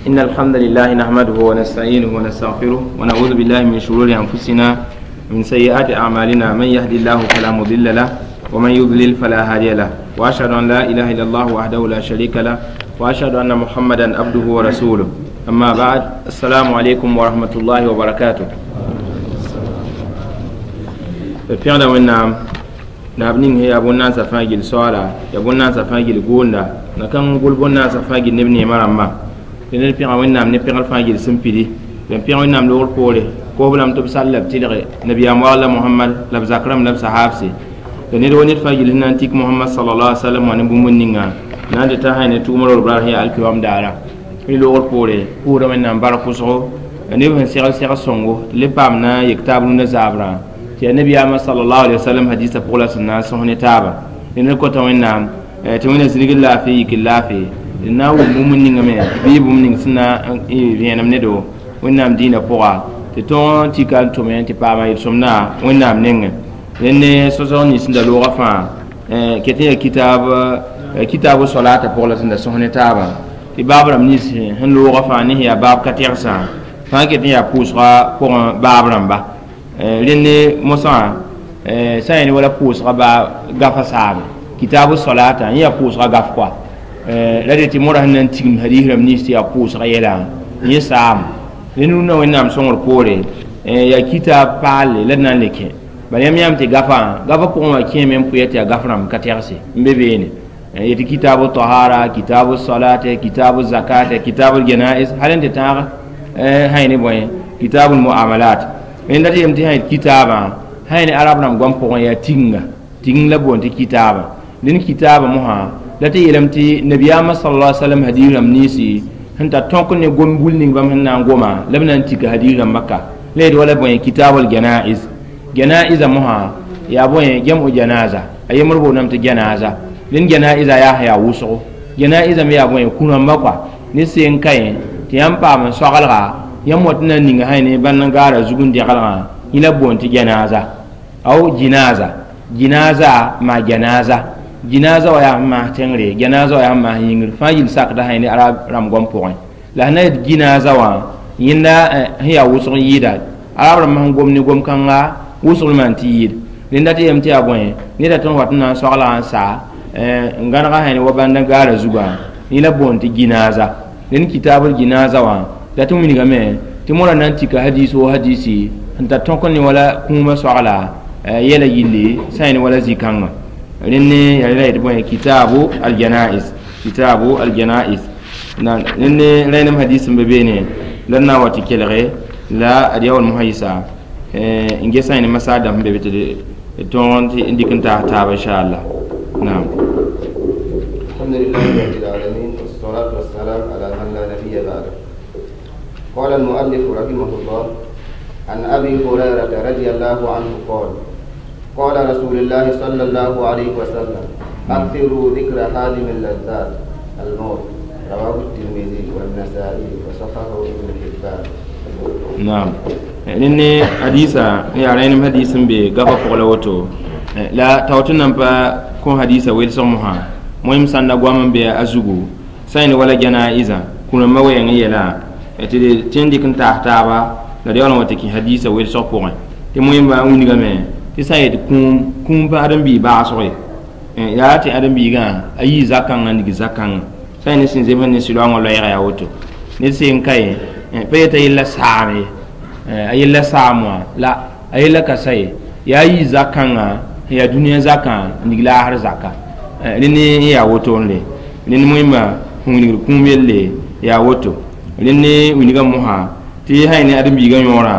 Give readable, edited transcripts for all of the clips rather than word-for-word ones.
إن الحمد لله نحمده ونستعينه ونستغفره ونعوذ بالله من شرور أنفسنا ومن سيئات أعمالنا. من يهدي الله فلا مضل له ومن يضلل فلا هادي له، وأشهد أن لا إله إلا الله وحده لا شريك له، وأشهد أن محمدا عبده ورسوله. أما بعد، السلام عليكم ورحمة الله وبركاته. Pẽgda Wẽnnaam naab ning yaa bõn-naasã fãa gill soaala, yaa bõn-naasã fãa gill goonda, na kãng gʋl bõn-naasã fãa gill neb neemã rãmbã. Tɩ ned pẽga Wẽnnaam ne pẽgr fãa gill sẽn pidi. La n pẽg Wẽnnaam loogr poore, koosb lame tɩ b sall la b tɩlge nabiyaam wagla Mohamad la b zak rãmb la b sahaabse. La ned wa ned fãa gill sẽn na n tik Mohamad sallallahu alaihi wasallam wã ne bũmb ninga na n dɩta sã ne tʋʋm ror brar sẽn yaa alkiyoam daara. Rẽ loogr poore, pʋʋsda Wẽnnaam bark pʋsgo la neb sẽn segl seg sõngo tɩ le paam na n yek taab rũndã zaabrã tɩ yaa nabiyaamã sallallahu alaihi wasallam hadisa pʋg la sẽn na n sõs ne taaba. Rẽ ned kõta Wẽnnaam tɩ Wẽnna zĩrgr laafɩ, yikr laafɩ, d na n wʋm bũmb ninga me bɩ bũmb ning sẽn na n vẽenem ne do Wẽnnaam dĩinã pʋga tɩ tõog n tika n tʋme tɩ paama yel-sõmdã Wẽnnaam nengẽ. Rẽnd ne sõsg nins sẽn da loogã fãa ket n yaa kitaabu solata pʋg la sẽn da sõs ne taabã tɩ baab rãmb nins sẽn loogã fãa ne sẽn yaa baab ka tɛgsã fãa ket n yaa pʋʋsga pʋgẽ baab rãmba. Rẽnd ne mosã sã n yaa ne wala pʋʋsga baa gafa saame kitaabu solata n yaa pʋʋsga gaf koa la de tɩ modã sẽn na n tigim hadis rãmb nins tɩ yaa pʋʋsga yɛla yẽ saam. Rẽnd rũnnã Wẽnnaam sõngr poore yaa kitaab paalle la d na n le kẽ. Bala yãmb yãmb tɩ gafã gafa pʋgẽ wã kẽeme n pʋya tɩ yaa gaf rãmb ka tɛgse n be beene yetɩ kitaabu tahara, kitaabu salate, kitaabu zakate, kitaabu janais, hal n tɩ tãag sã ne bõe kitaabu muamalat. Rẽnd dat yem tɩ sã yet kitaabã sã ne arab rãmb goam pʋgẽ yaa tiginga tiging la boond tɩ kitaabã. Dẽnd kitaabã mosã la tɩ yeelame tɩ nabiyaamã sallallahu alaihi wasallam hadis rãmb ninsi sẽn tar tõk ne gom bul ning bãmb sẽn na n goma la b na n tika hadis rãmbã ka la yet wala bõe kitaabul janaiz. Janaiza mosã yaa bõe jam'u janaza, a yembr boondame tɩ janaza. Rẽnd janaiza yaa sẽn yaa wʋsgo, janaiza me yaa bõe kũ-rãmbã kɔa ne seen ka yẽ tɩ yãmb paam n soagelga yãmb wat n na n ninga sã ne bãnd n gaara zug n dɛgelgã yẽ la b boond tɩ janaza aw jinaza. Jinaza maa janaza, jinaza wa yaa sẽn maas tẽngre, janaza wa yaa sẽn maas yĩngr fãa yil sakda sã ne arab rãmb goam pʋgẽ. La sẽn na yet jinaza wã yẽnda sẽn yaa wʋsg n yɩɩda arab rãmb sẽn gom ne gom-kãnga wʋsg maan tɩ yɩɩd. Rẽnda tɩ yem tɩ yaa bõe neda tõnd wat n na n soaglga n saa n gãnega sã ne wa bãnd n gaara zugã yẽ la boond tɩ jinaza. Rẽnd kitaabl jinaza wã la tɩ wilgame tɩ modã na n tika hadis wo hadisi sẽn tar tõk n ne wala kũumã soagla yɛla yilli sã n ne wala zĩ-kãngã. Rẽnd ne yaa la yetɩ bõe kitaabu aljanais, kitaabu aljanais. Rẽnd ne rẽnem hadis sẽn be beene la d na n wa tɩ kelge la ad yaool mosã yɩsa n ges sã ne masaar dãmb sẽn be be tɩ d tõog n dɩk n taas taaba inchallah. Naam. الحمد لله رب العالمين، والصلاة والسلام على من لا نبي بعده. قال المؤلف رحمه الله: عن أبي هريرة رضي الله عنه قال: قال رسول الله صلى الله عليه وسلم: أكثروا ذكر هادم اللذات الموت. رواه الترمذي والنسائي وصححه ابن حبان. Naam, rẽnd ne hadisa yaa rẽnem hadis sẽn be gafa pʋg la woto la tao tɩ nan pa kõ hadisa welsg mosã moem sãnda goam n be a zugu sã n wala janaiza kũ-rãmbã wɛɛng n yɛla tɩ d tẽ n dɩk n taas taaba la d yaool n wa tɩ kẽ hadisa welsg pʋgẽ tɩ moẽmba n wilgame tɩ sã n yet kũum kũum pa ãdem-biig baasg ye yaa tɩ ãdem-biigã a yii zakãngã n dig zakãngã sã n ne sẽn zems ne sɩloangã loɛɛga yaa woto ned seen ka ye pa yeta yella saam ye a yella saam wã la a yella ka sa ye yaa yii zakãngã sẽn yaa dũniyã zakã n dig laasr zaka. Rẽnd n yaa woto n le rẽnd moẽmba sẽn wilgd kũum yelle yaa woto. Rẽnd ne wilgã mosã tɩ sã ne ãdem-biigã yõorã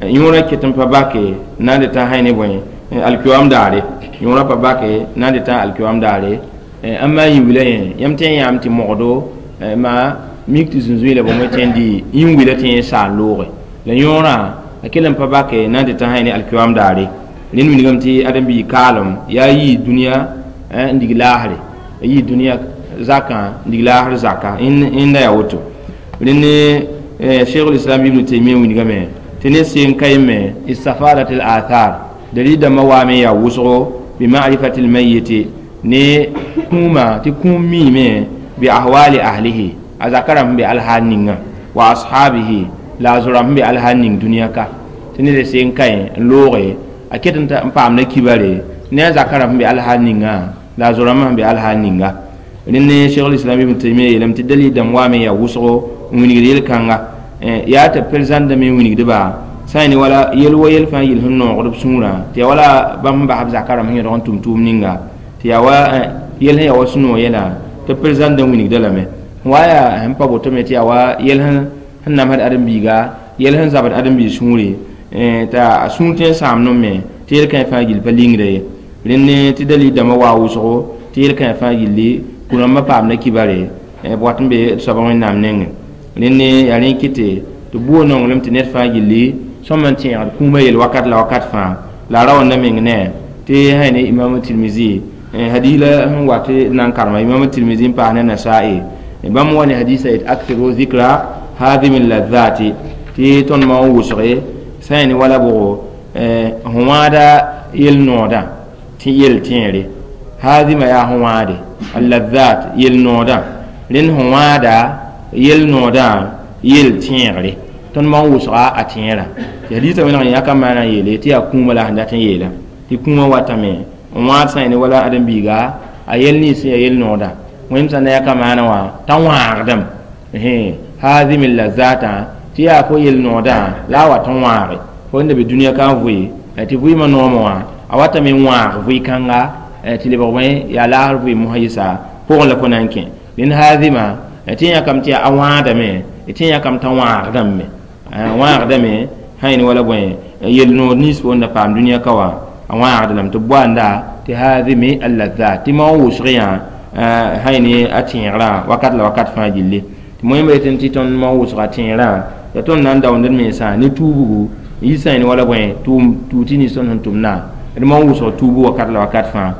yõorã ket n pa bake na n dɩ tã sã ne bõe alkiyoam daare yõorã pa bake na n dɩ tã alkiyoam daare ãmba yĩn-wila yẽ yãmb tẽ n yãam tɩ mogdo maa mik tɩ zũnzũy la bõmb tẽ n dɩ yĩn-wila tɩ yẽ saa n looge la yõorã a kell n pa bake na n dɩ tã sã ne alkiyoam daare. Rẽnd wilgame tɩ ãdem-biig kaalem yaa yii dũniyã n dig laasre a yii dũniyã zakã n dig laasr zaka yẽnda yaa woto. Rẽnd ne cheikh islam ibn Taymiyya wilgame tɩ ne seen ka yeme istafadat al athar dalil dãmbã waame yaa wʋsgo bi ma'rifati al-mayyit ne kũuma tɩ kũum miime bi ahwali ahlihi a zaka rãmb sẽn be alhaal ninga. Wa ashabihi la a zoram sẽn be alhaal ning dũniyã ka tɩ ned seen kaẽ n looge a ket n paamda kibare ne a zaka rãmb sẽn be alhaal ningã la a zo-rãmbã sẽn be alhaal ninga. Rẽnd Cheikh Islam Ibn Taymiya yeelame tɩ dalil dãmb waame n yaa wʋsgo n wilgd yel-kãnga yaa tɩ perezãndame n wilgdba sã n ne wala yel wa yel fãa yel sẽn noogd b sũurã tɩ yaa wala bãmb sẽn bas b zaka rãmb sẽn yõdg n tʋm tʋʋm ninga tɩ yaa wa yel sẽn yaa wa sũ-noog yɛla tɩ perezãndã wilgda lame wa yaa sẽn pa boto me tɩ yaa wa yel sẽn namsd ãdem-biiga yel sẽn zabd ãdem-biig sũure t'a sũur tõe n sãam me tɩ yel-kãe fãa gill pa lingda ye. Rẽnd tɩ dalil dãmbã waa wʋsgo tɩ yel-kãe fãa gilli kũ-rãmbã paamda kibare b wat n be d soaba Wẽnnaam nengẽ. Rẽnd yaa rẽ kɩte tɩ buo nonglem tɩ ned fãa gilli sõm n tẽegd kũumã yel wakat la wakat fãa la a ra wãnda meng ne tɩ sã ne Imam Tirmizi hadis la sẽn wat n na n karema Imam Tirmizi n paas ne Nasa'i bãmb wa ne hadisa yet akthiru zikra hadimi ladhati tɩ tõnd ma n wʋsge sã n ne wala bʋgo sẽn wãada yel-noodã tɩ yel tẽere hadima yaa sẽn wãade alladhat yel-noodã rẽnd sẽn wãada yel-noodã yel tẽegre tõnd ma n wʋsga a tẽerã tɩ hadisa wẽneg n yãka maana n yeele tɩ yaa kũumã la sẽn dat n yeela tɩ kũumã watame n wãad sã n ne wala ãdem-biiga a yel nins sẽn yaa yel-noodã wẽnd sã na yãka maana wã t'a wãagdame haazim lazatã tɩ yaa fo yel-noodã la a wat n wãage fo n da be dũniyã ka n vʋɩ tɩ vʋɩɩmã noomã wã a watame n wãag vʋɩ-kãnga tɩ lebg bõe yaa laasr vʋɩ mosã yɩsa pʋgẽ la fo na n kẽ rẽnd haazima tɩ yãkame tɩ a wãadame tɩ yãkame t'a wãagdame wãagdame sã yẽne wala bõe yel-nood nins fo n da paam dũniyã ka wã a wãagd lame tɩ b boanda tɩ haazimi alladhat tɩ ma n wʋsg yã sã yẽne a tẽegrã wakat la wakat fãa gilli tɩ moẽmba yetɩ tɩ tõnd ma n wʋsga tẽerã yaa tõnd na n daoond d mensã ne tuubgu n yɩ sã yẽne wala bõe tʋʋm tɩ nins tõnd sẽn tʋmdã d ma n wʋsg tuubu wakat la wakat fãa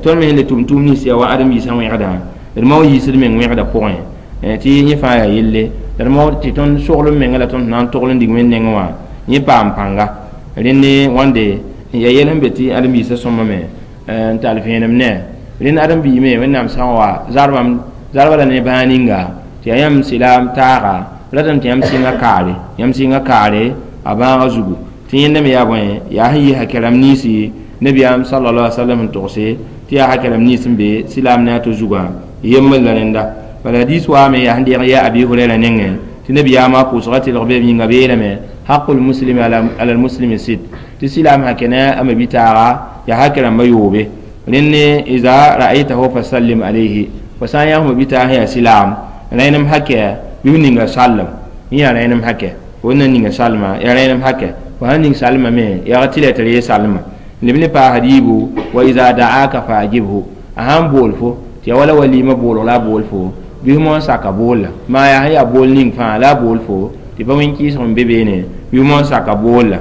tõnd me sẽn le tʋm tʋʋm nins yaa wa ãdem-biisã wẽgdã d ma n yiisd meng wẽgdã pʋgẽ tɩ yẽ fãa yaa yelle la d ma tɩ tõnd soglem menga la tõnd na n togl n dig wẽnd nengẽ wã yẽ paam pãnga rẽnd wãnde yaa yɛl sẽn be tɩ ãdem-biisã sõmame n tall vẽenem ne rẽnd ãdem-biig me Wẽnnaam sã n wa zarba la ne bãag ninga tɩ yaa yãmb sɩlaam taaga ratame tɩ yãmb sɩnga kaare a bãagã zugu tɩ yẽnda me yaa bõe yaa sẽn yɩ hakɛrãmb ninsi nabiyaam sallallahu alaihi wasallam n togse tɩ yaa hakɛrãmb nins n be sɩlaam ne a to zugã yembr la rẽnda bala hadis waame yaa sẽn deeg yaa Abi Hurayra nengẽ tɩ nabiyaamã pʋʋsga tɩlg beem yĩnga beelame haqul muslimi ala almuslimi sit tɩ sɩlaam hakɛ ne a mabitaaga yaa hakɛrãmbã yoobe rẽnd iza ra'aytahu fasallim alayhi fo sã n yã f mabitaag sẽn yaa sɩlaam rẽnem hakɛ bɩ f ninga sallem yẽ yaa rẽnem hakɛ fo na ninga salma yaa rẽnem hakɛ fo sãn ning salmame yaa tɩ la tɩ ree salma leb ne paas riibu wa iza da'aka fa ajibhu a sãn bool fo tɩ yaa wala walima boolg la a bool fo bɩ f moon saka boolla maa yaa sẽn yaa bool ning fãa la a bool fo tɩ pa wẽn-kɩɩsg n be beene bɩ f moon saka boolla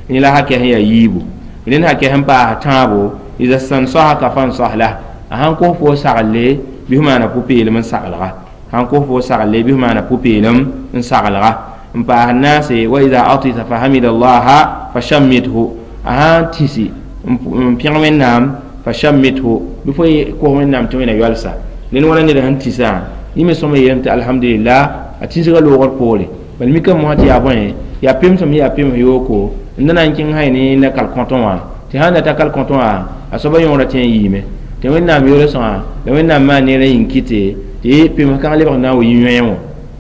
yẽ la hakɛ sẽn yaa yiibu rẽnd hakɛ sẽn paas tãabo iza stansahaka fansah lah a sãn kos fo saglle bɩ f maana pʋ-peelem n saglga sãn kos fo sagle bɩ f maana pʋ-peelem n saglga n paas naase wa iza atisa fahamida allaha fashammithu a sãn tĩsi n pẽg Wẽnnaam fashammithu bɩ fo kos Wẽnnaam tɩ wẽna yoalsa rẽnd wala ned sẽn tĩsã yẽ me sõma yeelame tɩ alhamdulillah a tĩsgã loogr poore bal mikame mosã tɩ yaa bõe yaa pemsem yaa pems yooko n da na n kẽng sã ne na kal-kõtẽ wã tɩ sãn da ta kal-kõtẽ wã a soaba yõora tẽ n yiime tɩ Wẽnnaam yoolsgã la Wẽnnaam maan neerã yĩng kɩte tɩ pems kãng lebg n na n wa yĩ-yõe wã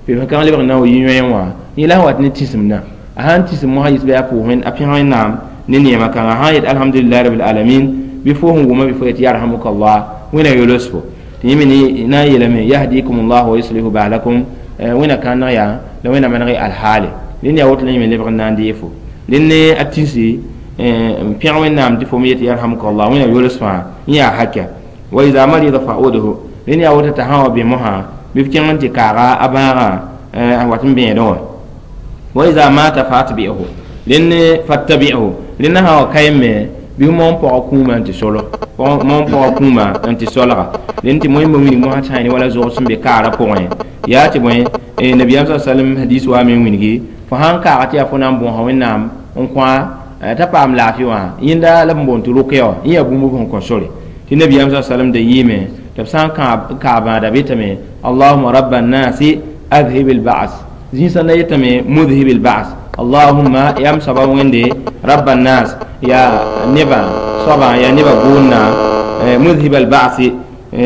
pems kãng lebg n na n wa yĩ-yõe wã yẽ la sẽn wat ne tĩsemdã a sãn tĩsem mosã yɩs bɩ a pʋʋs a pẽg Wẽnnaam ne neema kãnga sãn yet alhamdulillahi rabil alamin bɩ fo sẽn wʋma bɩ fo yet yarhamukallah wẽna yols fo tɩ yẽ me na n yeelame yahdikum llah wa yuslihu baalakum wẽna kãneg yaa la wẽna maneg y alhaale rẽnd yaa woto la yẽ me lebg n na n dee fo rẽnd ne a tĩsi n pẽg Wẽnnaam tɩ fo me yet yarhamukallah wẽna yols fãa yẽ yaa hakɛ wa iza marida fa'udhu rẽnd yaa woto t'a sã wa bẽ mosã bɩ f kẽng n tɩ kaaga a bãagã a wat n bẽedẽ wã wa iza mata fa'atbi'hu rẽnd fattabi'hu rẽnd sã wa kaem me bɩ f moon pɔga kũumã n tɩ solo moon pɔga kũumã n tɩ solga rẽnd tɩ moẽmba wilg mosã tɩ sã ne wala zog sẽn be kaarã pʋgẽ yaa tɩ bõe nabiyaam sa sallam hadis waame n wilgi fo sãn kaaga tɩ yaa fo na n bõosa Wẽnnaam n kõ t'a paam laafɩ wã yẽnda la b boond tɩ rʋkya wã yẽ yaa bũmb sẽn kõ sore tɩ nabiyaam sa sallam da yɩɩme tɩ b sã n kaa bãada betame allahuma raba nnasi adhib alba'as Zĩnsã yetame mudhibil ba's allahumma yam soaba wẽnde rabba nas ya neba soaba ya neba gʋʋnna mudhib al ba'si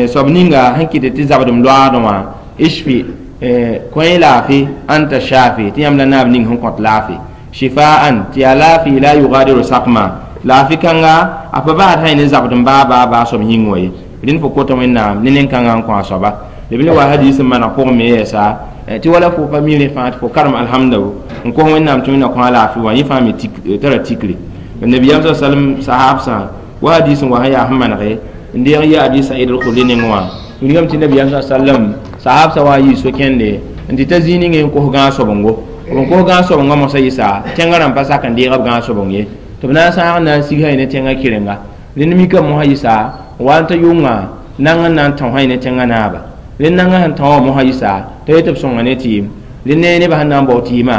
soab ninga sẽn kɩt tɩ zabdem loaadẽ wã ishfi kõ laafɩ anta shafi tɩ yãmb la naab ning sẽn kõt laafɩ shifaan tɩ yaa laafɩ la yugadiru sakma laafɩ kãnga a pa baasd sã ne zabdem baa baa baa soab yĩng wã ye rẽnd fo kota wẽnnaam ne nen-kãngã n kõ a soaba b le wa hadis n maneg pʋgẽ me yɛɛsa tɩ wala fo pa mi rẽ fãa tɩ fo karem alhamda n kos wẽnnaam tɩ wẽnna kõ a laafɩ wã yẽ fãa me tara tikre nabiyam sa sallam sahabsã wa hadis n wa sẽn yaa sẽn manege n deeg yɩ abi said al-khudri nengẽ wã wilgame tɩ nabiyam sa sallam sahabsã wa n yɩ so-kẽnde n tɩ ta zĩig ninge n kos gãag-sobongo b kos gãag-sobongã mosã yɩsa tẽngã rãmb pa sak n deeg b gãag-sobong ye tɩ b na n sãag n na n sig sã ne tẽngã kɩrenga rẽnd mikame mosã yɩsa wa n ta yʋnga nang n na n tão sã ne tẽngã naaba rẽnd nangã sẽn tão wã mosã yɩsa t'a yet b sõnga ne tɩɩm rẽnd ne nebã sẽn na n bao tɩɩmã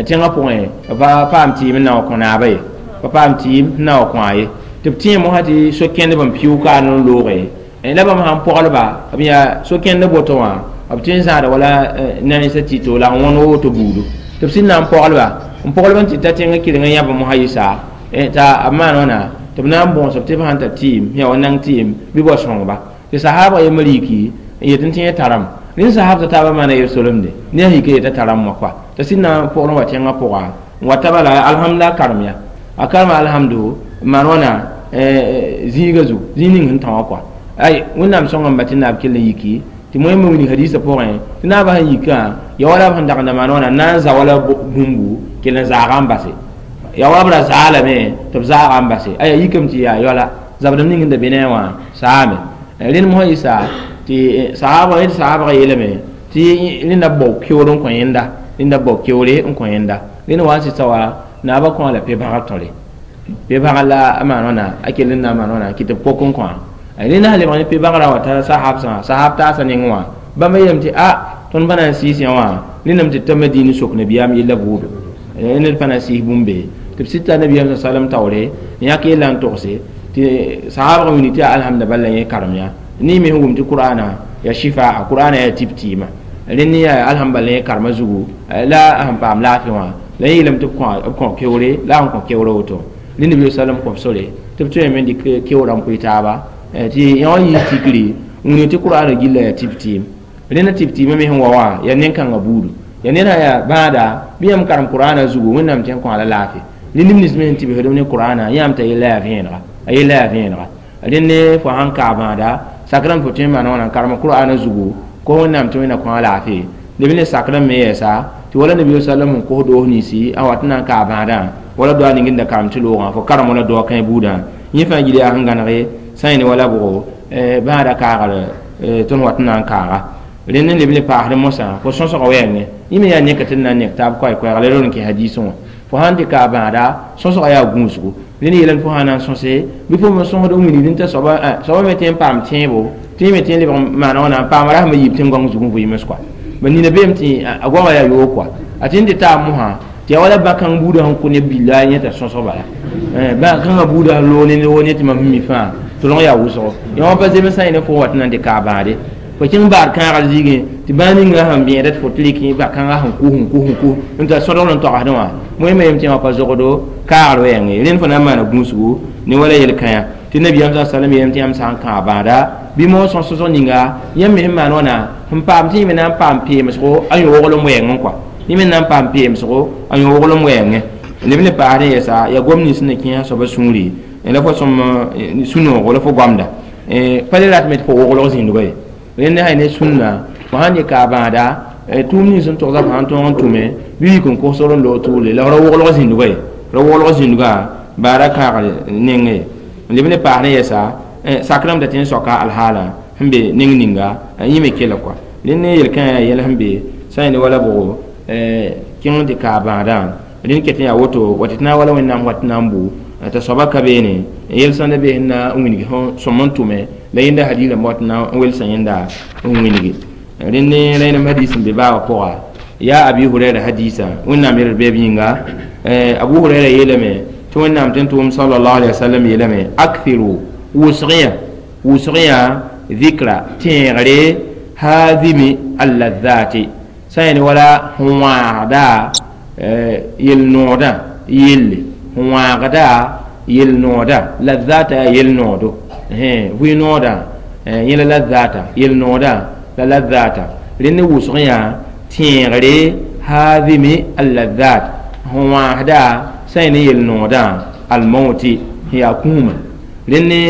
tẽngã pʋgẽ pa paam tɩɩm n na wa kõ naaba ye pa paam tɩɩm n na wa kõ a ye tɩ b tẽe mosã tɩ so-kẽndb n pɩʋ kaar n looge la bãmb sãn pɔglba b yaa so-kẽnd boto wã b tõe n zãada wala nansã tɩ la n wõn woto buudu tɩ b sẽn na n pɔglba n pɔglb n tɩ ta tẽngã kɩreng n yãb mosã yɩsa t'a b maan wãna tɩ b na n bõos b tɩ b sãn tar tɩɩm yaa wa nang tɩɩm bɩ bao sõngba tɩ sahaabã yembr yiki n yet n tẽ taram rẽnd sahaab t'a taabã maana yel-solemde ne a yika yeta taram wã kɔa t'a sẽn na n pʋgr n wa tẽngã pʋga n wa taba la alhamdulillah karem ya a karema alhamdu n maan wãna zĩiga zugu zĩig ning sẽn tã wã kɔa ay wẽnnaam sõnga n ba tɩ naab kell n yiki tɩ moẽmbe wilg hadiisã pʋgẽ tɩ naabã sẽn yikã ya wala b sẽn dagenda maan wãna na n za wala bũmbu kell n zaaga n base ya wala b ra zaalame tɩ b zaaga n base aya yikame tɩ yaa yoala zabdem ning sẽn da be ne a wã saame rẽnd mosã yɩsa tɩ sahaabã yẽ sahaabã yeelame tɩ rẽnda bao keoor n kõ yẽnda rẽnda bao keoore n kõ yẽnda rẽnd wa n sɩsa wa naabã kõ a la pe-bãgr tõre pe-bãgr la a maan wãna a kell n na n maan wãna kɩ tɩ b pok n kõ rẽnd sã lebg ne pe-bãgrã wa t'a sahabsã sahab taasã nengẽ wã bãmb yeelame tɩ a tõnd pa na n sɩɩs yã wã rẽndame tɩ ta madiin sok nabiyaam yella buudo ned pa na n sɩɩs bũmb be tɩ b sɩd t'a nabiyaam sa sallam taoore n yãk yella n togse tɩ sahabgã wilg tɩ yaa alhamda bal la yẽ karem yã ne me sẽn wʋm tɩ qur'ana ya shifa qur'ana yaa tɩb tɩɩma rẽnd yaa alhamd bal yẽ karema zugu la sẽn paam laafɩ wã la yẽ yeelame tɩ b kõ keoore la sẽn kõ keoorã woto rẽnd nabi sallam kõ b sore tɩ b tõe me n dɩk keoorã n pʋɩ taaba tɩ yã wã yɩ tikri n wilg tɩ qur'ana gilla yaa tɩb tɩɩm rẽnda tɩb tɩɩmã me sẽn wa wã yaa nen-kãngã buudu yaa ned sã yaa bãada bɩ yãmb karem qur'ana zugu wẽnnaam tɩ n kõ a la laafɩ rẽnd neb nins me sẽn tɩbsdm ne qur'ana yãmb t'a yella yaa vẽenega a yella yaa vẽenega rẽnd ne fo sãn kaa bãada sakrame fo tõe n maan wãna n karem qur'ana zugu ko wẽnnaam tɩ wẽnna kõ a laafɩ neb ne sakrame me yɛɛsa tɩ wala nabi sallam n kos doos ninsi a wat n na n kaa bãadã wala doa ning n da karem tɩ loogã fo karem wala doa kãe buudã yẽ fãa gil yaa sẽn gãnege sã yẽ ne wala bʋgo bãada kaagr tõnd wat n na n kaaga rẽnd n leb ne paasd mosã fo sõsga wɛɛngẽ yẽ me yaa neka tɩ d na n nek taab koɛɛ-koɛɛga la ror n kẽ hadiisẽ wã fo sãn tɩ kaa bãada sõsga yaa gũusgo rẽnd yeelame fo sã na n sõse bɩ fo me sõsd n wilgd n t'a soaba me tɩ n paam tẽebo tɩ me tɩ n lebg maana wãna n paam rasmã yiib tẽn-goang zug n vɩɩms kɔa ba nina beem tɩ a goama yaa yoog kɔa a tɩ n tɩ taab mosã tɩ yaa wala bã-kãng buudã sẽn kõ neb billa yẽta sõsg bala bã-kãngã buudã sẽn loog ne wo ne tɩ mam sẽn mi fãa tʋlg yaa wʋsgo yã wã pa zemsã yẽ ne fo wat n na n tɩ kaa bãade fo kẽng baar kãagar zĩigẽ tɩ bãa ninga sẽn bẽeda tɩ fo tɩ rɩk ba-kãngã sẽn kus n kus n kus n t'a sõdgl n togsdẽ wã moẽmã yem tɩ yã wã pa zogdo kaagr wɛɛngẽ rẽnd fo na n maana gũusgu ne wala yel-kãyã tɩ nabiyaam sa sallam yeelame tɩ yãmb sã n kãa bãada bɩ moog sõs-sõsg ninga yãmb me sẽn maan wãna sẽn paam tɩ yẽ me na n paam peemsgo a yõoglem wɛɛngẽ kɔa yẽ me na n paam peemsgo a yõoglem wɛɛngẽ neb ne paasd n yɛsa yaa gom nins sẽn na kẽesa soaba sũuri la fo sõm sũ-noogo la fo goamda pa le ratame tɩ fo woglg zĩndgo ye rẽnd sã ne sũnna fo sãn dɩ kaa bãada tʋʋm nins sẽn togsa fo sãn tõog n tʋme bɩ yik n kosgr n loog tʋʋle la f ra woglg zĩndgo ye ra woglg zĩndgã baara kãagr nengẽ n leb ne paas ne yɛsa sakrame da tɩ n soaka alhaala sẽn be neng ninga yẽ me kela kɔa rẽnd ne yel-kãã yaa yɛl sẽn be sã yẽ ne wala bʋgo kẽng tɩ kaa bãadã rẽnd ket n yaa woto wa tɩ tɩ na n wala wẽnnaam wat n na n bʋ t'a soaba ka beene yel sãn da be sẽn na n wilg sõm n tʋme la yẽnda hadiis rãmb wat n na n welsa yẽnda n wilgi rẽnd ne rẽnem hadiis n be baabã pʋga yaa abi hurɛra hadiisã wẽnnaam yel beeb yĩnga abu hurɛra yeelame tɩ wẽnnaam tɩ n tʋʋm sallallahu alaihi wasallam yeelame akthiru wʋsg yã dhikra tẽegre haadimi alladhati Sã n wala sẽn wãagda yel-noodã yelle, sẽn wãagda yel-noodã lazata yaa yel-noodo, vɩ-noodã yẽ la lazata yel-noodã la lazata rẽnd wʋsg yã tẽegre haadimi allazat sẽn wãasda sã n ne yel-noodã almauti sẽn yaa kũumã rẽnd ne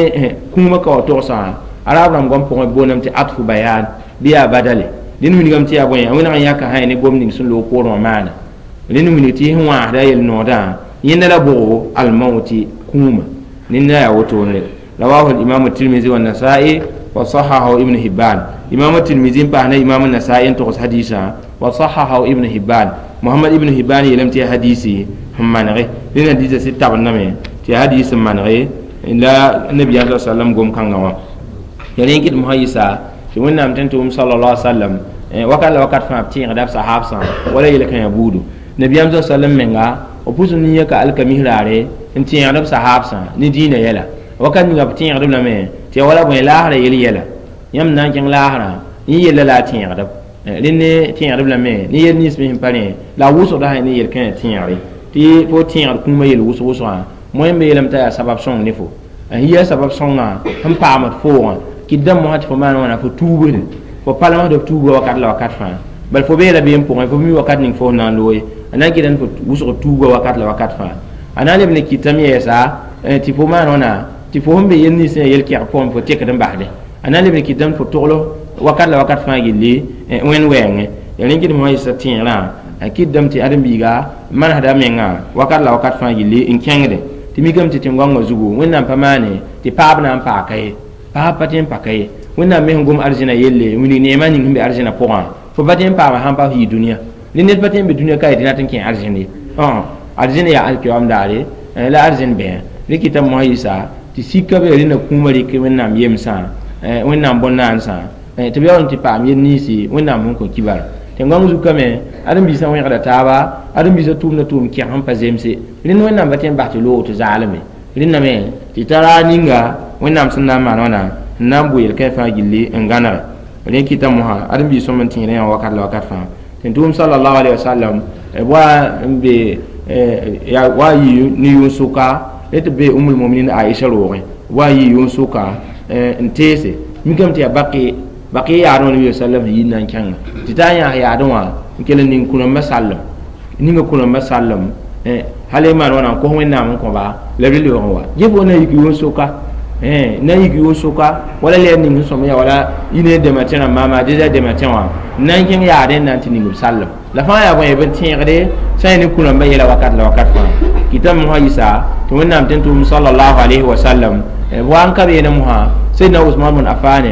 kũumã ka wa togsã arab rãmb gom pʋgẽ booname tɩ atfu bayan bɩ yaa badale rẽnd wilgame tɩ yaa bõe a wẽneg n yãka sã ne gom ning sẽn loog poorẽ wã maana rẽnd wilg tɩ sẽn wãasda yel-noodã yẽnda la bʋgo almauti kũumã nenda yaa wotone rawahu al-imam at-tirmidhi wa an-nasa'i wa sahahahu ibn hibban imam at-tirmidhi n paas ne imam an-nasa'i n togs hadisa wa sahahahu ibn hibban muhammad ibn hibban yeelame tɩ yaa hadisi sẽn manege rẽnd hadisa sɩd tabendame tɩ yaa hadis sẽn manege la nabiyaam sa sallam gom kãngã wã ya rẽ n kɩt mosã yɩsa tɩ wẽnnaam tẽn tʋʋm sallallahu alaihi wasallam wakat la wakat fãa b tẽegda b sahaabsã wala yel-kãyã buudu nabiyaam sa sallam menga b pʋs n yãka alkamis raare n tẽegd b sahaabsã ne dĩinã yɛla wakat ninga b tẽegdb lame tɩ ya wala bõe laasrã yel yɛla yãmb na n kẽng laasrã yẽ yella la a tẽegdb rẽnd ne tẽegdb lame ne yel nins me sẽn pa rẽ la a wʋsgda sã ne yel-kãyã tẽegre tɩ fo tẽegd kũumã yel wʋsg wʋsgã moẽ me yeelame t'a yaa sabab sõng ne fo n yia sabab sõngã sẽn paamd foogã kɩt dãmb mosã tɩ fo maan wãna fo tuubsde fo palmsd f tuuga wakat la wakat fãa bal fo beela beem pʋgẽ fo mi wakat ning fo na n looye a na n kɩtame fo wʋsg tuuga wakat la wakat fãa a na n leb ne kɩtame yɛɛsa tɩ fo maan wãna tɩ fo sẽn be yel nins sẽn yaa yel-kɛg pʋgẽ fo tekd n basde a na n leb ne kɩtame fo togl wakat la wakat fãa gilli wẽnd wɛɛngẽ ya rẽ kɩt mosã yɩsa tẽegrã a kɩtdame tɩ ãdem-biiga manesda menga wakat la wakat fãa gilli n kẽngde tɩ mikame tɩ tẽn-goangã zugu wẽnnaam pa maane tɩ paab na n paaka ye paab pa tẽ n paka ye wẽnnaam me sẽn gom arzẽna yelle wilg neemã ning sẽn be arzẽna pʋgã fo pa tẽ n paama sãn pa yɩ dũniyã rẽ ned pa tẽ n be dũniyã ka yetɩ rat n kẽ arzẽn ye arzẽn yaa alkiyoam daare la arzẽn bẽa rẽ kɩtame mosã yɩsa tɩ sika be rẽnda kũumã rɩk wẽnnaam yemsã wẽnnaam bõn-naansã tɩ b yaool n tɩ paam yel ninsi wẽnnaam sẽn kõ kibar tẽn-goang zukame ãdem-biisã wẽgda taaba ãdem-biisã tʋʋmda tʋʋm kɛg sẽn pa zemse rẽnd wẽnnaam pa tẽ n bas tɩ loog tɩ zaalme rẽndame tɩ tara ninga wẽnnaam sẽn na n maan wãna n na n bʋ yel-kãe fãa gilli n gãnege rẽ kɩta mosã ãdem-biis sõm n tẽedã yã wakat la wakat fãa tɩ tʋʋm sallallahu alaihi wasallam wa n be wa yɩ ne yʋn-sʋka rẽ tɩ be umul muminin Aisha roogẽ wa yɩ yʋn-sʋka n teese mikame tɩ yaa baqi yaadẽ wã nabi sallam sẽn yit na n kẽnga tɩ t'a yãas yaadẽ wã n kell n ning kũrãmbã sallem ninga kũrãmbã sallem hal y maan wãna n kos wẽnnaam n kõba la b lebg n wa yẽ fo na yik yʋn-sʋka na yik yʋn-sʋka wala lɛɛr ning sẽn sõm yaa wala y ne dɛmã tẽ rãmb maama deza dɛmã tẽ wã n na n kẽng yaadẽ n na n tɩ ning b sallem la fãa yaa bõe b n tẽegde sã n ne kũrãmbã yɛla wakat la wakat fãa kɩtame mosã yɩsa tɩ wẽnnaam tẽn tʋʋm sallallahu alayhi wa sallam wa n ka beene mosã Sayyidina Usman bn Affan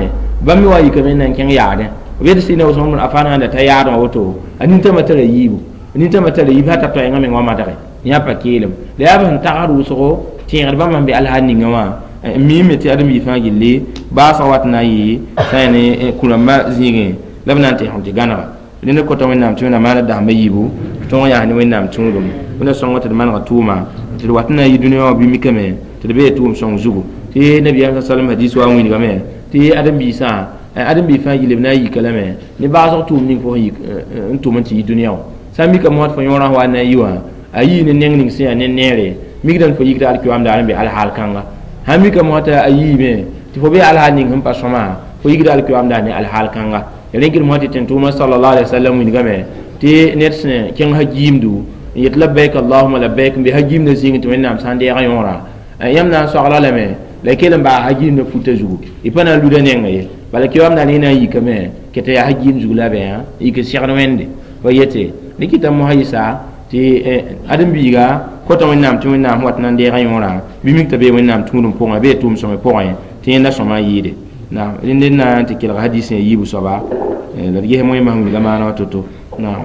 bãmb me wa yikame n na n kẽng yaadẽ b yetɩ Sayyidina Usman bn Affan sãn da ta yaadẽ wã woto a nintãmã tara yiibu nintãmã tara yiib sã t'a toɛɛngã meng wã madge yã pa keelem la yaa b sẽn tagsd wʋsgo tẽegd bãmb sẽn be alhaal ninga wã n miime tɩ ãdem-biig fãa gilli baasg wat na n yɩ sã n ne kũrãmbã zĩigẽ la b na n tẽsg tɩ gãnega rẽnd kota wẽnnaam tɩ wẽnnaam maana dasma yiibu tɩ tõog yaa ne wẽnnaam tũudum wẽnna sõngo tɩ d manega tʋʋma tɩ d wat n na n yɩ dũniyã wã bɩ mikame tɩ d bee tʋʋm sõng zugu tɩ nabiyaam sa sallam hadis wa n wilgame tɩ ãdem-biisã ãdem-biig fãa gilli b na n yika lame ne baasg tʋʋm ning fo n tʋm n tɩ yɩ dũniyã wã sã n mika mosã tɩ fo yõorã wa n na n yi wã a yii ne neng ning sẽn yaa ne neere mikdame fo yikda alkiyoam daar n be alhaal kãnga sãn mika mosã tɩ a yiime tɩ fo be alhaal ning sẽn pa sõma fo yikda alkiyoam daar ne alhaal kãnga ya rẽ kɩd mosã tɩ tẽn-tʋʋmã sallallahu alaihi wasallam wilgame tɩ ned sẽn kẽng hagiimdu n yet labbaik allahuma labbaik n be hagiimdã zĩigẽ tɩ wẽnnaam sã n deega yõora yãmb na n soagla lame la y kell n baa hagiimdã futa zugu y pa na n luda nengã ye bala kiyoam daar yẽ na n yikame kɩ tɩ yaa hagiim zug la bẽ yik segd wẽnde fa yete rẽ kɩta mosã yɩsa tɩ ãdem-biiga kota wẽnnaam tɩ wẽnnaam wat na n deega yõora bɩ mik t'a bee wẽnnaam tũudum pʋgẽ bee tʋʋm sõme pʋgẽ tɩ yẽnda sõma n yɩɩde naam rẽnd n na n tɩ kelg hadis sẽn yiibu soaba la d ges moẽmã sẽn wilga maana wã to-to naam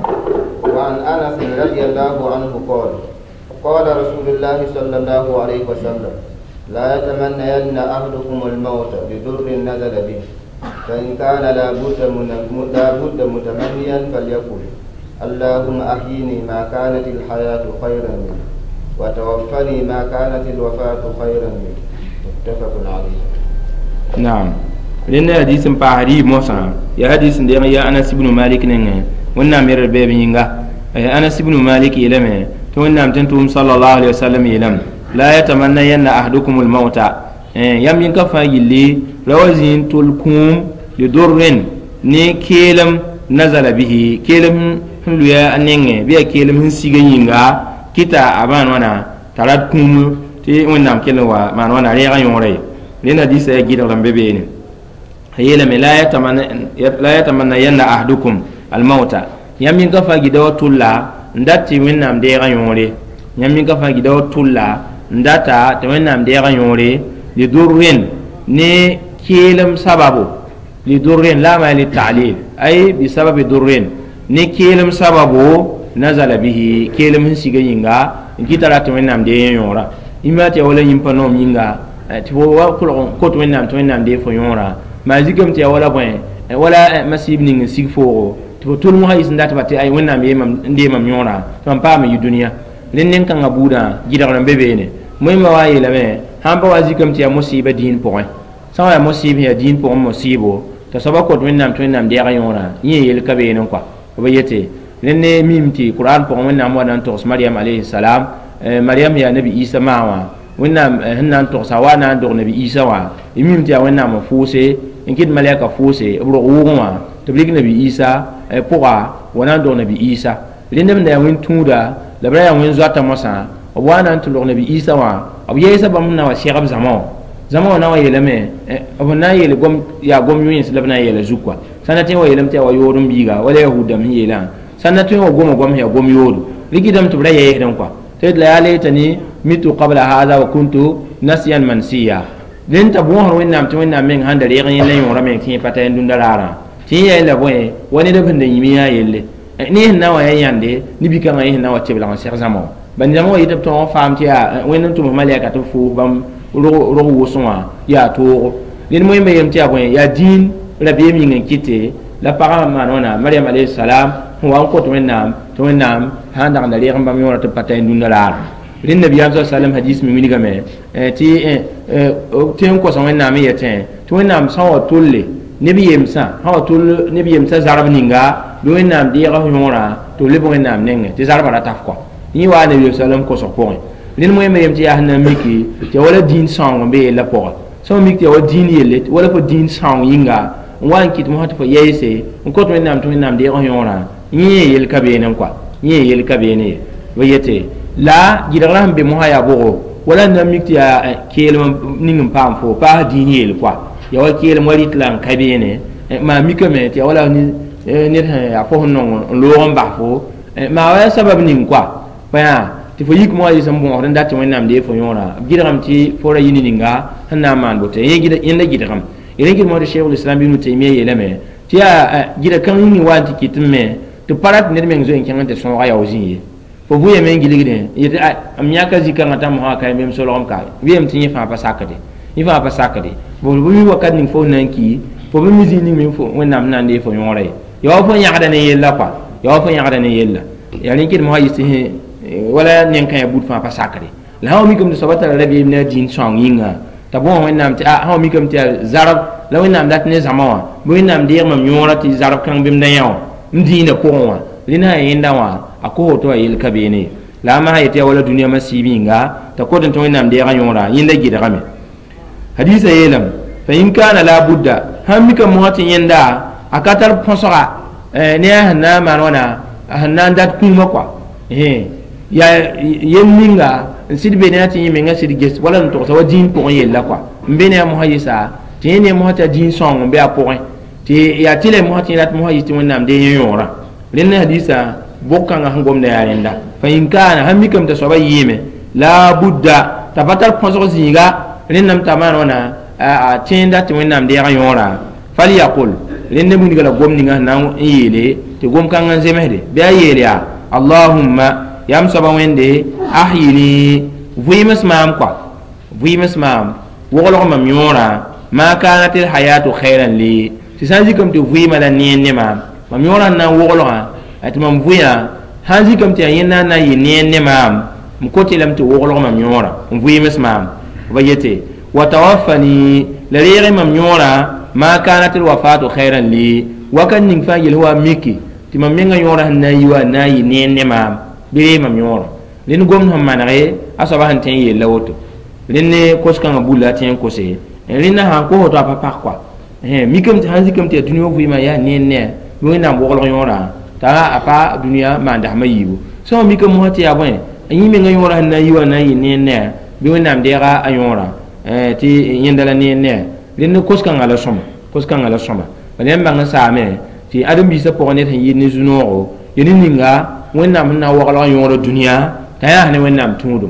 وعن أنس رضي الله عنه قال قال رسول الله صلى الله عليه وسلم لا يتمنين أحدكم الموت بضر نزل به فإن كان لا بد متمنيا فليقل اللهم أحيني ما كانت الحياة خيرا لي وتوفني ما كانت الوفاة خيرا لي متفق عليه نعم لأن حديث باهري موسى يا حديث دي يا أنس بن مالك نين Wẽnnaam yɛrd beeb yĩnga. Anas ibn Malik yeelame tɩ Wẽnnaam tɩ n tʋʋm sallallahu alaihi wasallam yeelame la yatamannayanna ahadukum almauta yãmb yẽn ka fãa gilli ra wa zĩ n tʋl kũum lidurrin ne keelem nazala bihi keelem sẽn luya a nengẽ bɩ yaa keelem sẽn sig n yĩnga kɩta a maan wãna t'a rat kũum tɩ Wẽnnaam kell n wa maan wãna reegã yõora ye. Rẽnd hadiisã yaa gɩdgr n be beene. A yeelame la yatamannayanna ahadukum almauta yãmb yẽn ka fãa gɩda wa tʋlla n dat tɩ Wẽnnaam deegã yõore yãmb yẽn ka fãa gɩda wa tʋlla n data tɩ Wẽnnaam deegã yõore lidurrin ne keelem sababu lidurrin la ma litalil ay bisababi durrin ne keelem sababu nazala bihi keelem sẽn sig yĩnga n kɩta ra tɩ Wẽnnaam dee yõora yĩmba tɩ ya wala yĩmpa noom yĩnga tɩ fo wa kolg kot Wẽnnaam tɩ Wẽnnaam dee fo yõora maa zikame tɩ ya wala bõe wala masɩb ning n sig foogo tɩ fo tʋl mosã yis n datba tɩ ay Wẽnnaam n dee mam yõora tɩ mam paam n yi dũniyã rẽnd nen-kãngã buudã gɩdgr n be beene. Moẽmba wa n yeelame sãn pa wa zikame tɩ yaa mosɩɩba dĩin pʋgẽ sã wa yaa mosɩɩb sẽn yaa dĩin pʋgẽ mosɩɩbo t'a soaba kot Wẽnnaam tɩ Wẽnnaam deeg yõora yẽ yel ka beene kɔa b yete rẽnd ne mim tɩ Qur'an pʋgẽ Wẽnnaam wa na n togs Mariam alayhi salam Mariam yaa nabi Isa maa wã Wẽnnaam sẽn na n togsa wa na n dog nabi Isa wã y mim tɩ yaa Wẽnnaam n fʋʋse n kɩt malɛka fʋʋse b rog wʋʋgẽ wã tɩ b rɩk nabi Isa pʋga wa na n dog nabi Isa rẽnd b da yaa wẽn-tũuda la b ra yaa wẽn-zoata mosã b wa na n tɩ log nabi Isa wã b yɛɛsa bãmb sẽn na wa sɛgb zãma wã zãma wã na wa yeelame b na n yeel yaa gom yõens la b na n yeela zug kɔa sã na tõe n wa yeelame tɩ yaa wa yood n biiga wala yahuud dãmb sẽn yeelã sã na tõe n wa goma goam sẽn yaa gom yoodo rɩkɩdame tɩ b ra yɛɛsdẽ kɔa tɩ la yaa laytani mitu qabla hada wa kuntu nasiyan mansiya rẽnd t'a bõosd Wẽnnaam tɩ Wẽnnaam meng sãn da reeg yẽnda yõora meng tɩ yẽ pa ta yẽn dũnda raarã tɩ yẽ yaa la bõe wa ned sẽn da yĩm yã yelle ne sẽn na wa yaa yãnde ne bi-kãngã yẽ sẽn na wa tɩ b lag n seg zãma wã bãn zãma wã yetɩ b tõog n faam tɩ yaa Wẽnd n tʋms malɛka tɩ b fʋʋs bãmb rog wʋsẽ wã yaa toogo ned moẽmba yeelame tɩ yaa bõe yaa dĩin rabeem yĩng n kɩte la pagã maan wãna Mariam alayhi salam sẽn wa n kot Wẽnnaam tɩ Wẽnnaam sãn dag n da reeg n bãmb yõora tɩ b pa ta yẽn dũnda raarã rẽnd nabiyaam sa sallam hadis me wilgame tɩ tɩ n kosa Wẽnnaam n yetẽ tɩ Wẽnnaam sã wa tolle neb yemsã sã wa tol neb yemsã zarb ninga bɩ Wẽnnaam deega f yõorã tɩ b leb Wẽnnaam nengẽ tɩ zarbã ra taf kɔa yẽ waa nabiyaam sallam kosg pʋgẽ rẽnd moẽmba yem tɩ yaa sẽn na n miki tɩ ya wala dĩin sãoong n be yellã pʋga sã n mik tɩ ya wa dĩin yelle wala fo dĩin sãoong yĩnga n wa n kɩt mosã tɩ fo yɛɛse n kot Wẽnnaam tɩ Wẽnnaam deeg f yõorã yẽ yel ka beene kɔa yẽ yel ka beene ye b yete la gɩdgrã sẽn be mosã yaa bʋgo wala n na n mik tɩ yaa keelem ning n paam fo paas dĩin yeel kɔa ya wa keelem wa rɩt la n ka beene maa mikame tɩ ya wala ned sẽn yaa fo sẽn nong n loog n bas fo maa wa yaa sabab ning kɔa pa yaa tɩ fo yik mosã yɩs n bõosd n dat tɩ Wẽnnaam dee fo yõora b gɩdgame tɩ fo ra yɩ ne ninga sẽn na n maan boto yẽnda gɩdgame rẽ kɩt mosã tɩ Cheikh Islam Ibn Taymiya yeelame tɩ yaa gɩda kãng yĩng wa n tɩ kɩt n me tɩ pa rat ned meng zoe n kẽng n tɩ sõoga yao zĩ ye fo vʋyame n gilgdẽ yetɩ m yãka zĩ-kãngã t'a mosã ka yem solgem ka wɩyame tɩ yẽ fãa pa sakde yẽ fãa pa sakde b mi wakat ning fo na n ki fo bɩ mi zĩ ning me Wẽnnaam sẽn na n dee fo yõora ye ya wa fo yãgda ne yella kɔa ya wa fo yãgda ne yella yaa rẽ kɩt mosã yɩs tɩ wala nen-kã yaa bud fãa pa sakre la sã wa mikame tɩ soaba tara rabeem ne a dĩin sõang yĩnga t'a bõos Wẽnnaam tɩ sã wa mikame tɩ yaa zarb la Wẽnnaam dat ne zãma wã bɩ Wẽnnaam deeg mam yõora tɩ zarb kãng bɩ m da yã wã m dĩinã pʋgẽ wã rẽnd sã yẽnda wã a kos woto wã yel ka beene la a masã yetɩ yaa wala dũniyã masiib yĩnga t'a kot n tɩ Wẽnnaam deegã yõora yẽnda gɩdgame hadisa yeelame fa in kana la budda sãn mikame mosã tɩ yẽnda a ka tar põsga ne a sẽn na n maan wãna sẽn na n dat kũumã kɔa yaa yel ninga n sɩd be ne a tɩ yẽ menga sɩd ges wala n togsa wa dĩin pʋgẽ yella kɔa n be ne a mosã yɩsa tɩ yẽ ne mosã tɩ a dĩin sõng n be a pʋgẽ tɩ yaa tɩ la mosã tɩ yẽ rat mosã yɩs tɩ Wẽnnaam dee yẽ yõorã rẽnd hadisa bʋg-kãngã sẽn gomda yaa rẽnda fa in kaana sãn mikame t'a soaba yɩɩme la budda t'a pa tar põsg zĩiga rẽndame t'a maan wãna a tẽenda tɩ Wẽnnaam deegã yõora falyaqul rẽnd wilga la gom ninga sẽn na n yeele tɩ gom-kãngã n zemsde bɩ a yeel yaa allahumma yam soaba Wẽnde ahyini vɩɩms maam kɔa vɩɩms maam woglg mam yõora ma kanat alhayatu khayran li tɩ sã n zikame tɩ vɩɩmã la neer ne maam mam yõorã n na n woglgã tɩ mam vʋyã sãn zikame tɩ yaa yẽnda n na n yɩ neer ne maam m kot lame tɩ woglg mam yõora n vɩɩms maam b yete wa tawaffani la reeg mam yõora ma kanat alwafatu khayran li wakat ning fãa yel wa miki Tɩ mam menga yõorã sẽn na n yi wa na n yɩ neer ne maam bɩ ree mam yõorã rẽnd gomd sẽn manege a soaba sẽn tõe n yella woto rẽnd ne kos-kãngã bulla a tõe n kose rẽnda sãn kos woto a pa pak koa mikame tɩ sãn zikame tɩ yaa dũniyã vɩɩmã yaa neer ne bɩ Wẽnnaam woglg yõorã t'a a pa dũniyã maan dasmã yiibu sã wa mikame mosã tɩ yaa bõe a yẽ menga yõorã sẽn na n yi wa na n yɩ neer ne bɩ Wẽnnaam deega a yõorã tɩ yẽnda la neer ne rẽnd kos-kãngã la sõma kos-kãngã la sõma bala yãmb bãng n saame tɩ ãdem-biisã pʋgẽ ned sẽn yɩɩd ne zu-noogo ya ne ninga Wẽnnaam sẽn na n waglg yõorã dũniyã t'a yaa ne Wẽnnaam tũudum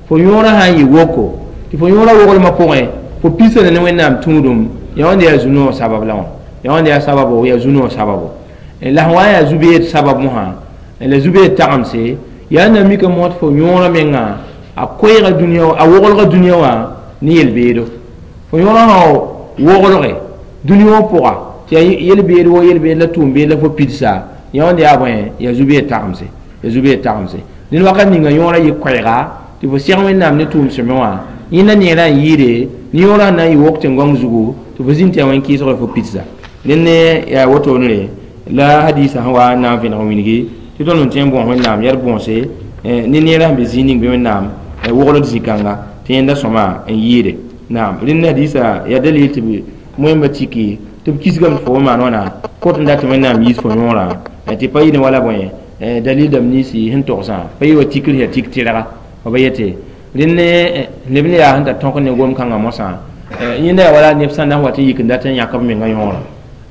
fo yõorã sã n yɩ woko tɩ fo yõorã woglmã pʋgẽ fo pisa ne Wẽnnaam tũudum ya wãnda yaa zu-noog sabab la wã ya wãnda yaa sababo yaa zu-noog sababo la sẽn wa n yaa zu-beed sabab mosã la zu-beed tagemse yaa na mika mosã tɩ fo yõorã menga a koɛɛga dũniyã a woglga dũniyã wã ne yel-beedo fo yõorã sã woglge dũniyã wã pʋga tɩ yaa yel-beed wo yel-beed la tʋʋm-beed la fo pidsa ya wãnda yaa bõe yaa zu-beed tagemse yaa zu-beed tagemse dẽnd wakat ninga yõorã yɩ koɛɛga tɩ fo seg Wẽnnaam ne tʋʋm sõme wã yẽnda neerã n yɩɩde ne yõorã sẽn na n yɩ wok tẽn-gõng zugu tɩ fo zĩnd tɩ yaa wẽn-kɩɩsg fo pidsa dẽnd ne yaa wotone la hadisa sẽn wa n na n vẽneg n wilgi tɩ tõnd n tõe n bõos Wẽnnaam yaa d bõose ne neerã sẽn be zĩig ning bɩ Wẽnnaam wogld zĩ-kãnga tɩ yẽnda sõma n yɩɩde naam rẽnd hadisa yaa dalil tɩ moẽmba tiki tɩ b kisgame tɩ fo maan wãna kot n dat tɩ Wẽnnaam yiis fo yõorã tɩ pa yɩ ne wala bõe dalil dãmb ninsi sẽn togsã pa yɩ wa tikr yaa tik tɩrga b yete rẽnd ne neb ne yaa sẽn tar tõk ne gom-kãngã mosã yẽnda yaa wala neb sã n na n wat n yik n dat n yãk b menga yõorã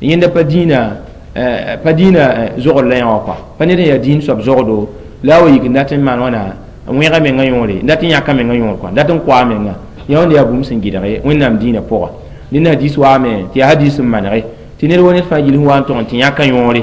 yẽnda pa dĩinã zogd la yã wã kɔa pa ned n yaa dĩin soab zogdo la a wa yik n dat n maan wãna n wẽga menga yõore n dat n yãka menga yõor kɔa dat n koa menga yã wãnda yaa bũmb sẽn gɩdge Wẽnnaam dĩinã pʋga rẽnd hadis waame tɩ yaa hadis n manege tɩ ned wa ned fãa gill sẽn wa n tog n tɩ yãka yõore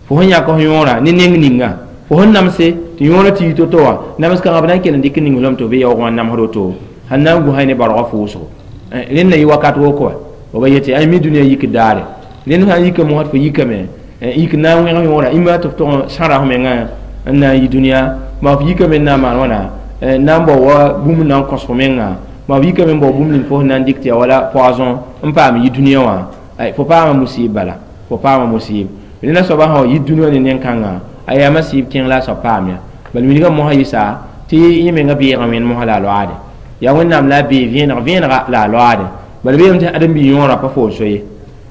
fo sẽn yãk f yõorã ne neng ninga fo sẽn namse tɩ yõorã tɩ yi to-to wã nams kãngã b na n kell n dɩk n ning lame tɩ b be yaoog wã n namsd woto sẽn na n gũsa ne baoolgã fʋʋsgo rẽnd na yɩ wakat woko wa ba yetɩ ay mi dũniyã yik daare rẽnd sã n yika mosã tɩ fo yikame yik na n wẽg yõorã ĩma tɩ f tog n sãra f menga n na n yi dũniyã maa f yikame n na n maan wãna na n bao wa bũmb n na n kõs fo menga maa f yikame n bao bũmb ning fo sẽn na n dɩk tɩ yaa wala poison n paam yi dũniyã wã fo paama musib bala fo paama musib rẽnda soaba sã wa yit dũniyã ne neng-kãngã a yaa masɩɩb kẽng la a soab paam ya bala wilgã mosã yɩsa tɩ yẽ menga beegã wẽnd mosã la a loaade yaa Wẽnnaam la a bee vẽenega la a loaade bala beeme tɩ ãdem-bi yõorã pa fo n so ye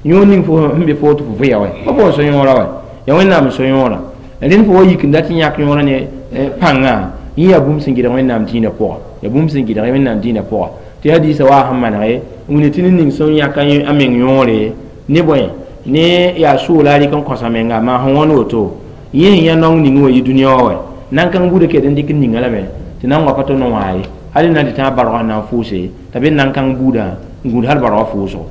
yõor ning fo sẽn be fo tɩ fo vɩya wɛ pa fo n so yõorã wɛ yaa Wẽnnaam n so yõorã rẽnd fo wa yik n dat n yãk yõorã ne pãngã yẽ yaa bũmb sẽn gɩdg Wẽnnaam dĩinã pʋga yaa bũmb sẽn gɩdg Wẽnnaam dĩinã pʋga tɩ hadiisã waa sẽn manege n wilg tɩ ned ning sẽn yãk a meng yõore ne bõe ne yaa sʋʋla a rɩk n kõsa menga maa sẽn wãn woto yẽ sẽn yã naong ning wã yɩ dũniyã wã wɛ nan-kãng buudã ket n dɩk n ninga lame tɩ nan wa pa tɩ no wã ye hal na n tɩ tãag bargã sẽn na n fʋʋse t'a be nan-kãng buudã n gũud hal bargã fʋʋsgo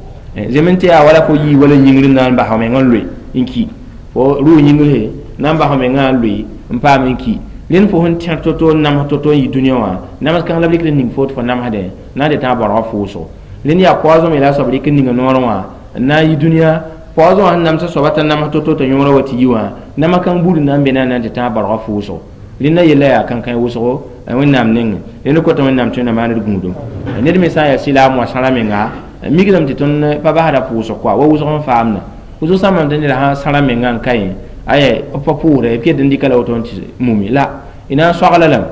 zem n tɩ yaa wala fo yii wala yĩngr n na n bas f meng n loe n ki fo rʋʋ yĩngr na n bas f mengã n loe n paam n ki rẽnd fo sẽn tẽr to-to n nams to-to n yɩ dũniyã wã nams kãng la b rɩkd n ning fo tɩ fo namsdẽ na n tɩ tãag bargã fʋʋsgo rẽnd yaa poison me la a soab rɩk n ninga noorẽ wã n na n yɩ dũniyã poison wã sẽn namsa soaba t'a nams to-to t'a yõorã wa tɩ yi wã nama kãng buud n na n be na n tɩ tãag bargã fʋʋsgo rẽnda yella yaa kãnkãe wʋsgo Wẽnnaam nengẽ rẽnd kota Wẽnnaam tõe na maan d gũudum ned me sã n yaa sɩlaam wã sãra menga mikdame tɩ tõnd pa basda pʋʋsg koa wa wʋsg n faamda wʋsg sã n maan tɩ ned sã sãra menga n ka yẽ aya b pa pʋʋsda b ket n dɩka la woto n tɩ mumi la y na n soagla lame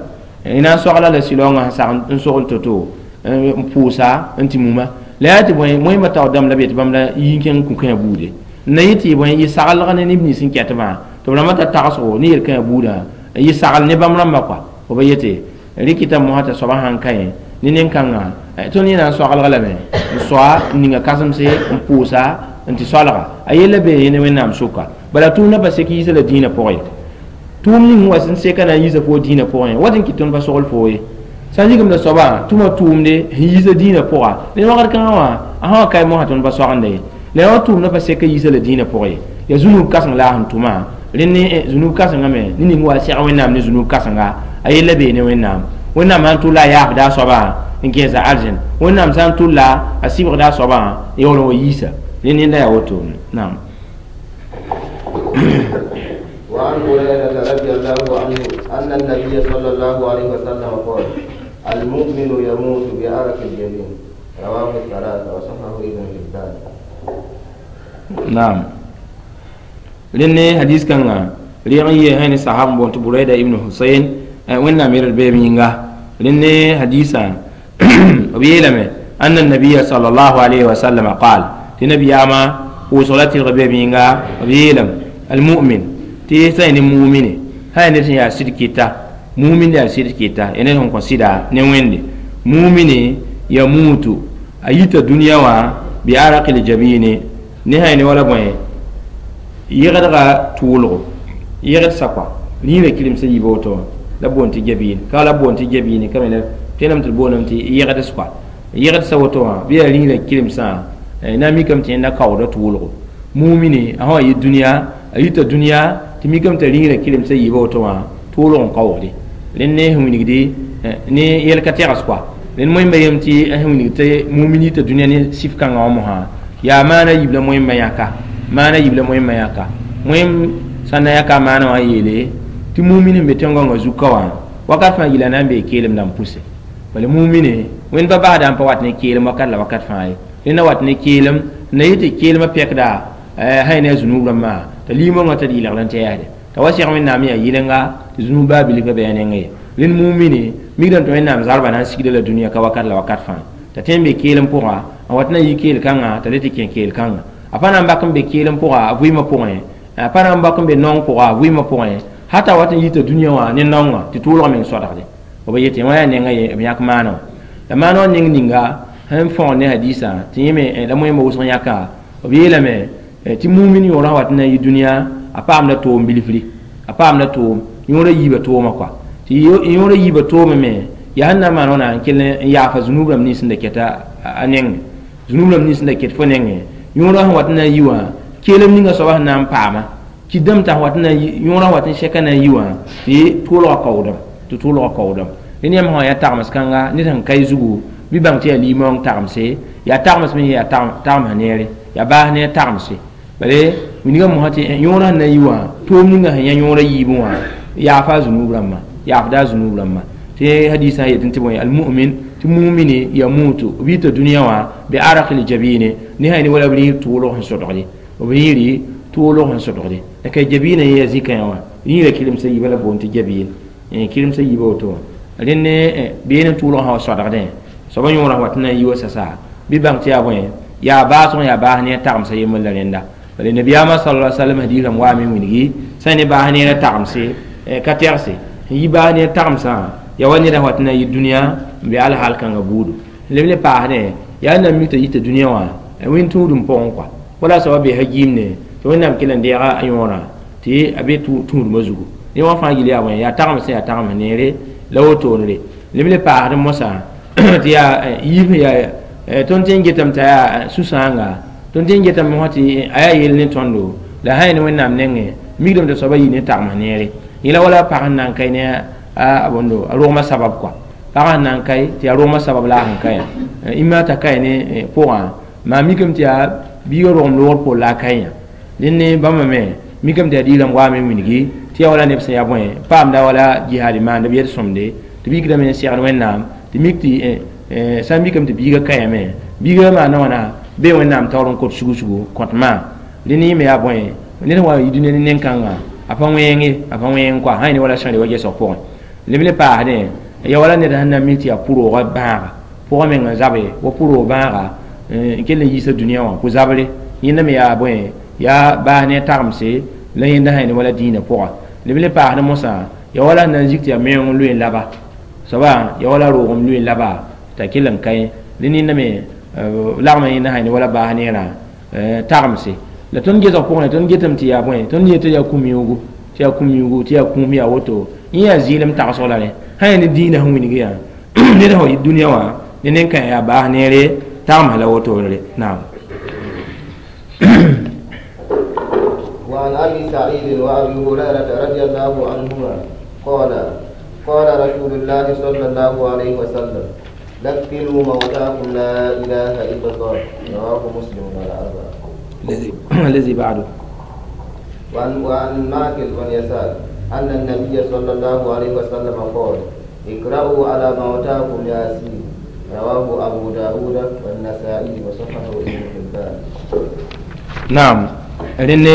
y na n soagla la sɩlaoongã sẽn sag n sogl to-to n pʋʋsa n tɩ muma la yaa tɩ bõe moẽmba taoor dãmb la be tɩ bãmb la yi n kẽng kũ-kãe buude n na yɩ tɩ bõe yɩ saglg ne neb nins sẽn kɛtbã tɩ b rãmbã ta tagsgo ne yel-kãe buudã yɩ sagl ne bãmb rãmbã kɔa fo ba yete rɩkɩta mosã t'a soabã sãn ka yẽ ne nen-kãngã tõnd yẽ na n soaglg lame n soa n ninga kãsemse n pʋʋsa n tɩ soalga a yella bee yẽ ne Wẽnnaam sʋka bala tʋʋmdã pa sek yiisa la dĩinã pʋgẽ tʋʋm ning wa sẽn seka na n yiisa foo dĩinã pʋgẽ wat n kɩt tõnd pa sogl foo ye sã n zigem la soabã tʋma tʋʋmde sẽn yiisa dĩinã pʋga ne wagd kãngã wã a sã wa kae mosã tõnd pa soagendã ye la yaa wa tʋʋmdã pa sek yiisa la dĩinã pʋgẽ ye yaa zũnug kãseng la a sẽn tʋma rẽnd ne zũnug kãsengã me ne ning wa sɛg Wẽnnaam ne zũnug kãsenga a yella bee ne Wẽnnaam Wẽnnaam sã n tʋlla a yaafda a soabã n kẽesa arzẽn Wẽnnaam sã n tʋlla a sɩbgda a soabã n yaool n wa yiisa rẽnd yẽnda yaa woto naam. وعن هريرة رضي الله عنه أن النبي صلى الله عليه وسلم قال: المؤمن يموت بعرق الجبين. رواه الثلاثة وصححه ابن حبان. نعم rẽnd ne hadis kãngã Rɩg n yee sẽn ne sahab n boond tɩ Buraida ibn Husayn Wẽnnaam yel d beeb yĩnga. Rẽnd ne hadiisã b yeelame anna nabiya sallallahu alayhi wa sallam qaal tɩ nabiyaamã pʋʋsg la tɩlg beeb yĩnga b yeelame almu'min tɩ sã ne mumine sã ned sẽn yaa sɩd kɩta mumin yaa sɩd kɩta ya ned sẽn kõ sɩda ne Wẽnde mumine yamutu a yita dũniyã wã bi araqil jabini ne sã ne wala bõe yegdga tʋʋlgo yegd sakwa rĩirã kirems yiib woto la boond tɩ jabiin ka la boond tɩ jabiini ka me la tõename tɩ d booname tɩ yegds kɔa yegdsa woto wã bɩ yaa rĩirã kiremsã na n mikame tɩ yẽnda kaooda tʋʋlgo mumine a sã wa yɩ dũniyã a yita dũniyã tɩ mikame t'a rĩirã kiremsã yiiba woto wã tʋʋlg n kaoogde rẽnd ne sẽn wilgdi ne yɛl ka tɛgs kɔa rẽnd moẽmba yem tɩ sẽn wilg tɩ mumin yita dũniyã ne sif kãngã wã mosã yaa maana yiib la moẽmbã yãka maana yiib la moẽmbã yãka moẽm sã n na yãka a maana wã n yeele tɩ mumin sẽn be tẽn-gãngã zuka wã wakat fãa yila na n bee keelem dãmb pʋse bala mumine Wẽnd pa basda n pa wat ne keelem wakat la wakat fãa ye rẽnd na wat ne keelem n na yɩ tɩ keelmã pɛkda sã ne a zunub rãmbã t'a liimongã t'a d yɩlgd n tɛɛsde t'a wa seg Wẽnnaam yaa yɩlenga tɩ zunub baa bilf pa bɩ a nengẽ ye rẽnd mumine mikdame tɩ Wẽnnaam zarbã na n sigda la dũniyã ka wakat la wakat fãa t'a tõe n be keelem pʋga n wat na n yi keel-kãngã t'a le tɩ kẽ keel-kãngã a pa na n bak n be keelem pʋga a vɩɩmã pʋgẽ a pa na n bak n be naong pʋga a vɩɩmã pʋgẽ hata wat n yita dũniyã wã ne naongã tɩ tʋʋlg meng sodgde b yetɩ wã yaa nenga ye b yãk maana wã la maana wã neng ninga sẽn fõgen ne hadiisã tɩ yẽ me la moẽmbã wʋsg yãka b yeelame tɩ mumin yõorã wat n na n yɩ dũniyã a paamda toom bilfri a paamda toom yõorã yiibã toomã kɔa tɩ yõorã yiibã toomã me yaa sẽn na n maan wãna n kell n yaafa zunub rãmb nins sẽn da kɛta a nengẽ zunub rãmb nins sẽn da ket fo nengẽ yõorã sẽn wat n na n yi wã keelem ninga soaba sẽn na n paama kɩdame t'a wat n na yõorã wat n sɛka na n yi wã tɩ tʋʋlgã kaoodame tɩ tʋʋlgã kaoodame rẽnd yãmb sã yaa tagms kãnga ned sẽn ka y zugu bɩ bãng tɩ yaa limaoong tagmse yaa tagms me yaa tagms neere yaa baas ne tagmse bale wilgã mosã tɩ yõorã sẽn na n yi wã toom ninga sẽn yã yõorã yiibẽ wã yaafa a zunub rãmbã yaafda a zunub rãmbã tɩ hadiisã yetɩ tɩ bõe almu'min tɩ mumine yamutu b yita dũniyã wã bi araqil jabine ne sã ne wala b rĩir tʋʋlg sẽn sodgde b rĩiri tʋʋlg sẽn sodgde la ka jabiinã yẽ yaa zĩ-kãyã wã rĩirã kiremsã yiibã la boond tɩ jabiin kiremsã yiibã woto wã rẽnd ne beene tʋʋlg sã wa sodgdẽ soaba yõorã wat n na n yi wa sasa bɩ bãng tɩ yaa bõe yaa baasg yaa baas ne a tagmsã yembr la rẽnda bala nabiyaamã sallallahu alaihi wasallam hadiis rãmb waame wilgi sã ne baas neerã tagmse ka tɛgse n yi baas neer tagmsã yaa wa neda wat n na n yɩ dũniyã n be alhaal kãngã buudu leb le paasdẽ yaa n na n mik t'a yita dũniyã wã wẽn tũudum pʋgẽ kɔa wala soaba be ha giimne tɩ Wẽnnaam kell n deega a yõorã tɩ a be tũudmã zugu ne wã fãa gil yaa bõe yaa tagms yaa tagms neere la wotone leb le paasd mosã tɩ yaa yiib yaa tõnd tẽ n getame t'a yaa sũ-sãanga tõnd tẽ n getame mosã tɩ a yaa yell ne tõndo la sã ne Wẽnnaam nengẽ mikdame t'a soaba yɩ ne tagms neere yẽla wala pag sẽn na n kae ne a bõndo a rogmã sabab kɔa pag sẽn na n kae tɩ yaa rogmã sabab la a sẽn kae ĩmma t'a kae ne pʋgã maa mikame tɩ yaa biigã rogem loogr poor la a kae yã dẽnd ne bãmba me mikame tɩ yaa diirãmb waame n wilgi tɩ yaa wala neb sẽn yaa bõe paamda wala jihaad maanda b yel-sõmde tɩ b yikdame n segd Wẽnnaam tɩ mik tɩ sã n mikame tɩ biigã kaame biigã maana wãna bee Wẽnnaam taoor n kot sugu-sugu kõtmã rẽnd yẽ me yaa bõe ned sẽn wa yi dũniyã ne nen-kãngã a pa wẽenge a pa wẽeng kɔa sã ne wala sãre wa gesg pʋgẽ leb le paasdẽ ya wala ned sẽn na n mik tɩ yaa pʋroogã bãaga pʋgã meng n zabe wa pʋroog bãaga n kell n yiisa dũniyã wã pʋ-zabre yẽnda me yaa bõe yaa baas ne a tagmse la yẽnda sã ne wala dĩinã pʋga leb le paasd mosã ya wala sẽn na n zik tɩ yaa meoong n loe n laba soaba ya wala roogem loe n laba t'a kell n kae rẽnd yẽnda me lagma yẽnda sã ne wala baas neerã tagmse la tõnd gesg pʋgẽ tõnd getame tɩ yaa bõe tõnd yetɩ yaa kũm-yũugu tɩ yaa kũm-yũugu tɩ yaa kũum yaa woto yẽ yaa zɩɩlem tagsg la rẽ sã yaa ne dĩinã sẽn wilg yaa ned sã wa yɩ dũniyã wã ne nen-kãe yaa baas neere tagms la wotone naam. وعن أبي سعيد وأبي هريرة رضي الله عنهما قال قال رسول الله صلى الله عليه وسلم لقنوا موتاكم لا إله إلا الله. رواه مسلم والأربعة. الذي بعده. وعن ماكل بن يسار أن النبي صلى الله عليه وسلم قال اقرأوا على موتاكم ياسين. رواه أبو داود والنسائي وصححه ابن حبان. نعم. لأن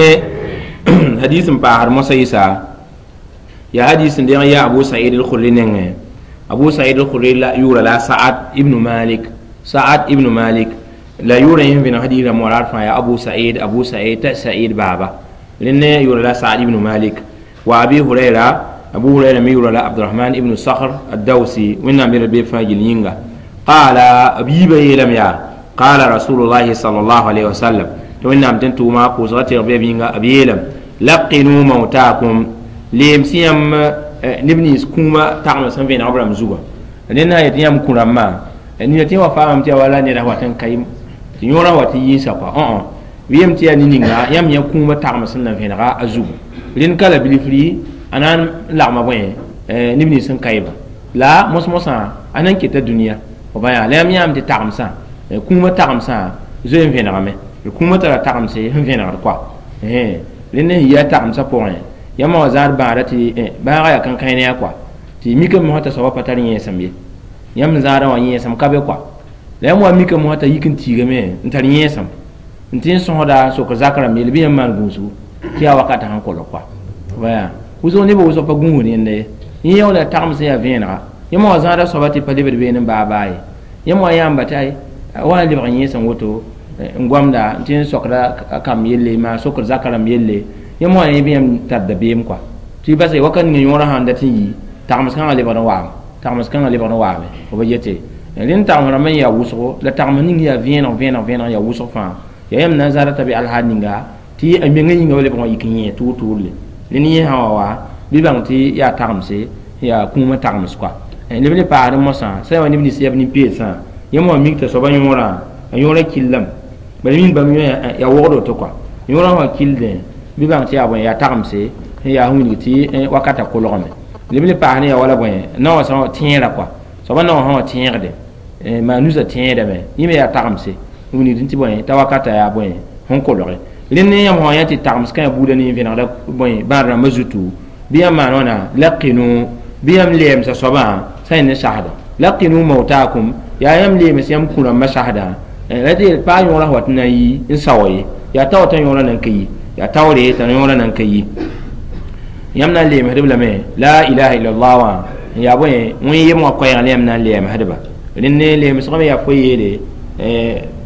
Hadis n paasd mosa yɩsa yaa hadis n deng yaa Abu Said al-Khudri nengẽ. Abu Said al-Khudri la yʋʋra la Sa'ad ibn Malik, Sa'ad ibn Malik la yʋʋra yẽ vẽneg hadis rãmb wã fãa yaa Abu Said, Abu Said t'a Said baaba. Rẽnd yʋʋra la Sa'ad ibn Malik. Wa Abi Huraira, Abu Huraira me yʋʋra la Abdurahman ibn Sakhr ad-Dawsi, Wẽnnaam yɛl be fãa gill yĩnga. Qaala, b yiibã yeelame yaa qaala Rasulullahi sallallahu alayhi wa sallam, tɩ Wẽnnaam tɩ n tʋʋma pʋʋsga tɩg be b yĩnga, b yeelame: laqinu mautakum, leem sẽn yãmb neb nins kũumã tagem sẽn vẽeneg b rãmb zugã. Rẽnd na n yet yãmb kũ-rãmbã nina tɩ wa faamame tɩ yaa wala neda wat n ka tɩ yõorã wa tɩ yĩnsa kɔa õ bɩ yem tɩ yaa ne-ninga yãmb yã kũumã tagem sẽn na vẽenega a zugu. Rẽnd ka la bilfri a na n lagma bõe neb nins sẽn kaɩbã la mos-mosã a na n keta dũniyã f bã yaa la yãmb yãam tɩ tagemsã kũumã tagemsã zoe n vẽnegame. Kũumã tara tagemse sẽn vẽnegd kɔa rẽnd n yi a tagemsã pʋgẽ yãmb wã zãad bãada tɩ bãagã yaa kãnkãe ne a kɔa tɩ mikame mosã t'a soabã pa tar yẽesem ye, yãmb zãadã wã yẽesem ka be kɔa la yãmb wa mikame mosã t'a yik n tiigame n tar yẽesem n tɩ n sõsda n sok zak rãmb yelle bɩ yãmb maan gũusgu tɩ yaa wakatã sẽn kolg kɔa baya wʋsg nebã wʋsg pa gũusd yẽnda ye. Yẽ yaoola tagem sẽn yaa vẽenega yãmb wã zãada soaba tɩ pa lebd beene n baa baa ye, yãmb wã yãamba tɩ ay wa n lebg yẽesem woto n goamda n tɩ n sokda kamb yelle maa sokd zaka rãmb yelle, yãmb wã yẽ bɩ yãmb tar dabeem kɔa tɩ bas wakat ninga yõorã sãn dat n yi tagms kãngã lebg n waame, tagms kãngã lebg n waame f ba yete. Rẽnd tagms rãmb n yaa wʋsgo la tagms ning yaa vẽeneg vẽeneg vẽeneg yaa wʋsg fãa yaa yãmb na n zãada t'a be alhaal ninga tɩ a menga yĩnga wa lebg n yik n yẽ tʋʋr-tʋʋrle. Rẽnd yẽ sã wa wa bɩ bãng tɩ yaa tagemse yaa kũumã tagems kɔa. Leb le paasd mosã sã wa neb nins yaa b nin-peedsã yãmb wã mik t'a soabã yõorã a yõorã killame bala min bãmb yõ yaa wogd woto kɔa yõorã wã kildẽ bɩ bãng tɩ yaa bõe yaa tagemse yaa sẽn wilg tɩ wakatã kolgame. Leb le paas ne yaa wala bõe naowã sã tẽera kɔa soabã naowã sã wã tẽegde maa nusã tẽedame yẽ me yaa tagemse n wilgd tɩ bõe t'a wakatã yaa bõe sẽn kolge. Rẽnd ne yãmb sã yã tɩ tagems kã yaa buudã ne vẽnegda bõe bãad rãmbã zutu bɩ yãmb maan wãna laqinu bɩ yãmb leemsa soabã sã yẽ ne sasda laqinu mautakum yaa yãmb leems yãmb kũ-rãmbã sasda la tɩ paa yõorã wat n na n yi n sao ye yaa tao t'a yõorã nan ka yi yaa taoore t'a yõorã nan ka yi yãmb na n leemsdb lame la ilaha illallah wã n yaa bõe wẽn yem wã koɛɛg la yãmb na n leemsdba. Rẽnd ne leemsgame yaa fo yeele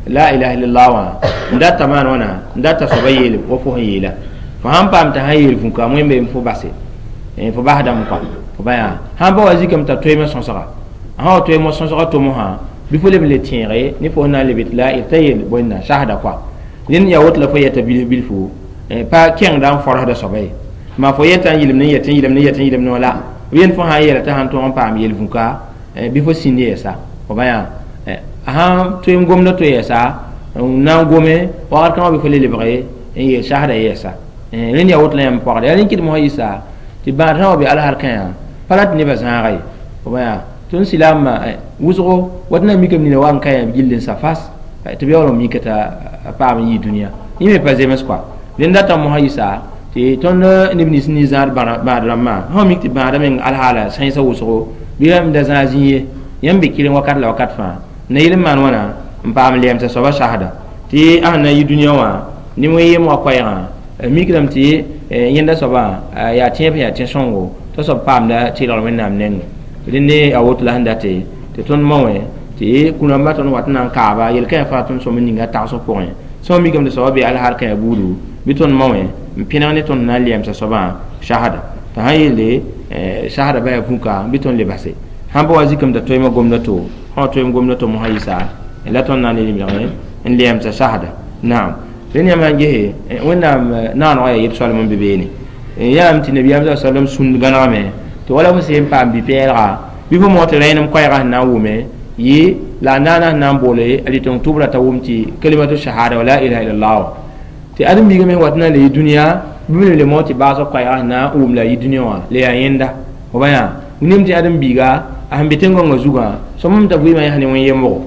la ilaha illallah wã n data maan wãna n data soaba yeel wa fo sẽn yeela fo sãn paam t'a sãn yeel vũka wẽn fo base fo basdame kɔa fo ba yaa sãn pa wa zikame t'a toeemã sõsga sã wa toeemã sõsga tomsã bɩ fo leb n le tẽege ne fo na n leb tɩ la t'a yeel bõenna sasda kɔa. Rẽnd yaa woto la fo yɛta bilf bilfu pa kẽngda n fɔrsda soaba ye maa fo yɛta n yɩlem ne yɛt n yɩlem ne yɛt n yɩlem ne la b yẽnd fo sã n yeela t'a sãn tõog n paam yel vũka bɩ fo sĩnd yɛɛsa fo ba yaa a sãn tõe n gomda to yɛɛsa n na n gome wakat kãngã bɩ fo le lebge n yeel sasda yɛɛsa. Rẽnd yaa woto la yãmb pɔgda yaa rẽn kɩdem sã yɩsa tɩ bãad sã wa be alsar kã pa rat nebã zãaga ye fo ba yaa tõnd silaamã wʋsgo wat na n mikame nina wa n ka yãmb gill n sa fas tɩ b yaool n mika t'a paam n yɩ dũniyã yẽ me pa zems kɔa. Rẽnd datã mosã yɩsa tɩ tõnd neb nins ne zãad bãad rãmbã sã mik tɩ bãadã meng alhaala sãensã wʋsgo bɩ rãmb da zãag zĩ ye yãmb be kɩreng wakat la wakat fãa na yel n maan wãna n paam lɛɛmsa soabã sasda tɩ a sẽn na n yɩ dũniyã wã ne wẽn yem wã koɛɛgã mikdame tɩ yẽnda soabã yaa tẽeb sẽn yaa tẽ-sõngo t'a soab paamda tɩlgr Wẽnnaam nengẽ. Rẽnd a woto la sẽn date tɩ tõnd ma wẽ tɩ kũ-rãmbã tõnd wat n na n kaaba yel-kãe fãa tõnd sõm n ninga tagsg pʋgẽ sã n mikame tɩ soabã be alhaal kãe buudu bɩ tõnd ma wẽ n pẽneg ne tõnd na n lɛɛmsa soabã sasda t'a sãn yeelde sasda ba yaa vũka bɩ tõnd le base sãn pa wa zikame t'a toeemã gomda to sã wa toeem gomda to mosã yɩsa la tõnd na n le lebg n lɛɛmsa sasda. Naam rẽnd yãmb sãn gese Wẽnnaam naanegã yaa yeb-soalem n be beene yãam tɩ nabiyaam sa sallam sũnd gãnegame tɩ wala fo sẽn paam bi-pɛɛlga bɩ fo moog tɩ rẽenem koɛɛgã sẽn na n wʋme yɩ la a naana sẽn na n boole a rɩteng tʋbrã t'a wʋm tɩ kalimatu shahada wa la ilaha illallah tɩ ãdem-biigã me wat n na n le yɩ dũniyã bɩ b le moog tɩ baasg koɛɛgã sẽn na n wʋm la a yɩ dũniyã wã le yaa yẽnda fo ba yaa nem tɩ ãdem-biiga a sẽn be tẽn-gõngã zugã sõm t'a vɩɩmã yãs ne wẽn-yemgo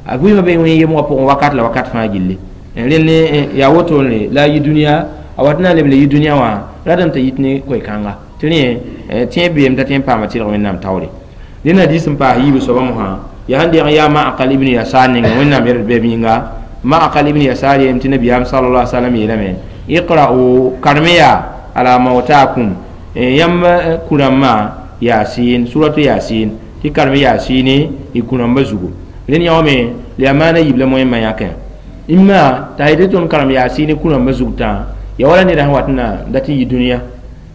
a vɩɩmã be wẽn-yemgã pʋgẽ wakat la wakat fãa gilli rẽnd yaa wotone la a yɩ dũniyã a wat n na n leb le yɩ dũniyã wã ratame t'a yit ne koe-kãnga tɩ rẽ tẽeb beem t'a tõe n paama tɩlg Wẽnnaam taoore. Rẽnd hadis n paas yiib soabã mosã yaa sẽn deg yaa Ma'aqal ibn Yasar ninga Wẽnnaam yɛl bɛb yĩnga Ma'aqal ibn Yasar yeelame tɩ nabiyaam sallallahu alaihi wasallam yeelame iqra'u karmiya ala mautakum yãmb kũrãmbã yasin suratu yasin tɩ karem yaasɩne y kũrãmbã zugu rẽnd yãome la yaa maana yiib la moẽmã yãkẽ imma t'a yetɩ tõnd karem yaasɩne kũrãmbã zug tã ya wala neda sẽn wat n na dat n yi dũniyã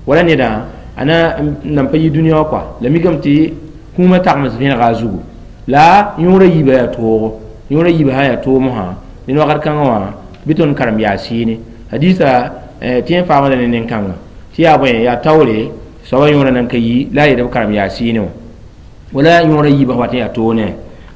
wala neda a na nan pa yi dũniyã wã kɔa la mikame tɩ kũumã tagms vẽnega a zugu la yõorã yiibã yaa toogo yõorã yiibã sã yaa toog mosã ned wakat kãngã wã bɩ tõnd karem yaasɩne hadisa tɩ n faamã la ne nen-kãngã tɩ yaa bõe yaa taoore soabã yõorã nan ka yi la a yetɩ b karem yaasɩne wã wala yõorã yiibã wat n yaa toog ne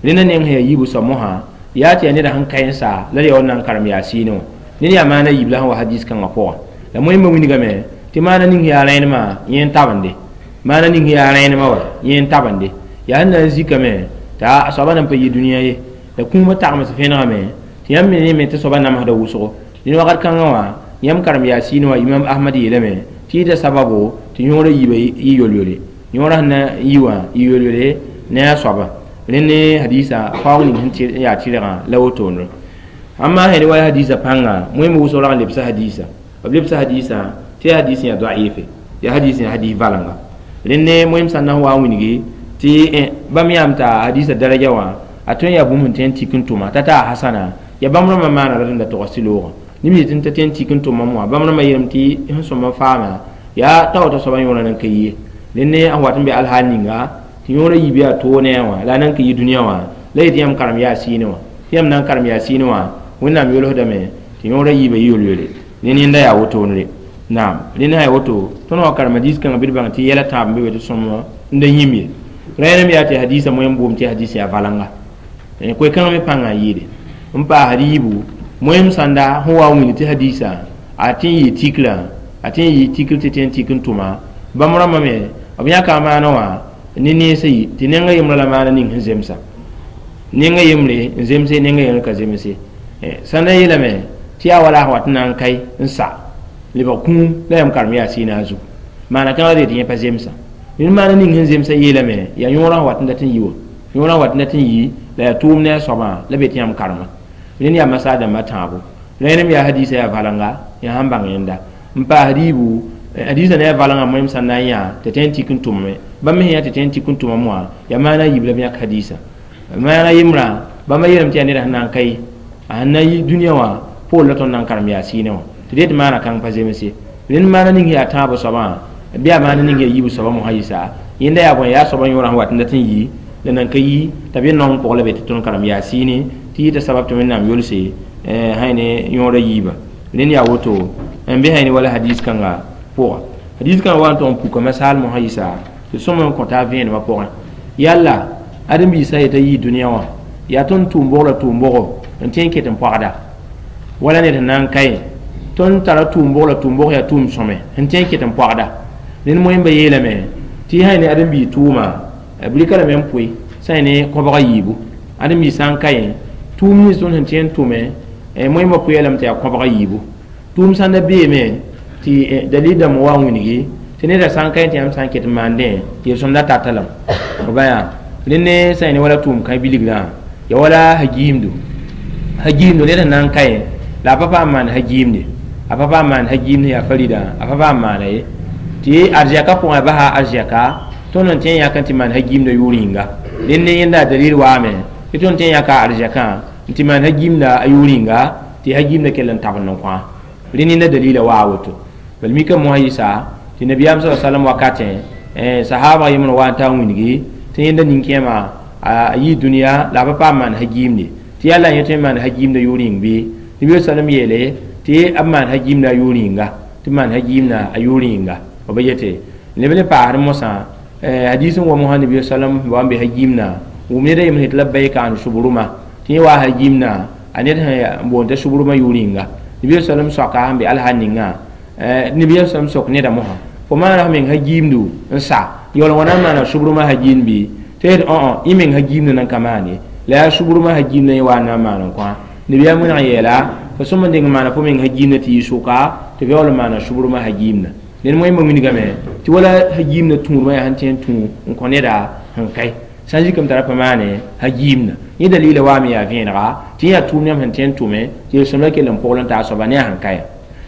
rẽnda neng sẽn yaa yiibu soab mosã yaa tɩ yaa neda sẽn ka n sa la d yaa wa na n karem yaasɩne wã ned yaa maana yiib la sẽn wa hadis kãngã pʋgã la moẽmbã wilgame tɩ maana ning yaa rẽenemã yẽ n tabende maana ning yaa rẽenemã wa yẽ n tabende yaa sẽn na n zikame t'a a soabã nan pa yi dũniyã ye la kũumã tagms vẽnegame tɩ yãmb me ne tɩ soabã namsda wʋsgo dẽn wakat kãngã wã yãmb karem yaasiin wã imam ahmad yeelame tɩ yɩta sababo tɩ yõorã yiibã yɩ yol-yole yõorã sẽn na n yi wã yɩ yol-yole ne a soabã rẽnd ne hadisa faoog ning sẽn yaa tɩrgã la wotone amma sẽn wa hadisa pãnga moẽmb wʋsg rag n lebsa hadisa b lebsa hadisa tɩ yaa hadis yaa da'ife yaa hadis yaa hadis valenga rẽnd ne moẽm sã n na n wa n wilgi tɩ bãmb yãam t'a hadisa daraja wã a tõe n yaa bũmb sẽn tõe n tik n tʋma t'a taa hasana ya bãmb rãmbã maana rat n da togs tɩ loogã neb yetɩ n ta tõe n tik n tʋmam wã bãmb rãmbã yeelame tɩ sẽn sõma faama yaa tao t'a soabã yõorã nan ka yi ye rẽnd ne sẽn wat n be alhaal ninga tɩ yõorã yiib yaa toog ne a wã la a nan ka yi dũniyã wã la yetɩ yãmb karem yaa sɩɩne wã tɩ yãmb na n karem yaa sɩɩne wã wẽnnaam yolsdame tɩ yõorã yiibã yɩ yol-yole rẽnd yẽnda yaa wotone naam rẽnd sã yaa woto tõnd wã karem hadiis kãngã bɩ d bãng tɩ yɛla tãab n be be tɩ sõm n da yĩm ye rẽenem yaa tɩ hadisa moẽm boom tɩ hadis yaa valenga koe-kãngã me pãngã n yɩɩde n paasd yiibu moẽm sãnda sẽn wa n wilg tɩ hadisa a tɩ n yɩ tikrã a tɩ n yɩ tikr tɩ tɩ n tik n tʋma bãmb rãmbã me b yãka maana wã ne neesã yi tɩ nenga yembrã la maana ning sẽn zemsa nenga yembre n zemse nenga yembre ka zemse sãnda yeelame tɩ yaa wala sẽn wat n na n kae n sa lebg kũum la yãmb karem yaa sɩɩna a zugu maana kãngã dee tɩ yẽ pa zemsa ned maana ning sẽn zemsa yeelame yaa yõorã sẽn wat n dat n yi wã yõorã sẽn wat n dat n yi la yaa tʋʋm ne a soabã la be tɩ yãmb karema rẽnd yaa masaa dãmbã tãabo rẽenem yaa hadisa yaa valenga yaa sãn bãng yẽnda n paasd yiibu hadisa ne a valenga moẽm sã n na n yã tɩ tõe n tik n tʋmame bãmb me sẽn yã tɩ tõe n tik n tʋmame wã yaa maana yiib la b yãk hadisa maana yembrã bãmba yeelame tɩ yaa neda sẽn na n ka ye a sẽn na yi dũniyã wã poor la tõnd na n karem yaa sɩɩne wã tɩ dee tɩ maana kãng pa zemse rẽnd maana ning yaa tãabo soabã bɩ yaa maana ning yaa yiibu soabã mosã yɩsa yẽnda yaa bõe yaa soabã yõorã sẽn wat n dat n yi la nan ka yi t'a be naong pʋgã la be tɩ tõnd karem yaa sɩɩne tɩ yɩta sabab tɩ wẽnnaam yolse sã ne yõorã yiibã rẽnd yaa woto n be sã ne wala hadis kãnga pʋga hadis kãngã wa n tʋg n puka masaal mosã yɩsa tɩ sõm n kõta a vẽenemã pʋgẽ yalla ãdem-biisã yeta yii dũniyã wã yaa tõnd tʋʋm-bog la tʋʋm-bogo n tõe n ket n pɔgda wala ned sẽn na n ka ye tõnd tara tʋʋm-bog la tʋʋm-bog yaa tʋʋm sõme n tõe n ket n pɔgda ned moẽmbã yeelame tɩ sã ne ãdem-biig tʋʋma b rɩka lame n pʋɩ sã ne kõbga yiibu ãdem-biig sã n ka ye tʋʋm nins tõnd sẽn tõe n tʋme moẽmbã pʋɩa lame tɩ yaa kõbga yiibu tʋʋm sãn da beeme tɩ dalil dãmb wa n wilgi tɩ neda sã n ka tɩ yãmb sã n ket n maandẽ yel-sõmda tata lame b ba yaa rẽnd ne sã ne wala tʋʋm kã bilgrã ya wala hagiimdo hagiimdo ned sẽn na n ka ye la a pa paam maan hagiimde a pa paam maan hagiimd yaa farida a pa paam maana ye tɩ arzɛka pʋgẽ basa arzɛka tõnd n tõe n yãk n tɩ maan hagiimda yʋʋr yĩnga rẽnd ne yẽnda dalil waame tɩ tõnd tõe n yãka arzɛkã n tɩ maan hagiimda a yʋʋr yĩnga tɩ hagiimda kell n tabend n kõ rẽnd yẽnda dalila waa woto bal mika mosã yɩsa tɩ nabiyaam sa salam wakatẽ sahaba yembr wa n taa n wilgi tɩ yẽnda nin-kẽema a yɩ dũniyã la a pa paam maan hagiimde tɩ yalla yẽ tõe n maan hagiimda yʋʋr yĩng bɩ nabi sallam yeele tɩ b maan hagiimda a yʋʋr yĩnga tɩ maan hagiimda a yʋʋr yĩnga b ba yete leb le paasd mosã hadis n wa mosã nabi sallam wa n be hagiimna wʋm ned a yembr tɩ labbaika an subruma tɩ yẽ waa hagiimna a ned sẽn boond t'a subruma yʋʋr yĩnga nabi sallam soaka sẽn be alhaal ninga nabi sallam sok neda mosã fo maana f meng hagiimdu n sa yaool wãna n maana subruma hagiimd bɩ tɩ yet õ yẽ meng hagiimd nan ka maan ye la yaa subruma hagiimd yẽ wa n na n maan n kõ nabiyaam wẽneg yeela fo sõm n deng n maana fo meng hagiimda tɩ yɩ sʋka tɩ f yaool n maana subruma hagiimda ned moẽmbã wilgame tɩ wala hagiimda tũudmã yaa sẽn tõe n tũ n kõ neda sẽn kae sã n zikame t'a ra pa maane hagiimda yẽ dalila waame yaa vẽenega tɩ yẽ yaa tʋʋm yãmb sẽn tõe n tʋme tɩ yel-sõmda kell n pogl n taa soaba ne a sẽn ka ya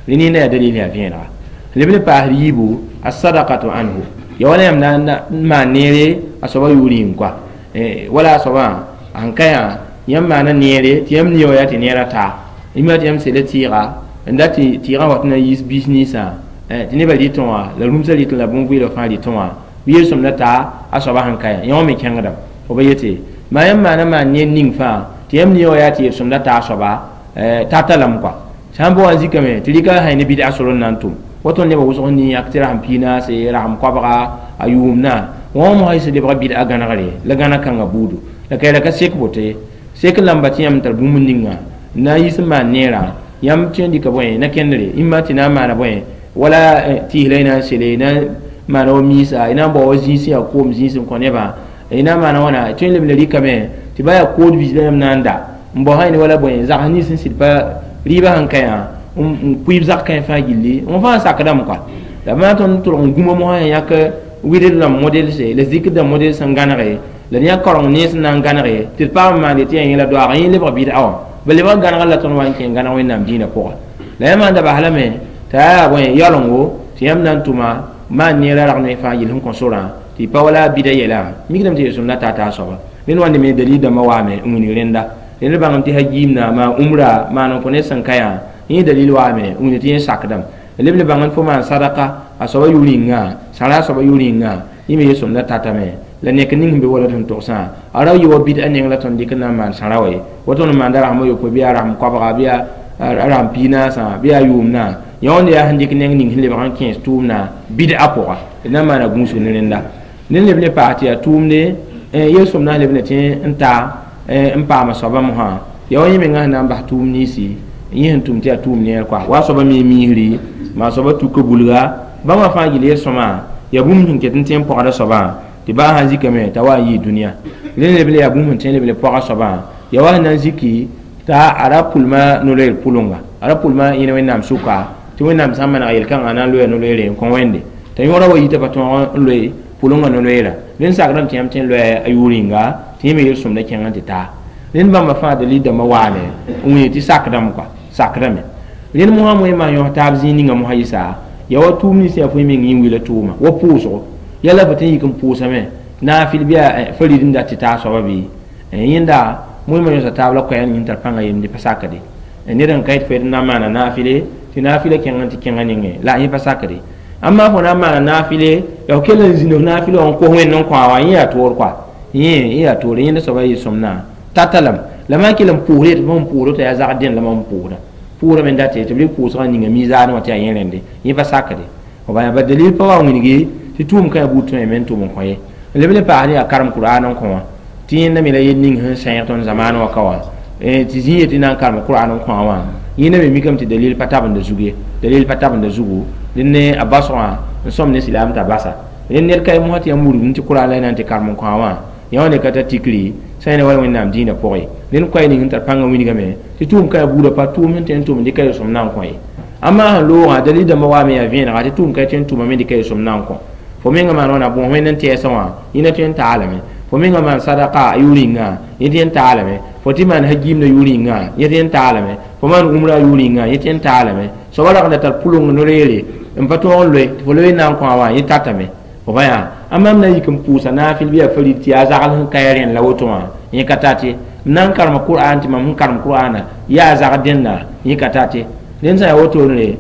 Rẽnd yaa dalil yaa vẽenega. Leb ne paasd yiibu as-sadaqatu anhu ya wala yãmb na n maan neere a soaba yʋʋr yĩng koa wala a soabã sẽn ka yã yãmb maana neere tɩ yãmb nia wa yaa tɩ neerã taa yĩma tɩ yãmb sela tɩɩga n dat tɩ tɩɩgã wat na n yiis biis ninsã tɩ nebã rɩtẽ wã la rũmsã rɩtẽ la bõn-vɩɩlg fãa rɩtẽ wã bɩ yel-sõmdã taa a soaba sẽn ka yã yã wã me kẽngdame fo ba yete maa yãmb maana maan neer ning fãa tɩ yãmb nia wa yaa tɩ yel-sõmdã taa a soaba tata lame koa sã n pa wa n zikame tɩ rɩka sã ne bɩd-a sor n na n tʋm woto nebã wʋsg n yãk tɩ rasem piinaase rasem koabga a yʋʋmdã wã mosã sẽn lebg bɩd-a gãnegre la gãneg kãngã buudu la ka ka sek boto ye sek lamba tɩ yãmb tar bũmb ninga n na n yiis n maan neerã yãmb tõe n dɩka bõe na kẽndre ĩmma tɩ na n maana bõe wala tɩɩs la y na n sele na n maana wa miisa y na n bao wa zĩis yaa koom zĩis n kõ nebã y na n maana wãna tõe n leb n rɩkame tɩ ba yaa kood vis la yãmb na n da n bao sã ne wala bõe zags nins sẽn sɩd pa rɩɩbã sẽn ka yã n pʋɩɩb zag kãe fãa gilli wã fãa sakdame koa la maa tõnd tʋlg n gũma mosã yãk wɩdr rãmb modelse la zikr dãmb model sẽn gãnege la yã kaoreng nens n na n gãnege tɩ d paam n maande tɩ yaa yẽla doaag yẽ lebg bɩd-a wã ba lebg gãnegr la tõnd wa n kẽ gãneg Wẽnnaam dĩinã pʋga la yã maan da bas lame t'a yaa bõe yaolengo tɩ yãmb na n tʋma maan neerã rag ne fãa gill sẽn kõ sorã tɩ pa wala bɩda yɛla mikdame tɩ yel-sõmdã taa t'a soaba rẽnd wãnde me dalil dãmbã waame n wilg rẽnda rẽnd bãngame tɩ ha-giimna maan umra maan n kõ ned sẽn ka yã yẽ dalil waame n wilg tɩ yẽ sakdame leb le bãng fo maan sadaka a soaba yʋʋr yĩnga sãra a soaba yʋʋr yĩnga yẽ me yel-sõmdã tatame la nek ning sẽn be wala sẽn togsã a ra yɩ wa bɩd-a neng la tõnd dɩk n na n maan sãra wa ye wa tõnd n maanda rasem a yopoe bɩ yaa rasem koabga bɩ yaa rasem piinaasã bɩ yaa yʋʋmdã yã wãnd yaa sẽn dɩk neng ning sẽn lebg n kẽes tʋʋmdã bɩd-a pʋga d na n maana gũusg ne rẽnda ned leb ne paas tɩ yaa tʋʋmde yel-sõmdã sẽn leb ne tɩ n taa n paama soabã mosã yaa wa yẽ menga sẽn na n bas tʋʋm ninsi yẽ sẽn tʋm tɩ yaa tʋʋm neer koa wa a soaba me miisri maa soaba tuka bulga bãmba fãa gill yel-sõma yaa bũmb sẽn ket n tẽ n pɔgda soabã tɩ baa sãn zikame t'a wa n yɩɩ dũniyã rẽ leb le yaa bũmb sẽn tẽ leb le pɔga soabã yaa wa sẽn na n ziki t'a a ra pʋlma no-loeer pʋlʋnga a ra pʋlma yẽne Wẽnnaam sʋka tɩ Wẽnnaam sã n maneg yel-kãngã na n loya no-loeere n kõ Wẽnde t'a yõora wa yita pa tõog n loe pʋlʋngã no-loeera rẽnd sakrame tɩ yãmb tõe n loya a yʋʋr yĩnga tɩ yẽ me yel-sõmdã kẽng n tɩ taa rẽnd bãmba fãa dalil dãmbã waame n wẽ tɩ sakdame koa sakdame rẽnd mosã moe maan yõs taab zĩig ninga mosã yɩsa yaa wa tʋʋm nins yaa fo yẽ meng yẽ wila tʋʋma wa pʋʋsgo yala fo tɩ n yik n pʋʋsame naafɩl bɩ yaa farid n dat tɩ taa soaba bɩ yẽnda moe-ma yõsa taab la koɛɛg ning tar pãnga yemde pa sakde ned n ka yet fo yet n na n maana naafɩle tɩ naafɩla kẽng n tɩ kẽngã nengẽ la yẽ pa sakde amma fo na n maana naafɩle ya fo kell n zĩnd f naafɩl wã n kos Wẽnd n kõ a wã yẽ yaa toor koa yẽ yaa toore yẽnda soaba yel-sõmdã tata lame la maan kell n pʋʋsd yetɩ fo sẽn pʋʋsd t'a yaa zagd dẽnd la mam pʋʋsda pʋʋsdame n dat tɩ b rɩk pʋʋsgã ninga mizaanẽ wã tɩ yaa yẽ rẽnde yẽ pa sakde f ba dalil pa wa n wilgi tɩ tʋʋm kã yaa buud tõe me n tʋm n kõ ye n leb ne paas ne yaa karem Kur'an n kõ wã tɩ yẽnda me la yel ning sẽn sẽeg tõnd zamaan wã ka wã tɩ zĩ yetɩ na n karem Kur'an n kõ wã yẽnda me mikame tɩ dalil pa tabenda zug ye dalil pa tabenda zugu dẽn ne a basgã n sõm ne silaam t'a basa rẽnd ned ka ye mosã tɩ yãmb wurgum tɩ Kur'an la y na n tɩ karem n kõ wã yã wã ne ka tar tikri sã yẽ ne wala Wẽnnaam dĩinã pʋgẽ rẽnd koɛɛ ning sẽn tar pãngã wilgame tɩ tʋʋm ka yaa buudã pa tʋʋm sẽn tõe n tʋm n dɩka yel-sõm na n kõ ye amma sẽn loogã dalil dãmbã waame yaa vẽenega tɩ tʋʋm ka tõe n tʋmame dɩka yel-sõm na n kõ fo menga maan wãna bõos Wẽnd n tɛɛsã wã yẽna tõe n taalame fo menga maan sadaka a yʋʋr yĩnga yẽ tõe n taalame fo tɩ maan ha-giimdã yʋʋr yĩnga yẽ tõe n taalame fo maan umra yʋʋr yĩnga yẽ tõe n taalame soaba rag n da tar pʋlʋng no-loeere n pa tõog n loe tɩ fo loe n na n kõ a wã yẽ tatame fo pa yaa amma m na n yik n pʋʋsa naafɩl bɩ yaa farid tɩ yaa zagl sẽn ka ya rẽnd la woto wã yẽ ka tat ye m na n karema Kur'an tɩ mam sẽn karem Kur'ana yaa zagd dẽnda yẽ ka tat ye rẽnd sã n yaa wotone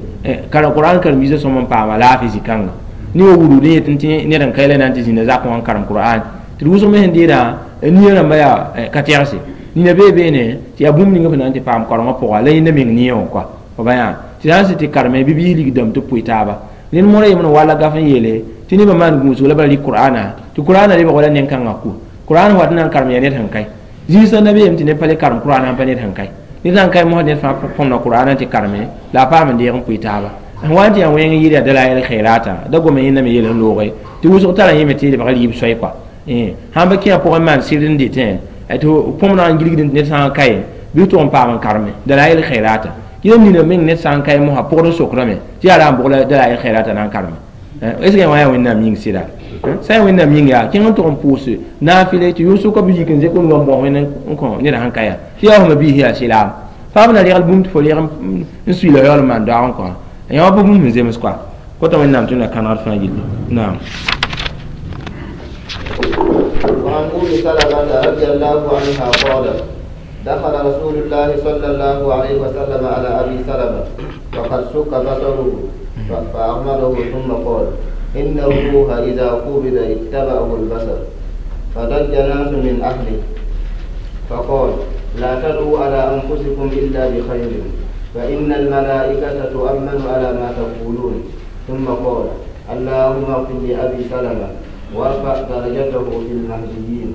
Kur'an karen-biisã sõm n paama laafɩ zĩ-kãnga ne wa wurud n yet tɩ ned n ka yɛla na n tɩ zĩnda zakẽ wã n karem Kur'an tɩ d wʋsg me sẽn deedã nia rãmba yaa ka tɛgse nina bee beene tɩ yaa bũmb ninga fo na n tɩ paam kaorengã pʋga la yẽnda meng nia wã koa fo ba yaa tɩ sã n sɩd tɩ kareme bɩ biis lig dãmb tɩ pʋɩ taaba rẽnd mõra yembr n walla gaf n yeele tɩ nebã maan gũusg la bala rɩk Kur'ana tɩ Kur'ana lebg wala nen-kãngã ku Kur'an wat n na n karem yaa ned sẽn kae zĩisã na beem tɩ ned pa le karem Kur'an sãn pa ned sẽn kae ned sã n kae mosã ned fãa põmda Kur'an tɩ kareme la a paam n deeg n pʋɩ taaba sẽn wa n tɩ yaa wẽng n yɩɩd yaa dalail khairata da gome yẽnda me yel n looge tɩ wʋsg tara yẽme tɩ lebg rɩɩb soay koa sãn pa kẽ a pʋgẽ maan sɩd n dɩtẽ tɩ põmdã n gilgd ned sã n kae bɩ tʋg n paam n kareme dalail khairata yẽm nina meng ned sã n kae mosã pʋgd n sokrame tɩ yaa ra n bʋg la dalail khairata na n kareme est ce que wã yaa Wẽnnaam yĩng sɩda sã n Wẽnnaam yĩng yaa kẽng n tʋg n pʋʋs naafɩle tɩ yʋsʋka bɩ yik n zek n wa n bõs Wẽnd n kõ ned sẽn ka yaa tɩ yaa fõma biis yaa sɩlaam faam na regl bũmb tɩ fo reg n suila yaool n maan doag n kõ Yã wa pa bũmb sẽn zems kɔa kota Wẽnnaam tɩ na kãnegd fãa gilli. Naam. وعن أم سلمة رضي الله عنها قالت: دخل رسول الله صلى الله عليه وسلم على أبي سلمة وقد شق بصره، فأغمضه ثم قال: إن الروح إذا قبض اتبعه البصر. فضج ناس من أهله، فقال: لا تدعوا على أنفسكم إلا بخير، فإن الملائكة تؤمن على ما تقولون. ثم قال: اللهم اغفر لأبي سلمة وارفع درجته في المهديين،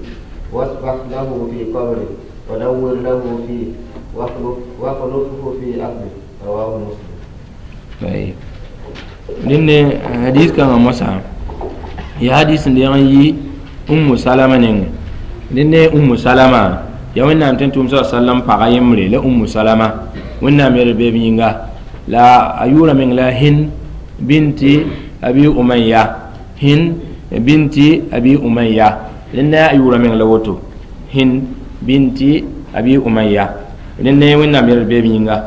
واصفح له في قبره، ونور له فيه، واخلفه في أهله. رواه مسلم. طيب، dẽnde hadis kãngã mosã ya hadis n deeg n yi Ummu Salama nengẽ. Dẽnde Ummu Salama ya Wẽnnaam tẽn tʋʋm sa sallam paga yembre la Ummu Salama, Wẽnnaam yɛl beeb yĩnga, la a yʋʋra meng la Hind binti Abi Umayya. Hind binti Abi Umayya, dẽnda a yʋʋra meng la woto, Hind binti Abi Umayya. Dẽnde Wẽnnaam yɛl beeb yĩnga,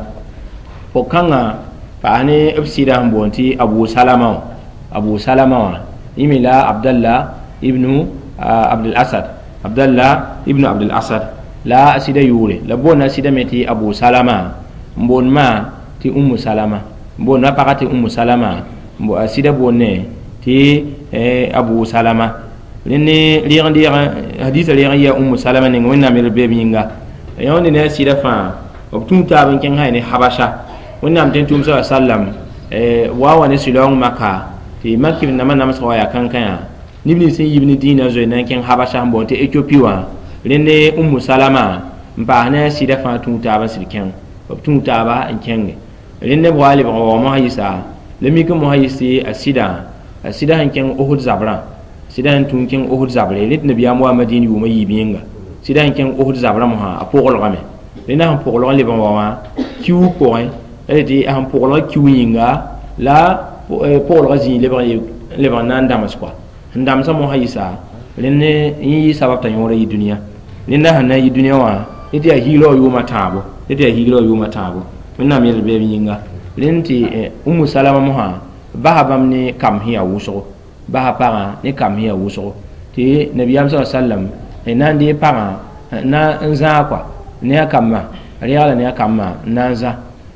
pʋg-kãngã paas ne b sɩda sẽn boond tɩ Abu Salama wã. Abu Salama wã yẽ me la Abdallah ibnu Abdul Asad, Abdallah ibnu Abdul Asad la a sɩda yʋʋre. La boonda a sɩda me tɩ Abu Salama, n boond maa tɩ Ummu Salama, n boond a pagã tɩ Ummu Salama, a sɩda boonne tɩ Abu Salama. Rẽnd ne rɩg n deeg hadisa reeg n yɩa Ummu Salama neng, Wẽnnaam yel beeb yĩnga. Yãonde ne a sɩda fãa b tũu taab n kẽng sã ne Habasha. Wẽnnaam tẽn tʋʋm sa sallam wa wa ne sɩlaoong Maka tɩ mak nambã namsg wa yaa kãnkã neb nins sẽn yib ne dĩinã zoe na n kẽng Habasha sẽn boond tɩ Etiopi wã. Rẽnde Ummu Salama n paas ne a sɩda fãa tũu taab n sɩd kẽng, b tũu taaba n kẽnge. Rẽnde b wa lebg n wa mosã yɩsa la mik n mosã yɩs tɩ a sɩda sẽn kẽng Ohud zabrã, sɩda sẽn tũ n kẽng Ohud zabre rẽ tɩ nabiyaam wa Madin yʋʋmã yiib yẽnga. Sɩda sẽn kẽng Ohud zabrã mosã a pʋglgame. Rẽnda sẽn pʋglg n leb n wa wã kiuug pʋgẽ la tɩ a sẽn pʋglg kiu yĩnga la pʋglgã zĩig lebg n na n dãms kɔa sẽn dãmsã mosã yɩsa. Rẽnd yẽ yɩ sabab t'a yõora yɩ dũniyã. Rẽnda sẽn na n yɩ dũniyã wã ne tɩ yaa hiigrã wã yʋʋmã tãabo, ne tɩ yaa hiigrã wã yʋʋmã tãabo. Wẽnnaam yel beeb yĩnga. Rẽnd tɩ Umu Salama mosã basa bãmb ne kam sẽn yaa wʋsgo, basa pagã ne kam sẽn yaa wʋsgo tɩ nabiyaam sa sallam na n dee pagã na n zãag kɔa ne a kambã, reegla ne a kambã n na n zã.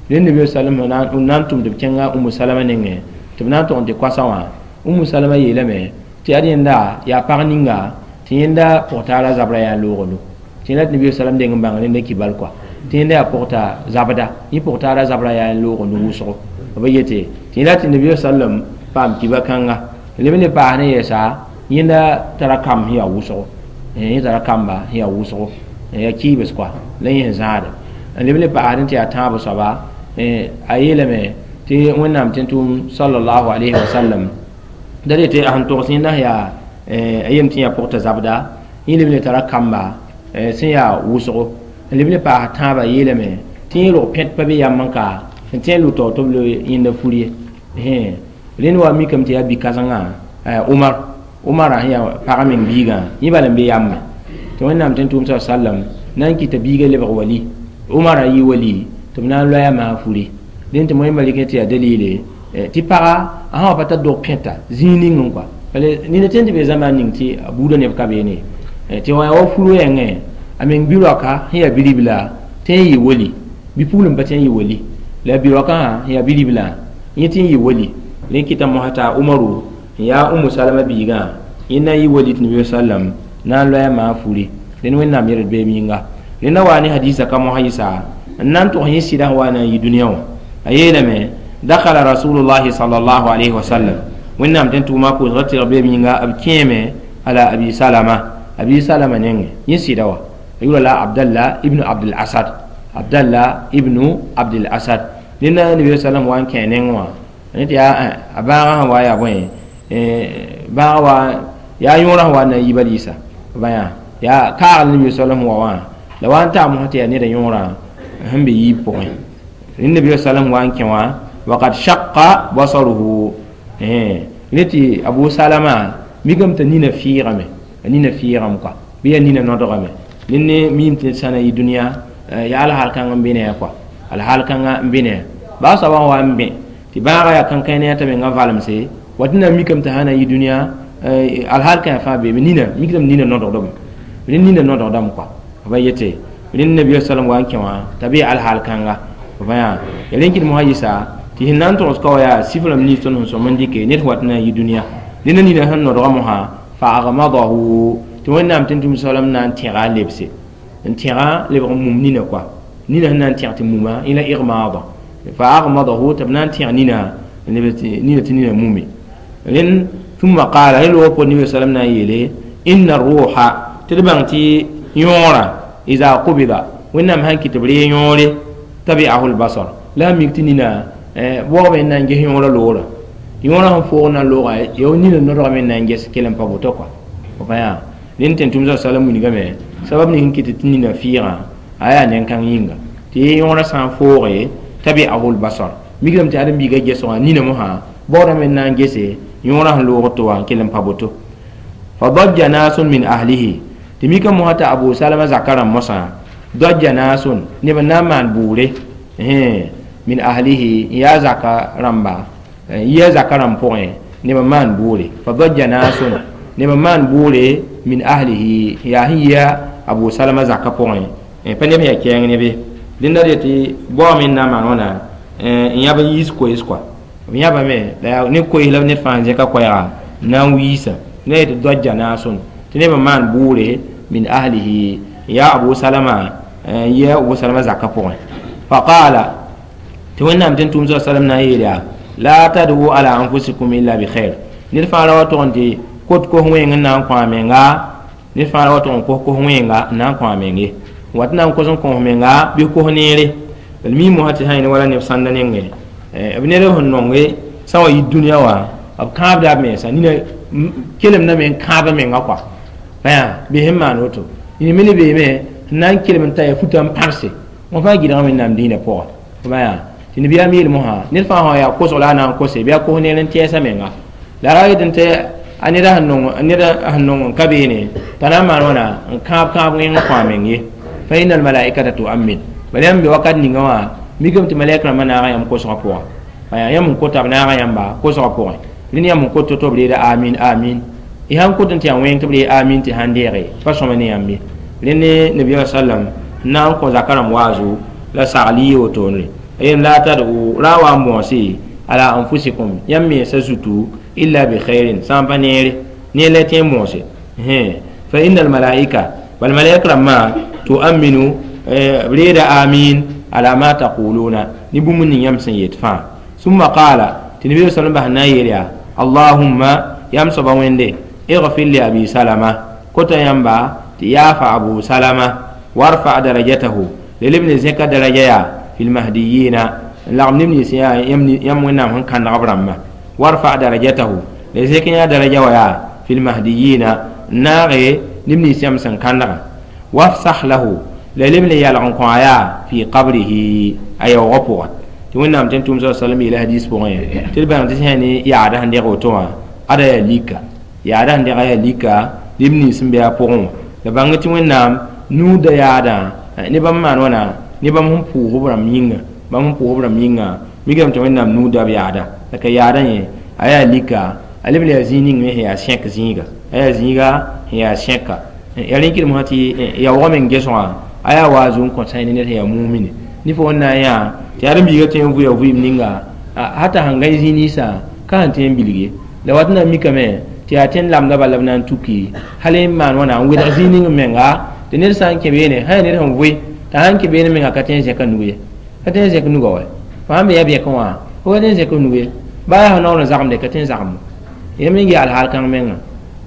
Rẽnd nabi sallam n na n tʋm tɩ b kẽnga Umu Salama nengẽ tɩ b na n tog n tɩ koasã wã. Umu Salama yeelame tɩ ad yẽnda yaa pag ninga tɩ yẽnda pʋgtaara zabra yaa loogdo tɩ yẽla tɩ nabi sallam deng n bãng rẽnda kibal kɔa tɩ yẽnda yaa pʋgta zabda, yẽ pʋgtaara zabra yaa n loogd wʋsgo b yete tɩ yẽla tɩ nabi sallam paam kiba kãnga leb n le paas ne yɛɛsa yẽnda tara kam sẽn yaa wʋsgo, yẽ tara kamba sẽn yaa wʋsgo, yaa kiibs kɔa la yẽ sẽn zãade n leb n le paasd tɩ yaa tãab soaba. A yeelame tɩ Wẽnnaam tẽn tʋʋm sallallahu alayhi wa sallam da re tɩ a sẽn togs yẽnda yaa a yem tɩ yaa pʋgta zabda, yẽ leb n le tara kamba sẽn yaa wʋsgo n leb n le paas tãabã. Yeelame tɩ yẽ rog pẽt pa be yam n ka n tẽ n lʋ taoor tɩ b loe yẽnda fur ye. Rẽnd wa mikame tɩ yaa bi-kãsengã Umar, Umara sẽn yaa pag meng biigã, yẽ bala n be yambe tɩ Wẽnnaam tẽn tʋʋm sa sallam na n kɩta biigã lebg wali, Umara yɩ wali tɩ b na n loya maa furi. Dẽn tɩ moẽ malɩk tɩ yaa dalile tɩ paga a sã wa pa tar dog pẽta zĩig ning n kɔa bala nina tẽn tɩ be zãma ning tɩ a buudã neb ka beene tɩ wa yaa wa furu yẽngẽ a meng bi-raoka sẽn yaa bi-ribla tɩ n yɩ wali, bi-pugl n pa tɩ n yɩ wali la bi-raokã sẽn yaa bi-ribla yẽ tɩ n yɩ wali. Rẽ kɩta mosã t'a Umaru n yaa Umu Salama biigã yẽ na n yɩ wali tɩ nabi sallam na n loya maa furi. Rẽnd Wẽnnaam yɛl beem yĩnga. Rẽnda waa ne hadisa ka mosã yɩsa n na n tʋgs yẽ sɩda sẽn wa na n yɩ dũniyã wã. A yeelame: dakhala rasulullahi sallallahu alayhi wa sallam, Wẽnnaam tẽn tʋʋma pʋʋsga tɩrg beem yĩnga, b kẽeme ala Abi Salama, Abi Salama nengẽ. Yẽ sɩda wã a yʋra la Abdallah ibnu Abdul Asad, Abdallah ibnu Abdul Asad. Rẽnda nabi sallam wa n kẽ neng wã ne tɩ yaa a bãagã sẽn wa yaa bõe bãag wa yaa yõorã sẽn wa na n yiba liisa bãyã yaa kaagl nabi sallam wa wã la wa n taa mosã tɩ yaa neda yõorã sẽn be yiib pʋgẽ. Rẽnd nabi sallam wa n kẽ wã waqad shaqqa basaruhu rẽ tɩ Abu Salama mikame t'a nina fɩɩgame, a nina fɩɩgame kɔa bɩ yaa nina nodgame. Rẽnd ne miime tɩ sã na yɩ dũniyã yaa alhaal kãng n be ne a kɔa, alhaal kãngã n be ne a baa soabã wa n bẽ. Tɩ bãaga yaa kãnkãe ne t'a menga valemse wat na mikame t'a sã na n yɩ dũniyã alhaal kãe fãa beeme nina mikdame nina nodgdame rẽnd nina nodgdame kɔa b yete rẽnd nabiya sallam wa n kẽ wã t'a bee alhaal kãnga b yaa ya rẽn kɩd mosã yɩsa tɩ sẽn na n togs ka wa yaa sif rãmb nins tõnd sẽn sõm n dɩke ned wat na n yɩ dũniyã ned nina sẽn nodga mosã fa agmadahu tɩ wẽnnaam tɩ tʋm salam na n tẽga a lebse n tẽga lebg n mum nina kɔa nina sẽn na n tẽg tɩ muma yẽ la igmaada fa agmadahu tɩ b na n tẽg nina nina tɩ nina mume rẽnd ثم قال هل هو النبي صلى الله عليه وسلم إن الروح تدبان تي يورا إذا قبض وإنما هنك تبري يوري تبعه البصر لا ميكتنينا بوغ من نانجه يورا لورا يورا هم فوغنا لورا يوني نورا من نانجه سكيلم بابوتوكوا وفيا لين تنتم صلى الله عليه وسلم سبب نهنك تتنينا فيرا آيا نينكان ينغا تي يورا سان فوغي تبعه البصر ميكلم تادم بيغا جسوا نينا موها بوغ من نانجه سي yõorã sẽn loog tɩ wa n kell n pa boto fa dajja naasun min ahlihi tɩ mika mosã t'a abu salama zaka rãmb mosã dajja naasun neb n na n maan buure min ahlihi n yaa zaka rãmba yia zaka rãmb pʋgẽ neb n maan buure fa dajja naasun neb n maan buure min ahlihi n yaa sẽn yia abu salama zaka pʋgẽ pa neb sẽn yaa kɛɛng nebe dẽnda d yetɩ baoome n na n maan wãna n yãb n yiis koees kɔa b yãbame la yaa ne koees la ned fãa n zẽka koɛɛga n na n wiisa ne yetɩ dɔja naasõn tɩ neb n maan bʋʋre min ahlihi n yaa abu salama n yia abu salama zakã pʋgẽ faqaala tɩ wẽnnaam tɩ n tʋʋm sa salam na n yeel yaa la tad'u ala anfusikum illa bi khair ned fãa ra wa tʋg n tɩ kot kos wẽeng n na n kõ a menga ned fãa ra wa tʋg n kos kos wẽenga n na n kõ a meng ye wat na n kos n kõ menga bɩ kos neere b mi mosã tɩ sã yẽne wala neb sãnda nengẽ b ned sẽn nonge sã wa yɩ dũniyã wã b kãabda b mensa nina kelemdame n kãab menga kɔa bɩ sẽn maan woto yẽ me ne beeme n na n kelem n ta ya futa n pãrse wã fãa gɩdga wẽnnaam dĩinã pʋga tɩ nabiyaam yeel mosã ned fãa sã yaa kosg la a na n kose bɩ a kos neer n tɛɛsa menga la ra yet n tɩ a ned sẽn nong n ka beene t'a na n maan wãna n kãab kãab wẽng n kõ a meng ye fa inna almalaikata tuammin bala yãmb be wakat ninga wã mikame tɩ malɛk rãmbã naaga yãmb kosgã pʋga yãmb n kota b naaga yãmba kosgã pʋgẽ rẽnd yãmb n kot tɩ b reeda amin amin y sãn kot n tɩ yaa wẽng tɩ b ree amin tɩ sãn deege pa sõma ne yãmb ye rẽnd ne nabiyaam sallam n na n kõ zaka rãmb waazo la sagl yɩ wotone yem la tad'u ra wa n bõose ala anfusikum yãmb mensã zutu illa bi khairin sã n pa neere ne la tẽ n bõose fa inna almalaika bal malaik rãmbã tuaminu b reeda amin ala ma taquluna ni bũmb ning yãmb sẽn yet fãa summa qala tɩ nabi sallam bas na n yeel yaa allahumma yãmb soaba wẽnde اغفر لأبي سلمة كوتا ينبا تيافا أبو سلمة وارفع درجته للابن زكا درجة في المهديين لغم نبني سيا يم ونام هن كان غبرما وارفع درجته لزكا درجة ويا في المهديين ناغي نبني سيام سن كان وافسح له للابن يالغن قايا في قبره أي غفوة تونام تنتم صلى الله عليه وسلم إلى حديث بغير تلبان تسهني يا عده عندي غوتوا أدا ليكا yaada sẽn dega yaa lika neb nins n be a pʋgẽ wã la bãng tɩ wẽnnaam nuuda yaadã ne bãmb maan wãna ne bãmb sẽn pʋʋg b rãmb yĩnga bãmb sẽn pʋʋg b rãmb yĩnga mikame tɩ wẽnnaam nuuda b yaada la ka yaadã yẽ a yaa lika a leb n yaa zĩig ning me sẽn yaa sẽk zĩiga a yaa zĩiga sẽn yaa sẽka yaa rẽ kɩdem sã tɩ yaoogã meng gesgã a yaa waazu n kõ sã ne ned sẽn yaa mumine ne fo wẽn na n yã tɩ ãdem-biigã tõe n vʋya vɩɩm ninga hata sẽn gãe zĩig ninsã ka sẽn tõe n bilg ye la wat na n mikame tɩ yaa tõnd lamda bala b na n tuki hal n maan wãna n wedg zĩig ning menga tɩ ned sã n kẽ beene sã yaa ned sẽn vʋɩ t'a sãn kẽ beene menga ka tõe n zẽka nug ye ka tõe n zẽk nuga wa fo sãn be yaa bɛkẽ wã fo ka tõe n zẽk nug ye baa yaa fo naoor n zagemde ka tõe n zagem yãmb n yaa alhaal kãng menga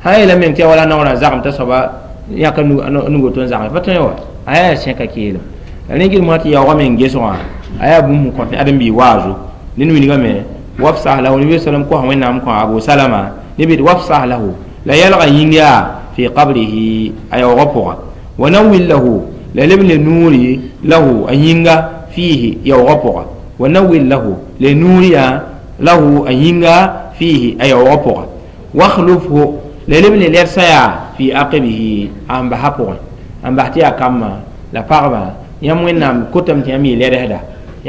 sã yeela meng tɩ yaa wala naoorã zagem t'a soaba yãka nugo tɩ n zagem pa tõe wa a yaa sẽka keelem la rẽ gɩdem tɩ yaoogã meng gesgã a yaa bũmb n kõt ãdem-biig waazo ned wilgame wafsah lahu nabi sallam kos wẽnnaam kõ abu salama نبي وافصح له لا يلغى ينجا في قبره أي غفوة ونوّل له لا لبن نوري له أن ينجا فيه يغفوة ونوّل له لنوري له أن ينجا فيه أي غفوة واخلفه لا لبن لرسيا في عقبه أم بحقه أم بحتيا كما لا فغبا يم وينام كتم تيمي لرهدا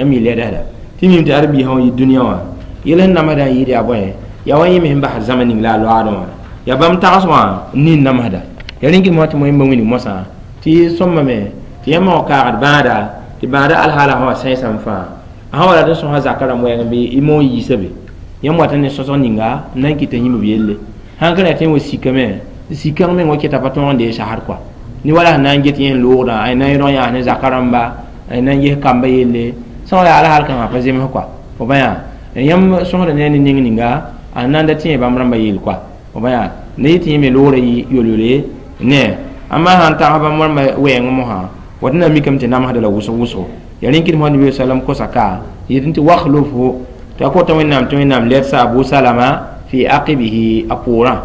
يمي لرهدا تيمي تعربي هو الدنيا Yel sẽn namsdã n yɩɩd yaa bõe yaa wa yẽ me sẽn basd zãma ning la a loaadẽ wã yaa bãmb tags wã n nin namsda ya rẽn kɩt mosã tɩ wẽmba wilg mosã tɩ sõmbame tɩ yãmb wã kaagd bãada tɩ bãada alhaala sã wa sẽesame fãa a sã wa rat n sõsa zakã rãmb wɛɛng bɩ y moon yiisa be yãmb wat n ne sõsg ninga n na n kɩta yĩmb b yelle sãn ka ra tɩ wa sikame sikãng meng wa keta pa tõog n dee sasd kɔa ne wala sẽn na n get yẽ n loogdã a na n yẽdg yãas ne zakã rãmba a na n ges kamba yelle sã wa yaa alhaal kãngã pa zems kɔa fo bã yaa yãmb sõsda ne a ne ning ninga a na n da tẽ bãmb rãmbã yell kɔa fo bã yaa ne yɩ tɩ yẽ me loogrã yɩ yol-yole ne amma sãn tags bãmb rãmbã wɛɛng mosã wat na mikame tɩ namsda la wʋsg wʋsgo ya rẽn kɩt mosã nabi sallam kosa ka yetɩ tɩ wakhlufhu tɩ a kota wẽnnaam tɩ wẽnnaam ledsa abu salama fi aqibihi a poorã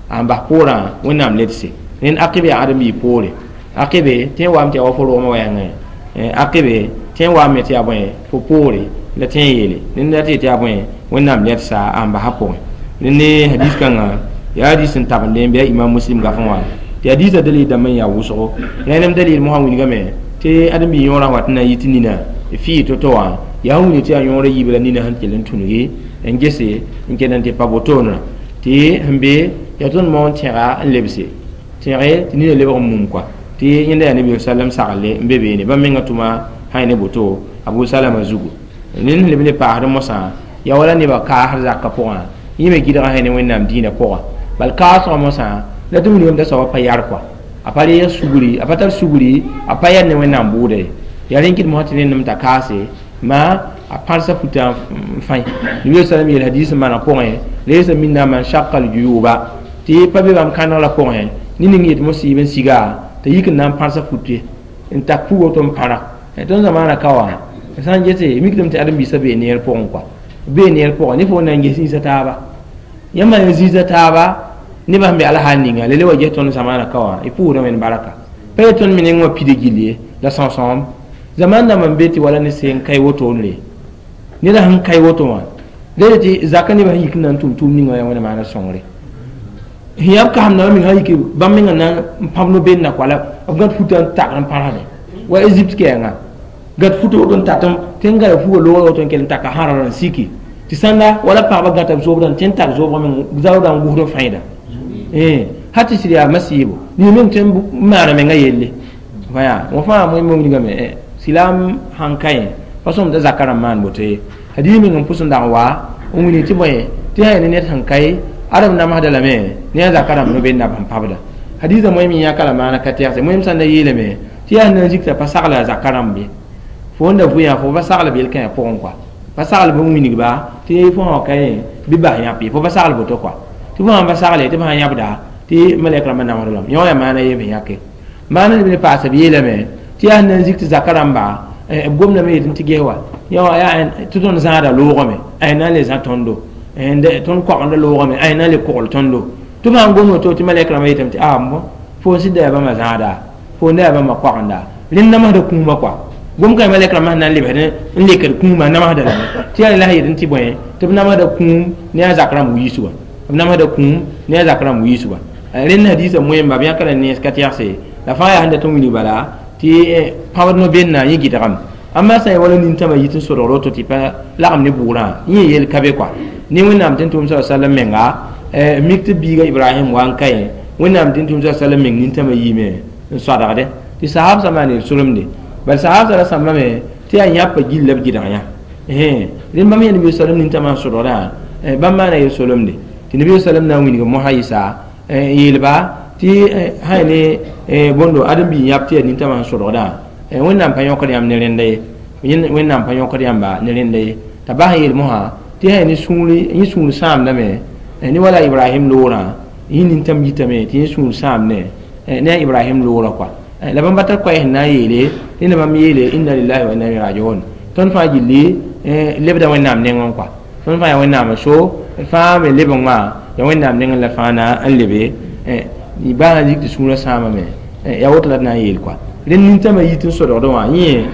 a n bas poorã wẽnnaam ledse rẽnd aqibe yaa ãdem-biig poore aqibe tẽ n waame tɩ yaa wa fo rogmã wɛɛngẽ aqibe tẽ n waame tɩ yaa bõe fo poore la tẽ n yeele rẽnd la tɩ yetɩ yaa bõe wẽnnaam ledsa a n bas a pʋgẽ rẽnd ne hadis kãngã yaa hadis n tabende n bɩ a imam muslim gafẽ wã tɩ hadisã dalil dãmb n yaa wʋsgo rẽnem dalil mosã wilgame tɩ ãdem-biig yõorã wat n na n yɩ tɩ nina fɩɩ to-to wã yaa sẽn wilg tɩ yaa yõorã yiib la nina sẽn kell n tũnugi n gese n kell n tɩ pa wotone tɩ sẽn be yaa tõnd moon tẽga n lebse tẽge tɩ nina lebg n mum kɔa tɩ yẽnda yaa nabi sallam sagle n be beene bãmb menga tʋma sã ne boto abu salama zugu ned sẽn leb le paasd mosã yaa wala nebã kaasd zakã pʋgã yẽ me gɩdga sã ne wẽnnaam dĩinã pʋgã bal kaasgã mosã la tɩ wilgame t'a soaba pa yar kɔa a pa reeg sugri a pa tar sugri a pa yar ne wẽnnaam bʋʋda ye yaa rẽn kɩt mosã tɩ rẽndem t'a kaase ma a pãrsa futã n fãe nabi sallam yeel hadis n maana pʋgẽ laysa minna man shaqqa al-juyuba tɩ pa be bãmb kãneg la pʋgẽ ne ning yetɩ mosɩɩb n siga t'a yik n na n pãrsa fut ye n tak pug woto n pãra tõnd zamaana ka wã sã n gese mikdame tɩ ãdem-biisã bee neer pʋgẽ kɔa bee neer pʋgẽ ne fo na n ges zĩisa taaba yãmb n zĩisa taaba nebã sẽn be alhaal ninga la le wa ges tõnd zamaana ka wã y pʋʋsda wẽnd baraka pa ye tõnd me neng wã pida gill ye la sõsõem zaman dãmb n be tɩ wala ne seen kae wotoonre neda sẽn kae woto wã la tɩ zakã nebã sẽn yik n na n tʋm tʋʋm ninga yaa wẽna maana sõngre sẽn yaa b kasemdãmbã meng sã yik bãmb menga na n pãb no-benna kɔa la b gãd futã n tagd n pãrsdẽ wa Egypte kɛɛngã gãd futa woto n tatem tɩ n gada fuga loogã woto n kell n taka sãrã n siki tɩ sãnda wala pagba gãta b zoobdã tɩ n tar zoobgã meng zaoodã n gʋsd n fãida ha tɩ sɩd yaa masiibo nin meng tɩ n maana menga yelle wã fãa wẽn wilgame silam sãn ka yẽ pa sõm t'a zakã rãmb maan boto ye hadis meng n pʋs n dag n wa n wilg tɩ bõe tɩ sã ya ne ned sẽn kae adem namsda lame ne a zakã rãmb no-benda b sẽn pabda hadisã moem yãka la maana ka tɛgse moem sã n da yeelame tɩ yaa sẽn na n zikta pa sagla a zakã rãmb ye fo n da vʋ fo pa sagl b yel-kãyã pʋgẽ kɔa pa sagl b n wilgba tɩ fo sã wa ka yẽ bɩ bas yãp ye fo pa sagl boto kɔa tɩ fo sãn pa sagle tɩ b sã yãbda tɩ malɛk rãmbã namsd lame yõ yaa maana ye b yãke maana leb ne paasa b yeelame tɩ yaa sẽn na n zik tɩ zakã rãmba b gomdame yetɩ tɩ ges wa yã yaa tɩ tõnd zãada loogame a na n le zã tõndo tõnd koagenda loogame a na n le kogl tõndo tɩ b sãn gom woto tɩ malɛk rãmbã yetame tɩ a fo sɩd da yaa bãmba zãada fo da yaa bãmba koagenda rẽnd namsda kũumã kɔa gom ka malɛk rãmbã sẽn na n lebsd n lekd kũumã namsda lame tɩ yaa la sẽn yetɩ tɩ bõe tɩ b namsda kũum ne a zak rãmb wiisgã b namsda kũum ne a zak rãmb wiisgã rẽnd hadisã moẽmba b yãka la nens ka tɛgse la fãa yaa sẽn dat n wilg bala tɩ pãbd no-benna yẽ gɩdgame amma sã n wala nintãmã yit n sodgr woto tɩ pa lagem ne bʋʋrã yẽ yel ka be kɔa ne wẽnnaam tɩ n tʋʋm sa sallam menga mik tɩ biiga ibrahim wa n ka yẽ wẽnnaam tɩ n tʋʋm sa sallam meng nintãmã yiime n soadgde tɩ sahabsã maan yel solemde bal sahabsã ra sãmbame tɩ yaa yãpa gill la b gɩdg yã rẽnd bãmb yã nabi sallam nintãmã n sodgdã bãmb maana yel solemde tɩ nabi sallam na n wilg mosã yɩsa yeelba tɩ sã ne bõndo ãdem-biig yãb tɩ yaa nintãmã sẽn sodgdã wẽnnaam pa yõkd yãmb ne rẽnda ye wẽnnaam pa yõkd yãmba ne rẽnda ye t'a bas n yeel mosã tɩ sã ne sũuri yẽ sũur sãamdame ne wala ibrahim loorã yẽ nintãm yitame tɩ yẽ sũur sãamne ne a ibrahim loorã kɔa la bãmb pa tar koɛɛ sẽn na n yeele rẽnda bãmb yeele inna lillahi wa inna ilayhi rajiun tõnd fãa gilli lebda wẽnnaam nengẽ kɔa tõnd fãa yaa wẽnnaam so fãa me lebg wã yaa wẽnnaam nengẽ la fãa na n lebe baa n zik tɩ sũurã sãamame yaa woto la d na n yeel kɔa rẽnd nintãmã yit n sodgdẽ wã yẽ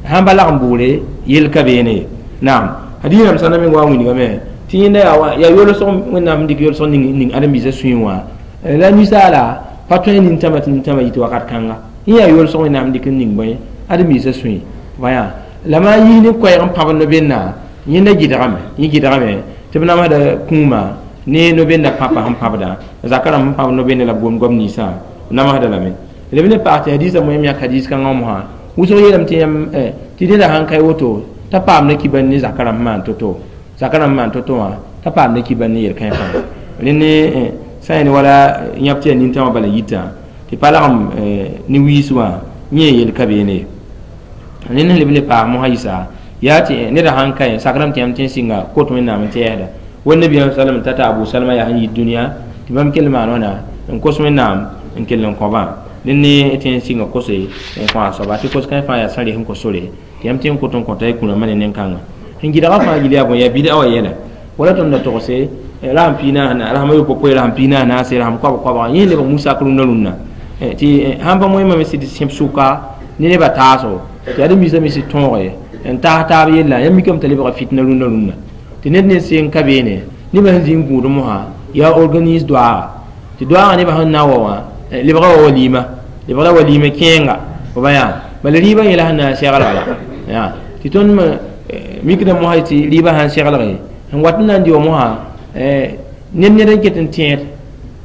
sãn pa lagem bʋʋre yel ka beene ye naam hadis rãmb sã na meng wa n wilgame tɩ yẽnda yaa yolsg wẽnnaam sẽn dɩk yolsg ning ãdem-biisã sũyẽ wã la ninsaala pa tõe nintãmã tɩ nintãmã yit wakat kãnga yẽ yaa yolsg wẽnnaam sẽn dɩk n ning bõe ãdem-biisã sũyẽ wã la maa yis ne koɛɛg n pãb no-benna yẽnda gɩdgame yẽ gɩdgame Tɩ b namsda kũumã ne no-benda pãpã sẽn pãbdã, zaka rãmb sẽn pãb no-bende la b gom goam ninsã b namsda lame. Leb ne paas tɩ hadiisã moẽm yãk hadiis kãngã mosã wʋsg yeelame tɩ yãmb tɩ neda sãn ka woto t'a paamda kibar ne zaka rãmb maan to-to, zaka rãmb maan to-to wã t'a paamda kibar ne yel-kãe fãa. Rẽ ne sã yẽ wala yãb tɩ yaa nintãmã bala yitã tɩ pa lagem ne wiis wã yẽ yel ka beene ye. Rẽ ne leb le paas mosã yɩsa yaa tɩ neda sãn ka sakrame tɩ yãmb tɩ n sɩnga kot Wẽnnaam n tɛɛsda wa nabiyaam salam tata Abu Salma yaa sẽn yit dũniyã tɩ bãmb kell maan wãna n kos Wẽnnaam n kell n kõ-bã dẽn ne tɩ n sɩnga kose n kõ a soaba tɩ kos-kãens fãa yaa sã res n kos sore tɩ yãmb tɩ n kot n kõta y kũrãmbã ne nen-kãngã. Sẽn gɩdgã fãa gil yaa bõe yaa bɩd'a wã yɛla wala tõnd da togse rasem piig naas rasem ayopoe rasem piig naas naase rasem koabg koabga yẽ lebg musak rũndã rũndã tɩ sãn pa moẽmame sɩd sẽb sʋka ne nebã taaso tɩ yaa d misã me sɩd tõoge n taas taab yella yãmb mikame t'a lebga fitna rũndã rũndã tɩ ned ne seng ka beene nebã sẽn zĩ n gũud mosã yaa organise doaaga tɩ doaagã nebã sẽn na n wa wã lebga wa walima lebga walima kẽenga fo ba yaa bala rɩɩbã yẽla sẽn na n seglga la yaa tɩ tõnd mikda mosã tɩ rɩɩbã sãn seglge sẽn wat n na n dɩ wa mosã ned ned n ket n tẽed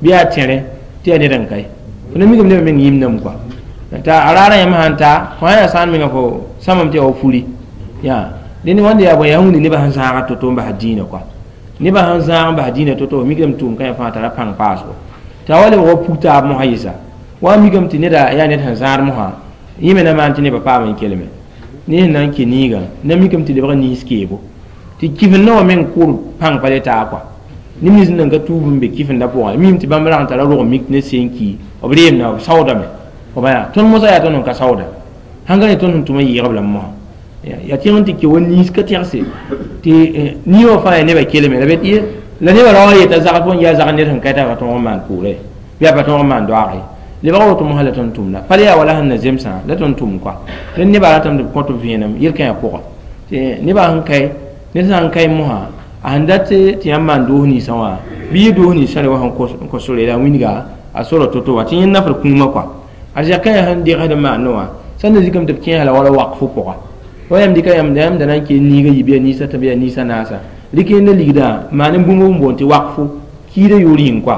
bɩ yaa tẽre tɩ yaa ned n kae fo na mikame nebã meng yĩmdame kɔa t'a a raarã yãmb sãn ta fo sã yaa sãan menga fo sãmame tɩ yaa wa furi yaa dẽnd wãnda yaa bõe yaa wĩnd nebã sẽn zãaga to-to n bas dĩinã kɔa nebã sẽn zãag n bas dĩinã to-to mikame tʋʋm kãe fãa tara pãng paasgo t'a wa lebg wa pug taab mosã yɩsa wa mikame tɩ neda yaa ned sẽn zãad mosã yẽ me na maan tɩ nebã paam n kelme ne sẽn na n ke niigã na mikame tɩ lebg niis keebo tɩ kifendã wã meng kʋʋr pãng pa le taa kɔa neb nins nan ka tuub n be kifendã pʋgã mim tɩ bãmb rag n tara rog mik ne seen ki b reemda b saoodame f ba yaa tõnd mosã yaa tõnd n ka saooda sãn ka ne tõnd sẽn tʋm n yɩɩgb lame mosã yaa tẽng n tɩ ke wa niis ka tɛgse tɩ nii wã fãa yaa nebã kelme la la nebã ra wa yeta zagd fo n yaa zagd ned sẽn ka t'a pa tõog n maan pʋʋre bɩ a pa tõog n maan doaage lebg woto mosã la tõnd tʋmda pa le yaa wala sẽn na zemsã la tõnd tʋm kɔa rẽnd nebã ratame tɩ b kõt b vẽenem yel-kãyã pʋga tɩ nebã sẽn kae ned sã n kae mosã a sẽn dat tɩ yãmb maan doos ninsã wã bɩ yɩ doos ninsã re wa sẽn kos sore la a wilga a sora to-to wã tɩ yẽnd nafr kũumã kɔa a zɛkã sẽn degsd n maandẽ wã sã n na zikame tɩ b kẽesa la wala wakfo pʋga wa yãmb dɩka yãmb yãmb da na n kee niigã yi bɩ yaa ninsã tɩ bɩ yaa ninsã naasa rɩk yẽnda ligdã maan n bũmb n boond tɩ wakfo kiidã yoor yĩng kɔa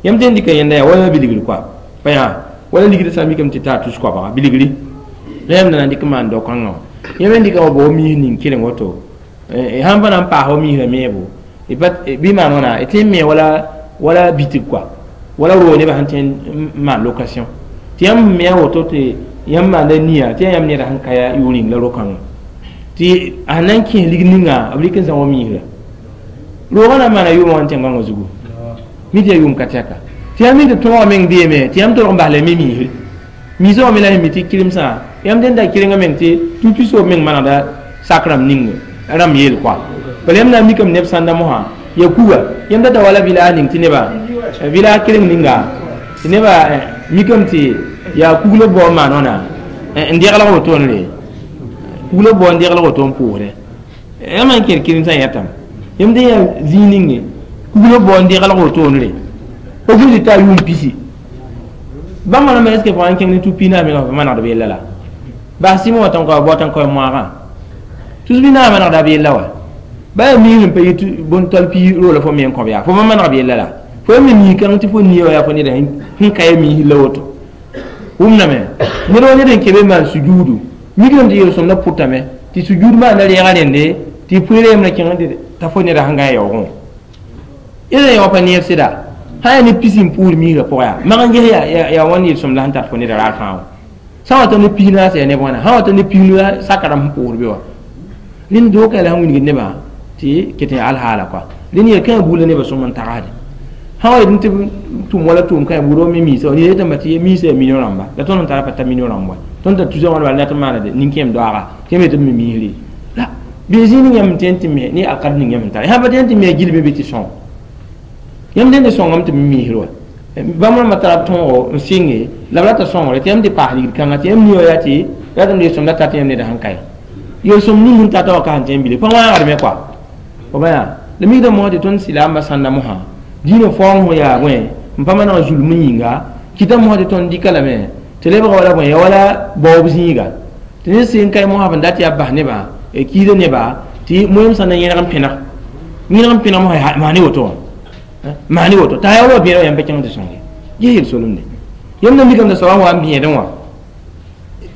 yãmb tɩ n dɩka yẽnda yaa wala bilgr kɔa pa yaa wala ligdã sã n mikame tɩ taa tus koabga bilgri la yãmb da na n dɩk n maan dao-kãngã wã yãmb n dɩka wa bao miis ning keleng woto sãn pa na n paas wa miisrã meebo bɩ maan wãna tɩ n me wala wala bitig kɔa wala roog nebã sẽn tẽ n maan location tɩ yãmb me a woto tɩ yãmb maanda nia tɩ yaa yãmb neda sẽn ka yaa yoor yĩng la ro-kãngã tɩ a sẽn na n kẽes lig ninga b rɩk n zã wa miisrã roogã na n maana yʋʋmã wã n tẽn-gãngã zugu mi tɩ yaa yʋʋm ka tɛka tɩ yãmb mi tɩ tõogã meng beeme tɩ yãmb tolg n bas la me miisri miisã wã me la sẽn mi tɩ kɩremsã yãmb dẽnda kɩrengã meng tɩ tu-pisoob meng manegda sak rãmb ning rãmb yeel kɔa bala yãmb na n mikame neb sãnda mosã ya kuga yãmb data wala village ning tɩ neba village kɩreng ninga tɩ neba mikame tɩ yaa kuglo bao n maan wãna n deglg wotone kuglo bao n deglg woto n pʋʋsdɛ yãmb n kẽer kɩremsã yɛtame yãmb dẽ yaa zĩig ninge kuglo bao n deglg wotone pa gũsd t'a yʋʋm pisi bãmb rãmbã est ce que fo n kẽng ne tu-pi naas menga fo manegd b yella la bas sɩm wã tõn ka bao tãn ka moagã tus bɩ naas manegda b yella wa ba yaa miisr n pa yit bõn-tol pi roola fo me n kõb yaa fo pa maneg b yella la fo ya me miis kãng tɩ fo nia wa yaa fo neda sẽn ka ya miis la woto wʋmdame ned wa ned n kebe n maan sujuudu mikdame tɩ yel-sõmdã pʋtame tɩ sujuud maanda rɛɛga rẽnde tɩ pʋɩɩra yembrã kẽng t'a fo neda sẽn gã yaoogẽ wã yẽla yã wã pa neeb sɩda sã yaa ne pisi n pʋʋr miisrã pʋgã yaa mag n ges yaa wãn yel-sõmda sẽn tar fo neda raar fãa wã sã wa tɩ ne pis naas yaa neb wãna sã wa tɩ ne pis saka rãmb sẽn pʋʋsd be wa rẽnd dookã la sẽn wilgd nebã tɩ ket n alhaala kɔa rẽnd yel-kãã buudã nebã sõm n tagsde sã wa yetɩ tɩ tʋm wala tʋʋm kãe buud wa me miisã wa ned yetame tɩ miisã yaa million rãmba la tõnd n tara pa ta million rãmb wa tõnd t'a tusa wãn bala dat n maana nin-kẽem doaaga tɩ yãmb yetɩ b me miisre la bɩ zĩig ning yãmb tẽn tɩ me ne alkad ning yãmb n tara sã pa tẽn tɩ me gil be bɩ tɩ sõng yãmb dẽnd sõngame tɩ b miisr wa bãmb rãmbã tara b tõogo n sɩnge la b rata sõngre tɩ yãmb tɩ paas ligd kãngã tɩ yãmb nia yaa tɩ ratame yel-sõmda tat yãmb neda sẽn kae yel-sõm ning sẽn tata wã ka sẽn tẽ n bile pa wãagdme kɔa fo ba yaa la mikda mosã tɩ tõnd sɩlaambã sãnda mosã dĩinã faoong sẽn yaa bõe n pa maneg zulm n yĩnga kɩta mosã tɩ tõnd dɩka lame tɩ lebga wala bõe ya wala baoob zĩiga tɩ ned sẽn kae mosã b n dat yaa bas nebã kiida nebã tɩ moẽm sã na yẽneg n pẽneg yẽneg n pẽneg mosã maane woto wã maane woto t'a yaa wa bẽeda yãmb pa kẽng tɩ sõnge ges yel solemde yãmb na mikame t'a soaba wa n bẽedẽ wã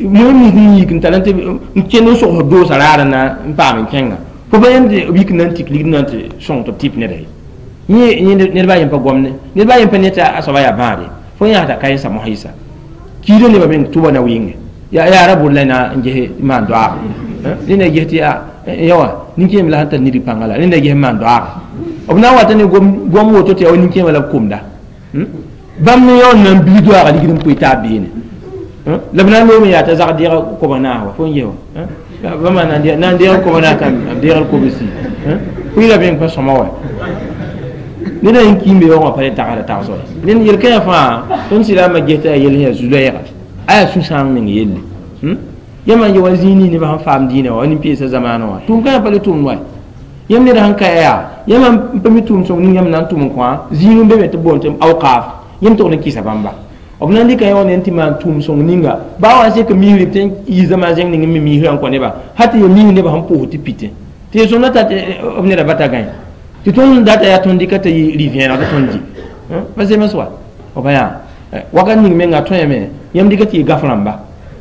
moẽ mis n yik n tar n tɩ n kẽnd n sogsd doosa raar na n paam n kẽnga fo pa yãmb tɩ b yik n na n tik ligd na n tɩ sõng tɩ b tɩp neda ye yẽ ned baa yem pa gomne ned baa yem pa ne tɩ a soaba yaa bãade fo yãasda ka yẽsa mosã yɩsa kiida nebã meng tʋba na wɩnge yaa ra bʋd la na n ges maan doaag rẽnda ges tɩ yaa yawa nin-kẽem la sẽn tar nidg pãnga la rẽnda ges maan doaag b na n wata ne gom woto tɩ yaa wa nin-kẽemã la b komda bãmb ne yaool na n bilg doaaga ligd n pʋɩ taab beene la b na n loome yaa t'a zag deega koba naas wa fo n ges wa bãmba na n deeg koba naas t'a b deegd kobsi pʋɩ la meng pa sõma wa ned n kiimbe yaoogã pa le tagsda tagsg ned yel-kãyã fãa tõnd sɩdame ges t'a yaa yel sẽn yaa zu-loɛɛga a yaa sũ-sãang meng yelle yãmb n ye wa zĩig nins nebã sẽn faam dĩinã wa nin-peesã zamaanã wã tʋʋm-kãyã pa le tʋmd wa yãmb ned sẽn ka yaa yãmb n pa mi tʋʋm sõng ning yãmb na n tʋm n kõ zĩig n be me tɩ b boond tɩ awkaaf yãmb togd n kɩsa bãmba b na n dɩka yã wã ne n tɩ maan tʋʋm sõng ninga baa wa n sek misri tɩ n yi zamaan zẽng ning n mi misrã n kõ neba hal tɩ ya mis nebã sẽn pʋʋs tɩ pitẽ tɩ ya sõmda tat b neda bata gãe tɩ tõnd data yaa tõnd dɩka t'a yɩ rɩ-vẽeneg tɩ tõnd dɩ pa zems wa b yaa wakat ning menga tõeme yãmb dɩka tɩ yɩ gaf rãmba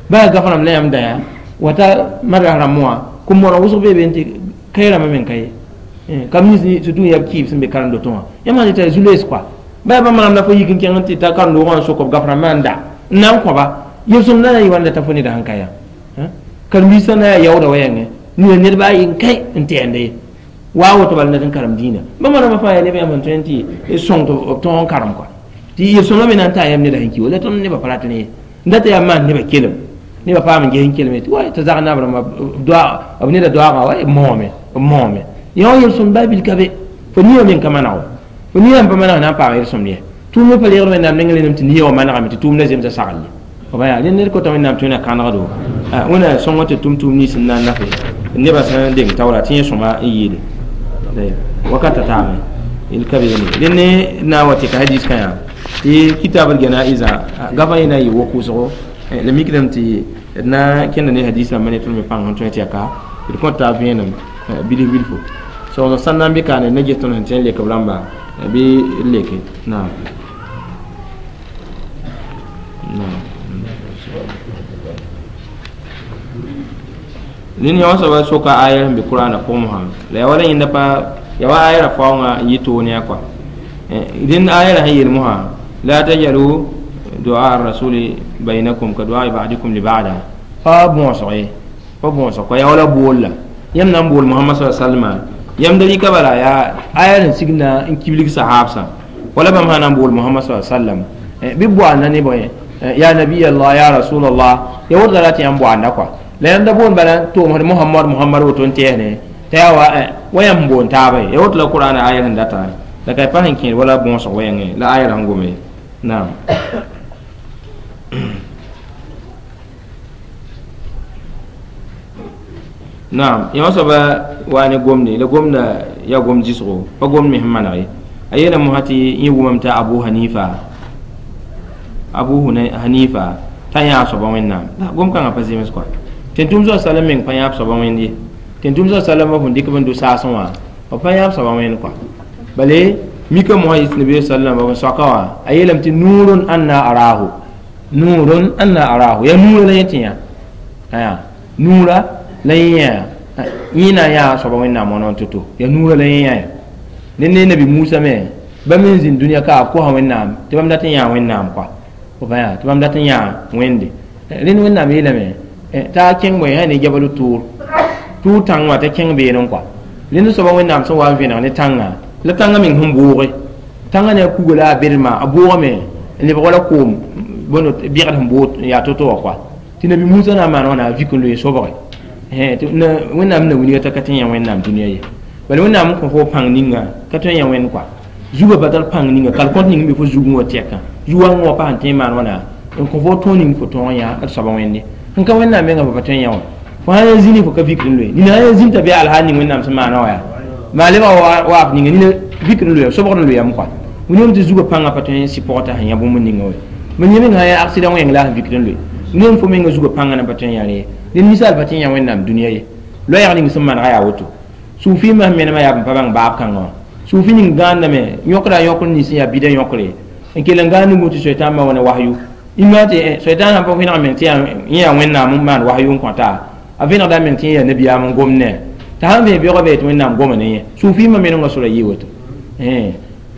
baa gaf rãmb la yãmb da yaa wata madras rãmb wã kom-mooneg wʋsg bee be n tɩ kae rãmbã meng ka ye kam nins surtout yaa b kɩɩb sẽn be karen-dotẽ wã yãmb sã tɩ t'a zu-loees kɔa baa bãmb rãmb la fo yik n kẽng n tɩ ta karen-doogã n sok b gaf rãmbã n da n na n kõba yel-sõmdã na n yɩ wãnda t'a fo neda sẽn ka yaa karen-biisã na yaa yaooda wa yãngẽ nina ned baa yen kai n tɛɛnda ye waa woto bala ned n karem dĩinã bãmba rãmbã fãa yaa neb yãmb sẽn tõe n tɩ sõng tɩ b tõog n karem kɔa tɩ yel-sõmdã me na n taa yãmb neda sẽn ki wa la tõnd nebã pa rat ne ye n data yaa maan nebã kelem nebã paam n ges n kelme tɩ wa t'a zag naab rãmba b neda doaagã wa b moome b moome yã wã yel-sõmd baa bil ka be fo nia meng ka maneg wa fo nia n pa maneg na n paam yel-sõmd ye tʋʋmd me pa reegd wẽnnaam neng renem tɩ nia wã manegame tɩ tʋʋmdã zemsa sagl ye b yaa rẽ ned kota wẽnnaam tõe na kãnegdo wẽna sõngã tɩ tʋm tʋʋm nins n na n nafe nebã sẽn deng taoora tɩ yẽ sõma n yeele wakata taame yel ka beene rẽ ne na n wa tɩ ka hadis kã yaa tɩ kitab l ganaizã gafã yẽ na n yɩ wok-wʋsgo la mikdame tɩ d na n kẽnda ne hadis rãmbã ne tõnd me pãng sẽn tõe tɩ yaa ka d kõt taab vẽenem bilf bilfo sogsg sãn na n be kaane na ges tõnd sẽn tõe n lek b rãmba bɩ d leke naam naam ned yã wã soaba soka aya sẽn be kʋraanã pʋgẽ mosã la yaa wala yẽnda pa yaa wa aya ra faoongã n yɩ toone yã kɔa rẽnd aya ra sẽn yel mosã la tajalu du'a rasuli bainakum ka du'a ba'dikum li ba'da pa bõosg ye pa bõosg kɔa yaa wala bool la yãmb na n bool Muhammad sallallahu alaihi wasallam yãmb da rɩka bala yaa aya sẽn sig na n kiblig sahabsã wala bãmb sã na n bool Muhammad sallallahu alaihi wasallam bɩ boanda ne bõe ya nabiy Allah ya rasulallah ya woto la tɩ yãmb boanda kɔa la yãmb da boond bala tʋʋmsd Muhammad Muhammad woto n tɛɛsne t'a yaa wa wa yãmb n boond taaba ye ya woto la Qur'ana aya sẽn data la ka pa sẽn kẽed wala bõosg wa yãngẽ la aya sẽn gome naam naam yã wã soaba waa ne gomde la gomda yaa gom zɩsgo pa gomd me sẽn maneg ye a yeela mosã tɩ yẽ wʋmame t'a Abu Hanifa t'a yãag soaba wẽnnaam la gom kãngã pa zems kɔa tẽn-tʋm soab salam meng pa yãab soaba wẽnd ye tẽn-tʋm soab salam f dɩk b n do saasẽ wã b pa yãab soaba wẽnd kɔa bale mika mosã yɩs nabi sallam b soaka wã a yeelame tɩ nuurun anna arahu nuurun anna arahu yaa nuurã la yẽ tɩ yã aya nuurã la yẽ yã yẽ na n yaa soaba wẽnnaam wã to-to yaa nuurã la yẽ yã ya ne nabi Musa me bãmb n zĩnd dũniyã ka b kosa wẽnnaam tɩ bãmb dat n yãa wẽnnaam kɔa f yaa tɩ bãmb dat n yãa wẽnde rẽnd wẽnnaam yeelame t'a kẽng bõe sã ne jabalu tʋʋr tʋʋr tãng wã t'a kẽng beene n kɔa rẽnd soaba wẽnnaam sẽn wa n vẽneg ne tãngã la tãngã meng sẽn booge tãngã ne a kuga la a bedma a boogame n lebg wala koom bõndo bɩgd sẽn bood n yaa to-to wã kɔa tɩ nabi Musa na n maan wãna a vik n loe sobge wẽnnaam na wilga t'a ka tõe n yã wẽnnaam dũniyã ye bala wẽnnaam n kõ fo pãng ninga ka tõe n yã wẽnd kɔa zugã pa tar pãng ninga kalkõt ning n be fo zugẽ wã tɛkã zu-wãngã wã pa sẽn tõe n maan wãna n kõ fo tõog ning fo tõog n yã d soaba wẽnde sẽn ka wẽnnaam mengã fo pa tõe n yã wã fo sã yaa zĩni fo ka vikd n loe nina sã yaa zĩn t'a bɩ alhaal ning wẽnnaam sẽn maana wã yaa maa lebga waaf ninga nina vikd n loeya sobgd n loeyame kɔa william tɩ zugã pãngã pa tõe n sɩ pʋgã t'a sẽn yã bũmb ninga wa mam yẽ meng sã yaa aksida wẽng la a sẽn vikd n loe william fo menga zugã pãngã na pa tõe n yã rẽ ye ned ninsaal pa tõe n yã wẽnnaam dũniyã ye loɛɛg ning sẽn manega yaa woto Suufi ma menema yaa b pa bãng baab kãngã wã suufi ning gãandame yõkra yõkr nins yaa bida yõkre n kell n gãand n tɩ soetãn ma wa ne wahyu imã tɩ soetãn sãn pa vẽneg meng tɩ yẽ yaa wẽnnaam n maan wahyu n kõta a vẽnegda meng tɩ yẽ yaa nabiyaam n gom ne t'a sãn vẽ beoogã be tɩ wẽnnaam goma ne yẽ suufi ma menengã sora yɩ woto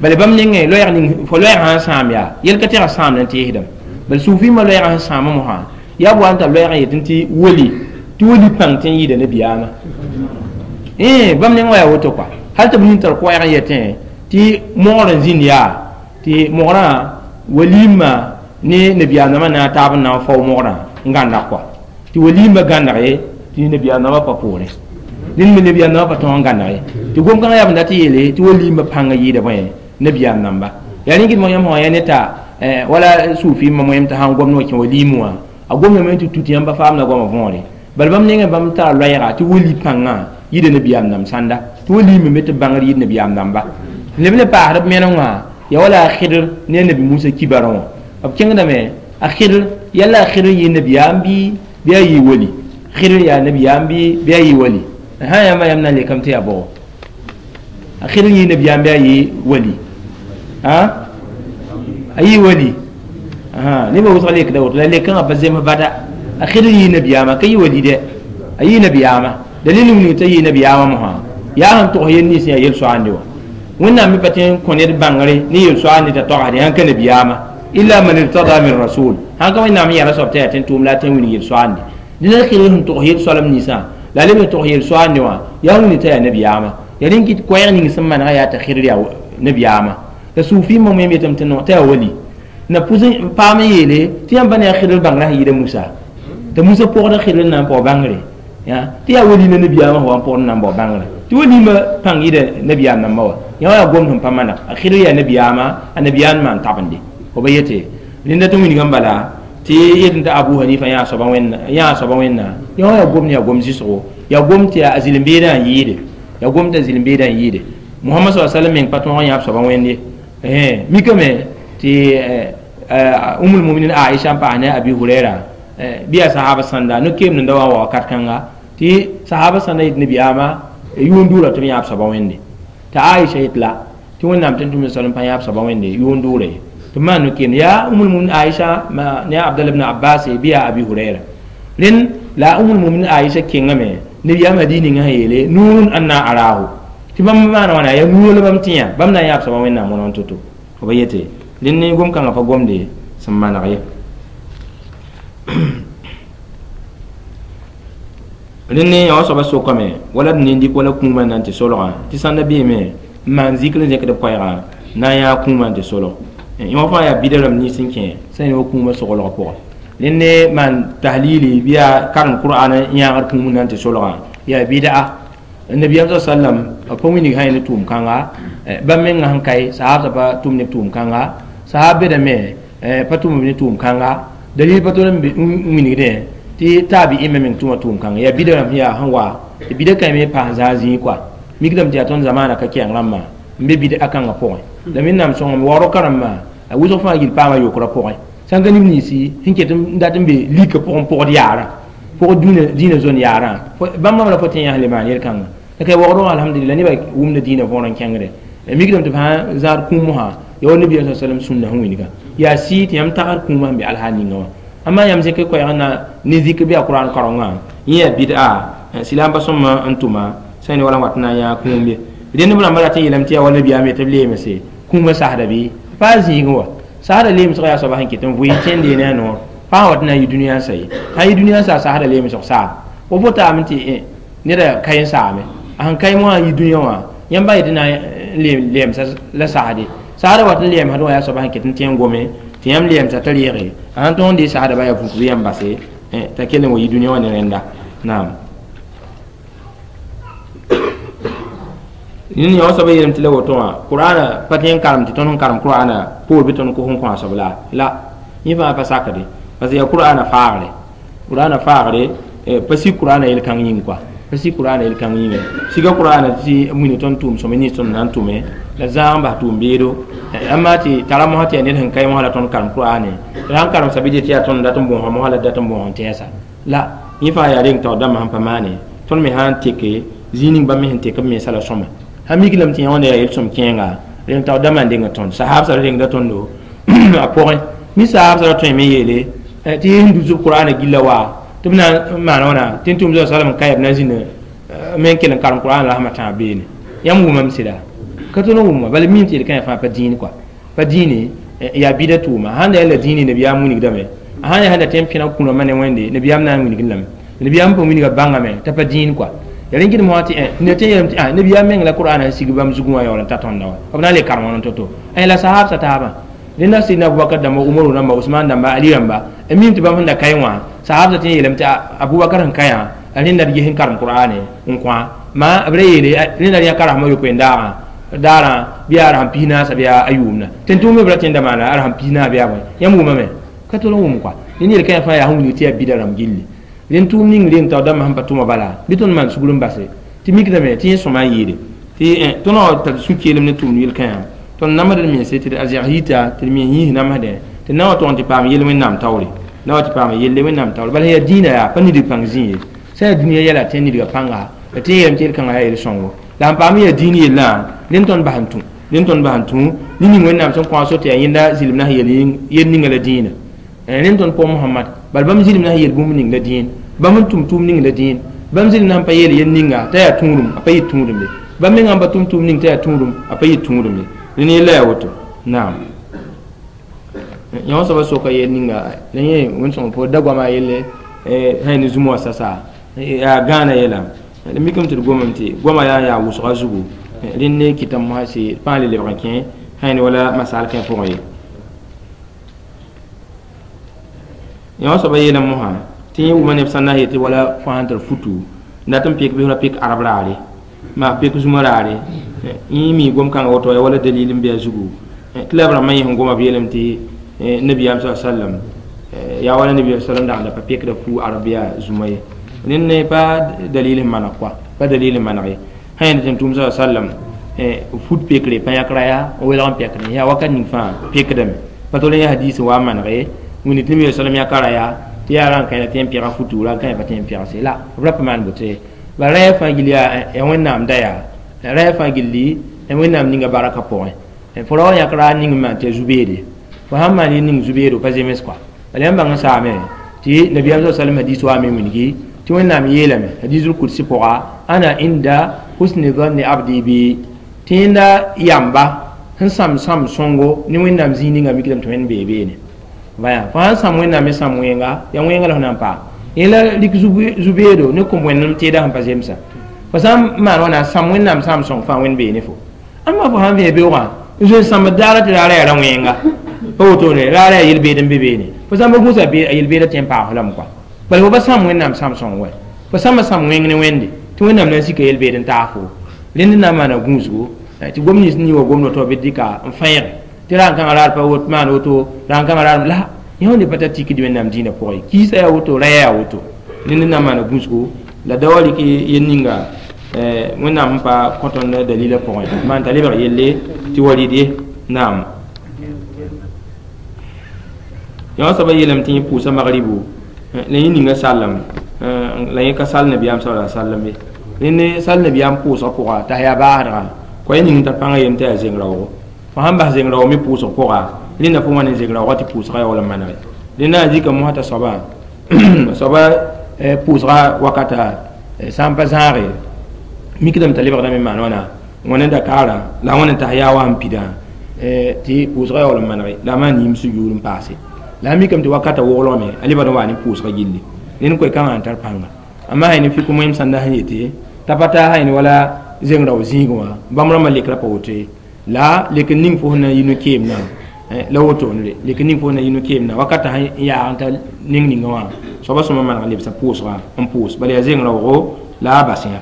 bala bãmb nengẽ loɛɛg ning fo loɛɛg sãn sãam yaa yel ka tẽga sãamd n teesdame bala suufi ma loɛɛgã sẽn sãama mosã yaa b wa n tar loɛɛg n yetɩ tɩ woli tɩ woli pãng tɩ n yɩɩda nabiyaamã bãmb nengã yaa woto kɔa hal tɩ b nin tar koɛɛg n yetẽ tɩ mogr n zĩnd yaa tɩ mogrã waliimã ne nabiyaam nambã na n taab n na n fao mogrã n gãndag kɔa tɩ waliimã gãndag ye tɩ nabiyaam nambã pa poorẽ dẽnd me nabiyaam nambã pa tõog n gãndag ye tɩ gom-kãngã yaa b dat yeele tɩ waliimã pãngã yɩɩda bõe nabiyaam namba yaa rẽ kɩt yãmb sã yaa ne t'a wala suufimã moyem t'a sãn gomd wã kẽ waliim wã a gomdame tɩ tut yãmb pa faamda goamã võore bala bãmb nengẽ bãmb tara loɛɛga tɩ wali pãngã yɩɩda nabiyaam nam sãnda tɩ waliimã me tɩ bãngr yɩɩd nabiyaam namba leb le paasd b meneng wã yaa wala a Khidr ne nabi Musa kibarã wã b kẽngdame a Khidr yalla a Khidr yɩ nabiyaam bɩ a yɩ wali Khidr yaa nabiyaam bɩ a yɩ wali sã yãmba yãmb na n lekame tɩ yaa bʋgo a Khidr yɩ nabiyaam bɩ a yɩ wali a yɩ wali nebã wʋsg lekda woto la lekãngã pa zems bada a Khidr yɩ nabiyaamã ka yɩ wali dɛ a yɩ nabiyaamã dalil wilg t'a yɩ nabiyaamã mosã yaa sẽn togs yel nins yaa yel-soaande wã wẽnnaam me pa tõe n kõ ned bãngre ne yel-soaande t'a togsde sãn ka nabiyaamã illa man irtada min rasul sãn ka wẽnnaam n yɛla soab t'a yaa tɩ n tʋʋm la a tõe n wilg yel-soaande dẽn a Khidr sẽn togs yel-soalem ninsã la a leb n togs yel-soaande wã yaa wilg t'a yaa nabiyaamã yaa rẽn kɩt koɛɛg ning sẽn manega yaa t'a Khidr yaa nabiyaamã la suufimã moyem yetame tɩ no t'a yaa wali na pʋs n paam n yeele tɩ yãmb pa ne a Khidr bãngrã sẽn yɩɩda Musa t'a Musa pʋgda Khidr n na n paoog bãngre tɩ yaa wali la nabiyaamã sẽn wa n pʋgd n na n bao bãngrã tɩ waliimã pãng yɩɩda nabiyaam nambã wa yã wa yaa gomd sẽn pa maneg a Khidr yaa nabiyaamã a nabiyaam maan tabende fo ba yete rẽnda tɩ wilgã bala tɩ yetɩ t'a Abu Hanifa yãa soaba wẽnna yã wa yaa gomd yaa gom zɩsgo yaa gom tɩ a zĩl-n-beedã n yɩɩde yaa gom t'a zĩl-n-beedã n yɩɩde Muhammad sallallahu alaihi wasallam meng pa tõog n yãab soaba wẽnd ye mikame tɩ Ummul Muminin Aisha n paas ne Abi Huraira bɩ yaa sahaba sãnda no-keem nenda wa n wa wakat kãnga tɩ sahaba sãnda yetɩ nabiyaamã yʋʋn dʋʋra tɩ b yãab soaba wẽnde t'a Aisha yet la tɩ wẽnnaam tɩ tʋm salem pa yãab soaba wẽnde yʋʋn dʋʋra ye tɩ b maan no-keem yaa Ummul Muminin Aisha ne Abdallah ibn Abbas bɩ yaa Abi Huraira rẽnd la Ummul Muminin Aisha kẽngame nabiyaamã dii ninga sẽn yeele nuurun anna arahu tɩ bãmb maana wãna yaa nuurã la bãmb tẽ yã bãmb na n yãab soaba wẽnnaam wõneg to-to fo ba yete rẽnd ne gom-kãngã pa gomde sẽn maneg ye rẽnd ne yã wã soaba sokame wala d nin-dɩk wala kũumã na n tɩ solgã tɩ sãnda beeme n maan zikr n zẽkd b koɛɛgã na n yãa kũumã n tɩ solg yã wã fãa yaa bida rãmb nins n kẽ sẽn yã wa kũumã soglgã pʋgẽ rẽnd ne maan tahlili bɩ yaa karem qur'an n yãagd kũum na n tɩ solgã yaa bɩda nabiyaam sa sallam pa wilg sã ne tʋʋm-kãnga bãmb mengã sẽn kae sahabsã pa tʋm ne tʋʋm-kãnga sahab bedame pa tʋm ne tʋʋm-kãnga dalil pa tol n wilgdẽ tɩ taabi'imã meng tʋma tʋʋm-kãnga yaa bida rãmb yaa sẽn wa tɩ bida kãe me paas zãag zĩig kɔa mikdame tɩ yaa tõnd zamaana ka kɛɛng rãmbã n be bida kãngã pʋgẽ la wẽnnaam sõngame waoorg kãrembã a wʋsg fãa gill paama yokrã pʋgẽ sãn ka neb ninsi sẽn ket n dat n be lika pʋgẽ pʋgd yaarã pʋgd dĩinã zone yaarã bãmb bãmb la fo tẽ yãs le maan yel-kãnga la ka waoodgã alhamdulillah nebã wʋmda dĩinã võor n kẽngde mikdame tɩ f sã zãad kũum mosã yaa wa nabiyaam sa sallam sũnna sẽn wilga yaa sɩɩ tɩ yãmb tagd kũumã sẽn be alhaal ninga wã amma yãmb zẽk koɛɛg na ne zikr bɩ a qur'an kaorengã yẽ yaa bid'a silaam pa sõma n tʋma sã ne wala n wat n na n yãag kũum ye rẽnd b rãmbã rat n yeelame tɩ yaa wa nabiyaam ye tɩ b leemse kũumã sasda bɩ pa zĩigẽ wa sasda leemsg yaa soaba sẽn ket n vʋɩ kẽnde ne a noor pa sã wat n na n yɩ dũniyã n sa ye sã n yɩ dũniyã n sa sasda leemsg saam fo fo taame tɩ neda ka n saame a sẽn ka moasã n yɩ dũniyã wã yãmb yetɩ na n lɛɛmsa la sasde sasda wat n lɛɛmsd wã yaa soaba sẽn ket n tẽ n gome tɩ yãmb lɛɛmsa t'a reege a sãn tõog n dee sasda ba yaa vuk bɩ yãmb base t'a kell n wa yɩ dũniyã wã ne rẽnda naam Nini yã soaba yeelame tɩ la woto wã qur'ana pa tõe n karem tɩ tõnd sẽn karem qur'ana poor bɩ tõnd kos n kõ a soab la la yẽ fãa pa sakde parce que yaa qur'ana faagre qur'ana faagre pa sik qur'ana yel-kãng yĩng kɔa pa sik qur'ana yel-kãng yĩnga siga qur'ana tɩ wilg tõnd tʋʋm sõme nins tõnd na n tʋme la zãag n bas tʋʋm beedo amma tɩ tara mosã tɩ yaa ned sẽn kae mosã la tõnd karem qur'ane la sãn karem sabɩ tɩ yaa tõnd dat n bõosa mosã la dat n bõos n tɛɛsa la yẽ fãa yaa reng taoor dãmbã sẽn pa maane tõnd me sã n teke zĩig ning bãmb me sẽn tek b mensã la sõma sã mik lame tɩ yã wã yaa yel-sõm kẽenga reng taoor dãmbã n deng tõnd sahabsã ra rengda tõndo a pʋgẽ mi sahabsã ra tõe me yeele tɩ sẽn dus b qur'ana gilla wa tɩ b na n maan wãna tɩ n tʋm salam n ka yaa b na n zĩnd me n kell n karem qur'an la rasmã tãab beene yãmb wʋmame sɩda ka tõnd n wʋma bala mim tɩ yel-kãyã fãa pa dĩin kɔa pa dĩine yaa bɩda tʋʋma sãn da yaa la dĩine nabiyaam wilgdame sãn yaa sẽn da tõe n pẽneg kũrãmbã ne wẽnde nabiyaam na n wilgd lame nabiyaam pa wilga bãngame t'a pa dĩin kɔa ya rẽn gɩdem wã tɩ ned tõe n yeelame tɩ nabiyaam meng la qur'ana n sig bãmb zugẽ wã yaool n ta tõnda wa b na n le karem wã to-to la sahabsã taabã rẽnda sidna abubakar dãmba umaru rãmba usman dãmba ali rãmba n mim tɩ bãmb sẽn da kaẽ wã sahabsã tɩ n yeelame tɩ abubakar sẽn ka yã rẽnda d ges n karem qur'ane n kõ ma b ra yeele rẽnda d yã ka rasmã yopoe n daagã daarã bɩ yaa rasem pis naasa bɩ yaa a yʋʋmna tɩ n tʋʋm me b ra tẽnda maana a rasem pis naas bɩ yaa bõe yãmb wʋmame ka tol n wʋm kɔa rẽnd yel-kãyã fãa yaa sẽn wilg tɩ yaa bida rãmb gilli rẽnd tʋʋm ning reng taoor dãmbã sẽn pa tʋma bala bɩ tõnd maan sugr n base tɩ mikdame tɩ yẽ sõma n yɩɩde tɩ tõnd wã tar sũ-keelem ne tʋʋmd yel-kãyã tõnd namsd d mense tɩ d a zɛgs yita tɩ d mens yĩs namsdẽ tɩ na wa tʋg n tɩ paam yell wẽnnaam taoore na wa tɩ paam yelle wẽnnaam taoore bala yaa dĩinã yaa pa nidg pãng zĩ ye sã yaa dũniyã yɛla tɩ nidgã pãnga la tɩ yeelame tɩ yel-kãngã yaa yel-sõngo la n paam yaa dĩin yellã rẽnd tõnd bas n tũ rẽnd tõnd bas n tũ ne ning wẽnnaam sẽn kõ a so tɩ yaa yẽnda zɩlem na sẽn yel ninga la dĩinã rẽnd tõnd pʋgẽ Mohamad bala bãmb zɩlem na sẽn yel bũmb ning la dĩin bãmb n tʋm tʋʋm ning la dĩin bãmb zɩlem na sẽn pa yeel yel ninga t'a yaa tũudum a pa yɩ tũudum ye bãmb mengã n pa tʋm tʋʋm ning t'a yaa tũudum a pa yɩ tũudum ye rẽnd yella yaa woto naam yã soaba soka yel ninga la yẽ wẽn-sõng fo da goama yelle sã ne zũma wã sasa yaa gãana yɛla d mikame tɩ d gomame tɩ goama yaa n yaa wʋsga zugu rẽnd ne kɩtame mosã sɩ pãa le lebg n kẽ sã ne wala masaal kẽ pʋgẽ ye yã wã soaba yeelame mosã tɩ yẽ wʋma neb sã n na n yetɩ wala fo sãn tar futu n dat n pek bɩ f ra pek arab raare maa pek zũma raare yẽ mi gom-kãngã woto yaa wala dalil n bɩ a zugu tɩ la b rãmbã yẽ sẽn goma b yeelame tɩ nabiyaam sa sallam yaa wala nabiyaam sallam dag n da pa pekda fu arab yaa zũma ye rẽnd ne pa dalil n maneg kɔa pa dalil n maneg ye sã yẽnd tɩ n tʋʋm sa sallam fut pekre pa yãk raya n welg n pekdẽ yaa wakat ning fãa pekdame pa tol n yaa hadiis n wa n manege wĩnni tɩ nabiyaam sallam yãka raya tɩ yaa ra n kãe tɩ n pẽga futu ra n kãe pa tɩ n pẽgse la b ra pa maan boto ye bala raya fãa gill yaa wẽnnaam da yaa raya fãa gilli wẽnnaam ninga baraka pʋgẽ fo ra wa yãk raar ning n maan tɩ yaa zu-beede fo sãn maan yel ning zu-beedo pa zems kɔa bala yãmb bãng n saame tɩ nabiyaam sa sallam hadiis waame wilgi tɩ wẽnnaam yeelame hadiisul kudsi pʋga ana inda husni dhanni abdi bi tɩ yẽnda yamba sẽn sãm sãm sõngo ne wẽnnaam zĩig ninga mikdame tɩ wẽnd bee beene vaya fo sãn sãm wẽnnaam me sãm wẽnga yaa wẽnga la fo na n paam yẽ la rik zu-beedo ne kõm wẽnnem teeda sẽn pa zemsa fo sã n maan wãna sãm wẽnnaam sãam sõng fãa wẽnd bee ne fo ãmba fo sãn vẽ beoogã n zoe n sãmbd daara tɩ raara yaa ra wẽnga pa wotone raara yaa yel-beed n be beene fo sãn pa gũusa a yel-beedã tɩ n paag fo lame kɔa bala fo pa sãam wẽnnaam sãam sõng wɛ fo sãmba sãam wẽng ne wẽnde tɩ wẽnnaam na n sika yel-beed n taag fo rẽnd na n maana gũusgo tɩ gom nins nii wa gomd woto bɩ dɩka n fẽege tɩ ra n kãngã raar pa wot maan woto ra n kãngã raar la yẽ wẽnde pa tar tikd wẽnnaam dĩinã pʋgẽ kiisã yaa woto raya yaa woto rẽnd na n maana gũusgo la da wa rɩk yel ninga wẽnnaam sẽn pa kõ tõnd dalilã pʋgẽ maan t'a lebg yelle tɩ wa rɩd ye naam yã wã soaba yeelame tɩ yẽ pʋʋsa magribu la yẽ ninga sallem la yẽ ka sall nabiyaam sa sallam ye rẽnd sall nabiyaam pʋʋsg pʋga t'a yaa baasdgã kõ yẽ ning n tar pãngã yem tɩ yaa zeng raoogo fo sãn bas zeng raoog me pʋʋsg pʋga rẽnda fo wã ne zeng raoogã tɩ pʋʋsgã yaool n manege rẽnda n zika mosã t'a soaba soaba pʋʋsga wakata sã n pa zãage mikdame t'a lebgdame n maan wãna wãna dakaarã la wãna n tas yaa wa sẽn pidã tɩ pʋʋsgã yaool n manege la a maan yĩm sũ-yuur n paase la a mikame tɩ wakata woglgame a lebd n waa ne pʋʋsga gilli rẽnd koe-kãngã n tar pãnga amma sã ne fik moẽm sãnda sẽn yete t'a pa taa sã ne wala zeng rao zĩigẽ wã bãmb rãmbã lekra pa woto ye la lek n ning fo sẽn na n yi no-keemdã la wotone lek n ning fo sẽn na n yi no-keemdã wakata sẽn yaag n ta ning ninga wã soaba sõma maneg lebsã pʋʋsga n pʋʋs bala yaa zeng raoogo la a bas yã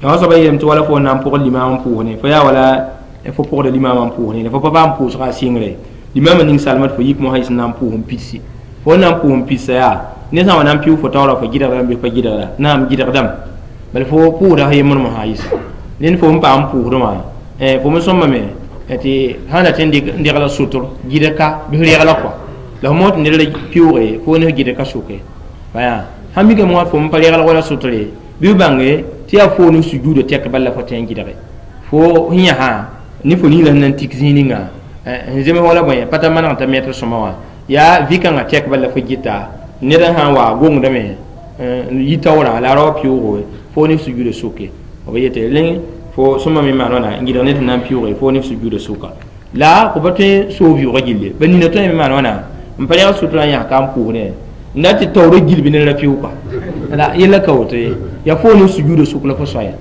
yã wã soaba yeelame tɩ wala fo n na n pʋgd limaam n pʋʋsne fo yaa wala fo pʋgda limaamã n pʋʋsne fo pa paam pʋʋsga a sɩngre limaamã ning salma tɩ fo yik mosã yɩs n na n pʋʋs n pidsi fo n na n pʋʋs n pidsa yaa ne sã n wa na n pɩʋ fo taoora fo gɩdgdame bɩ pa gɩdgda naam gɩdgdame bala fo pʋʋsda sã yembr mosã yɩsa rẽnd fo n paam pʋʋsdẽ wã fo me sõmbame tɩ sã na tɩ n degla sʋtr gɩdka bɩ f regla kɔa la fo mos tɩ ned ra pɩʋʋge fo ne f gɩdka sʋke baya Sãn mikame wã fo n pa reglg wala sʋtre bɩ b bãnge tɩ yaa fo ne sujuudã tɛk bal la fo tõe n gɩdge fo sẽn yãsã ne fo ning la sẽn na n tik zĩig ninga n zems wala bõe pa ta maneg t'a mɛtr sõma wã yaa vɩ-kãngã tɛk bal la fo gɩta ned sã n wa gongdame n yi taoorã la a ra wa pɩʋʋgo fo ne sujuudã sʋke b yete rẽ fo sõma me maan wãna n gɩdg ned sẽn na n pɩʋʋge fo ne sujuudã sʋka la fo pa tõe n soog vɩʋʋgã gilli ba nina tõe me maan wãna n pa rẽg sutrã n yãs ka n pʋʋsdẽ n na tɩ taoorã gilb ne ra pɩʋʋka la yella ka woto ye yaa fo ne sujuudã sʋk la fo soaya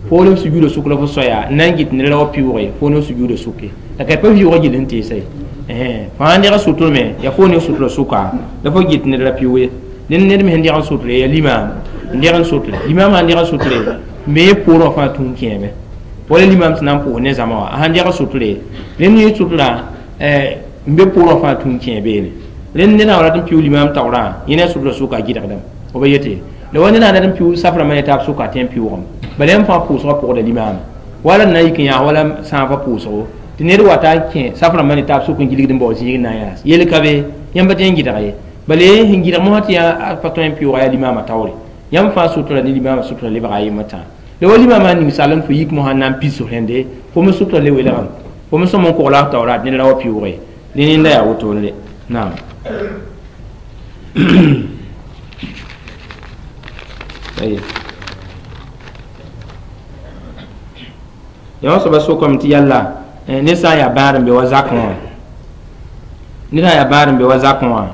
fo ne sujuudã sʋk la fo soaya n na n gɩt ned ra wa pɩʋʋge fo ne sujuudã sʋke la ka pa vɩʋʋgã gill sẽn teesa ye fãa deg sʋtr me yaa fo ne sutrã sʋka la fo gɩt ned ra pɩʋʋg ye ned me sẽn deg n sʋtre yaa limaam n deg n sʋtre limaam sãn deg n sʋtre me poorẽ wã fãa tũun kẽeme wala limaam sẽn na n pʋʋs ne zãma wã a sãn deg sʋtre rẽnd yẽ sʋtrã n be poorẽ wã fãa tũun kẽ beene rẽnd ned sã rat n pɩʋʋg limaam taoorã yẽ ne a sʋtrã sʋka a gɩdgdame f ba yete la wa ned sã rat n pɩʋʋg safrãmbã ne taab sʋka a tõe n pɩʋʋgame bala yãmb fãa pʋʋsgã pʋgda limaama wala n na n yik n yãas wala sãafã pʋʋsgo tɩ ned wata n kẽ safrãmbã ne taab sʋk n gilgd n bao zĩig n na n yãas yel ka be yãmb pa tõe n gɩdg ye bala ye sẽn gɩdg mosã tɩ yaa pa tõe n pɩʋʋga yaa limaamã taoore yãmb fãa sʋtra ne limaamã sʋtra lebga a yembr tãa la wa limaamã ning sall n fo yik mosã n na n pis rẽnde fo me sʋtra le welgame fo me sõm n kogla f taoora tɩ ned ra wa pɩʋʋge dẽ nenda yaa wotone naam yã wã soaba sokame tɩ yalla ned sã n yaa bãad n be wa zakẽ wã ned sã n yaa bãad n be wa zakẽ wã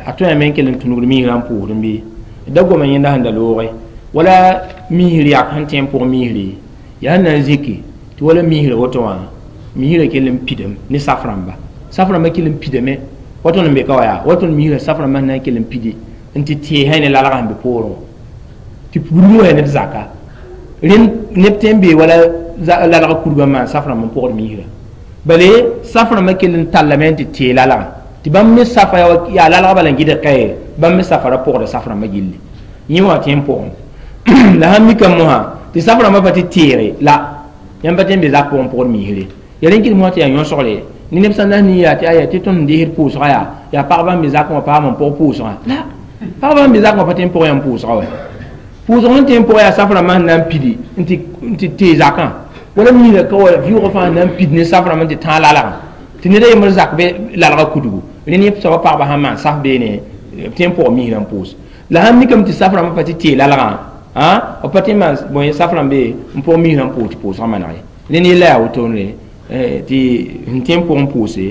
a tõe n kell n tũnugd miisrã n pʋʋsdẽ bɩ da goma yẽnda sẽn da looge wala miisr yak sẽn tẽ n pʋg miisre yaa sẽn na n zĩki tɩ wala miisrã woto wã miisrã kell n pidame ne saf-rãmba saf-rãmbã kell n pidame wa tõnd n be ka wa yaa wa tõnd miisrã saf-rãmbã sẽn na n kell n pidi n tɩ tẽesã ne lalgã sẽn be poorẽ wã tɩ pudg wã yaa ned zaka rẽnd neb tõe n bee wala lalgã kurgã n maan saf-rãmb n pʋgd miisrã bale saf-rãmbã kell n tallame n tɩ tee lalgã tɩ bãmb me safa yaa lalgã bala n gɩdg kaye bãmb me safa ra pʋgda saf-rãmbã gilli yẽ wã tõe n pʋgẽ la sãn mikame mosã tɩ saf-rãmbã pa tɩ teere la yãmb pa tõe n be zak pʋgẽ pʋgd miisre ya rẽn kɩt mosã tɩ yaa yõsgre ne neb sã n na n yaa tɩ aya tɩ tõnd n desd pʋʋsgã yaa yaa pagba n be zakẽ wã paam n pʋg pʋʋsgã la pagba n be zakẽ wã pa tõe n pʋg yãmb pʋʋsgã wa pʋʋsg sẽn tõe n pʋg yaa saf-rãmbã sẽn na n pidi n tɩ tee zakã wala miisrã ka wa vɩʋʋgã fãa sẽn na n pid ne saf-rãmbã n tɩ tãag lalgã tɩ ned a yembr zak be lalgã kudgu rẽnd yẽ soaba pagba sãn maan saf beene b tõe n pʋg miisrã n pʋʋs la sãn mikame tɩ saf-rãmbã pa tɩ tee lalgã b pa tõe n maan bõe saf-rãmbe n pʋg miisrã n pʋʋs tɩ pʋʋsgã maneg ye rẽnd yella yaa wotone tɩ sẽn tõe n pʋgẽ pʋʋse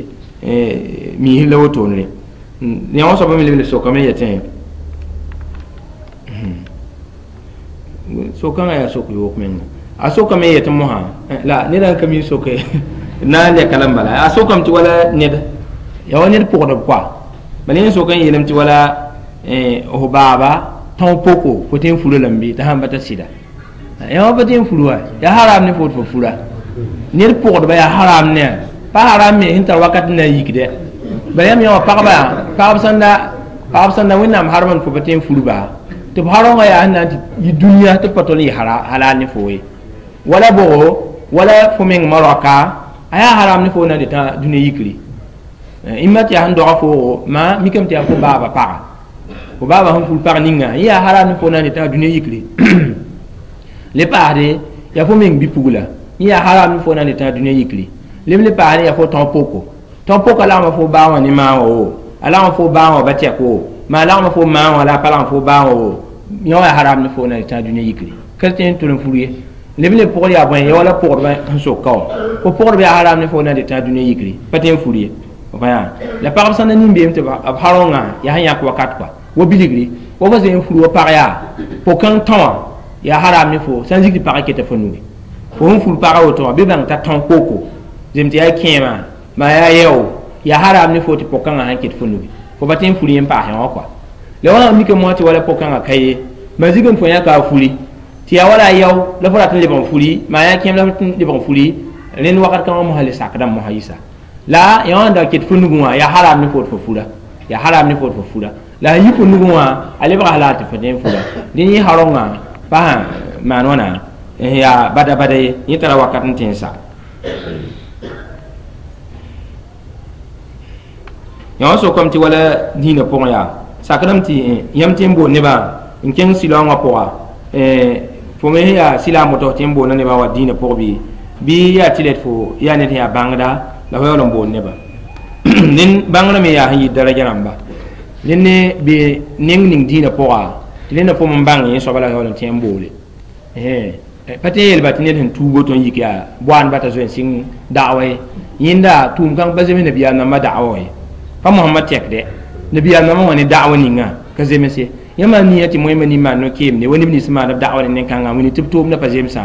miisr la wotone yã wã soaba me leb le sokame yetẽ sokãngã yaa sok yoog menga a sokame yetẽ mosã la ned n ka mi soke na n lɛka la n bala a sokame tɩ wala ned yaa wa ned pʋgdb koa bala yẽ sok n yeelame tɩ wala f baaba tão poko fo tõe n fura lame bɩ t'a sãn pa ta sɩda yaa wa pa tõe n fur wa yaa haram ne fo tɩ fo fura ned pʋgdba yaa haram ne pa haram me sẽn tar wakat n na n yikdɛ bala yãmb yã wã pagba pagb sẽn da wẽnnaam harem n fo pa tõe n furba tɩ b harõngã yaa sẽn na n tɩ yi dũniyã tɩ b pa tol n yɩ halal ne fo ye wala bʋgo wala fo meng maroka a yaa haram ne fo na n tɩ tã dũniyã yikri ĩmma tɩ yaa sẽn doga foogo maa mikame tɩ yaa fo baaba paga fo baaba sẽn fur pag ninga yẽ yaa haram ne fo na n tɩ tã dũniyã yikri le paasde yaa fo meng bi-pugla yẽ yaa haram ne fo na n tɩ tã dũniyã yikri leb le paasde yaa fo tão poko tão poka lagma fo baa wã ne maa wã wo a lagma fo baa wã ba tɛk wo maa lagma fo maa wã la a pa lagm fo baa wã wo yã wã yaa haram ne fo na n tɩ tã dũniyã yikri ka tõe n tʋl n fur ye leb le pʋgd yaa bõe ya wala pʋgdbã sẽn sok ka wã fo pʋgdb yaa haram ne fo na n tɩ tã dũniyã yikri pa tõe n fur ye la pagb sã n na nin-beem tɩ b harõngã yaa sẽn yãk wakat kɔa wa bilgri wa fa zoe n fur wa pag yaa po-kãng tão wã yaa haram ne fo sã n zik tɩ pagã keta fo nuge fo sẽn fur pagã woto wã bɩ bãng t'a tão koko zem tɩ yaa kẽema maa yaa yɛo yaa haram ne fo tɩ po-kãngã sãn ket fo nuge fo pa tõe n fur yẽ n paas yã wã kɔa la wã mikame moasã tɩ wala po-kãngã ka ye ma zig n fo yãka a furi tɩ yaa wala a yao la fo rat n lebg n furi maa yaa kẽem la fo lebg n furi rẽnd wakat kãngã mosã le sakdame mosã yisa la yã wã n da ket fo nugẽ wã yaa haram ne fo tɩ fo fura yaa haram ne fo tɩ fo fura la sẽn yi fo nugẽ wã a lebga halal tɩ fo tõe n fura dẽ yẽ harõngã pa sã maan wãna yaa bada bada ye yẽ tara wakat n tẽ n sa yã wã sokame tɩ wala dĩinã pʋgẽ yaa Sakdame tɩ yãmb tɩ n boond nebã n kẽng silaoongã pʋga, fo me sẽn yaa silaam woto tɩ n boonda nebã wa dĩinã pʋg bɩ yaa tɩ lɛd fo yaa ned sẽn yaa bãngda la fo yaool n boond nebã. Ned bãngrã me yaa sẽn yɩ daraja rãmba. Rẽnd ne bɩ neng ning dĩinã pʋga tɩ rẽnda pʋm n bãng yẽ soaba la yaool n tẽ n boole. Pa tɩ yeelba tɩ ned sẽn tuug woto n yik yaa boaandba t'a zoe n sɩng da'wa ye. Yẽnda tʋʋm kãng pa zems nabiyaam nambã da'wa ye. Pa Mohamad tɛkdɛ nabiyaam nambã wã ne da'wa ninga ka zems ye. Yãmb nia tɩ moẽmã nin-maan no-keemde wa neb nins maand b da'wa ne nen-kãngã wĩni tɩ b toomdã pa zemsã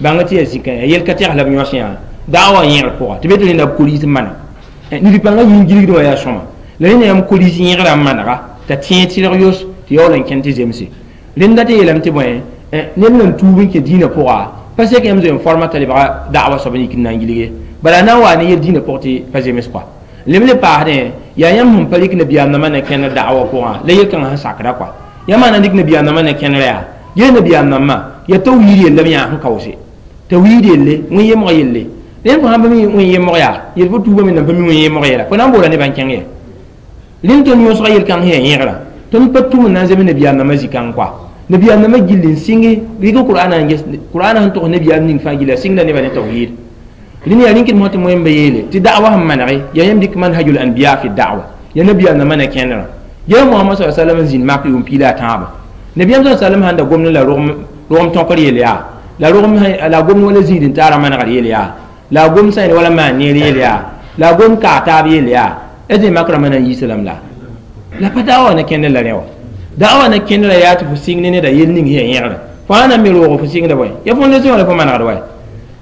bãnga tɩ yaa zĩka yaa yel ka tɛgs la b yõs yã da'wa yẽgr pʋga tɩ be tɩ rẽnda b koris n mana. Nid-pãngã yĩn gilgdẽ wã yaa sõma la rẽnda yãmb koris yẽgrã n manega t'a tẽeg tɩrg yos tɩ yaool n kẽnd tɩ zemse. Rẽnda tɩ yeelame tɩ bõe ned nan tuub n kẽ dĩinã pʋga pa sek yãmb zoe n forma t'a lebga da'wa soab n yik n na n gilge bala na n waa ne yel dĩinã pʋg tɩ pa zems kɔa. Lem le paasdẽ yaa yãmb sẽn pa rɩk nabiyaam nambã ne kẽnd da'wa pʋgã la yel-kãngã sẽn sakda kɔa. Yãmb na n dɩk nabiyaam nambã ne kẽndrã yaa gee nabiyaam nambã yaa tawhiid yella b yãa sẽn kaoose tawhiid yelle wẽn-yemg yelle. Rẽnd fo sãn pa mi wẽn-yemg yaa yel fo tuubame nan pa mi wẽn-yemg yɛla fo na n boola nebã n kẽng ye. Rẽnd tõnd yõsga yel-kãng sẽn yaa yẽgra tõnd pa tʋm n na n zems nabiyaam nambã zĩ-kãng kɔa. Nabiyaam nambã gill n sɩnge rɩk Qur'aana n ges Qur'aana sẽn togs nabiyaam ning fãa gilla sɩngda nebã ne tawhiid. Rẽnd yaa rĩnkd mosã tɩ moẽmba yeele tɩ da'wa sẽn manege yaa yãmb dɩk manhajul anbiya fi da'wa yaa nabiyaam nambã ne kẽndrã. Gee Mohamad sa sallam n zĩnd mak yʋʋm piila a tãabã. Nabiyaam sa sallam sãn da gomd la rogem tõkr yel yaa la rogem la gomd wala zĩid n taara manegr yel yaa la gom sã wala maan neer yel yaa la gom kaa taab yel yaa d mak rãmbã na n yiisa lame la pa da'wa ne kẽndr la rẽ wã. Da'wa ne kẽndrã yaa tɩ fo sɩng ne neda yel ning sẽn yaa yẽgrã fo sã na n me roog fo sɩngda bõe ya fondation la fo manegd wa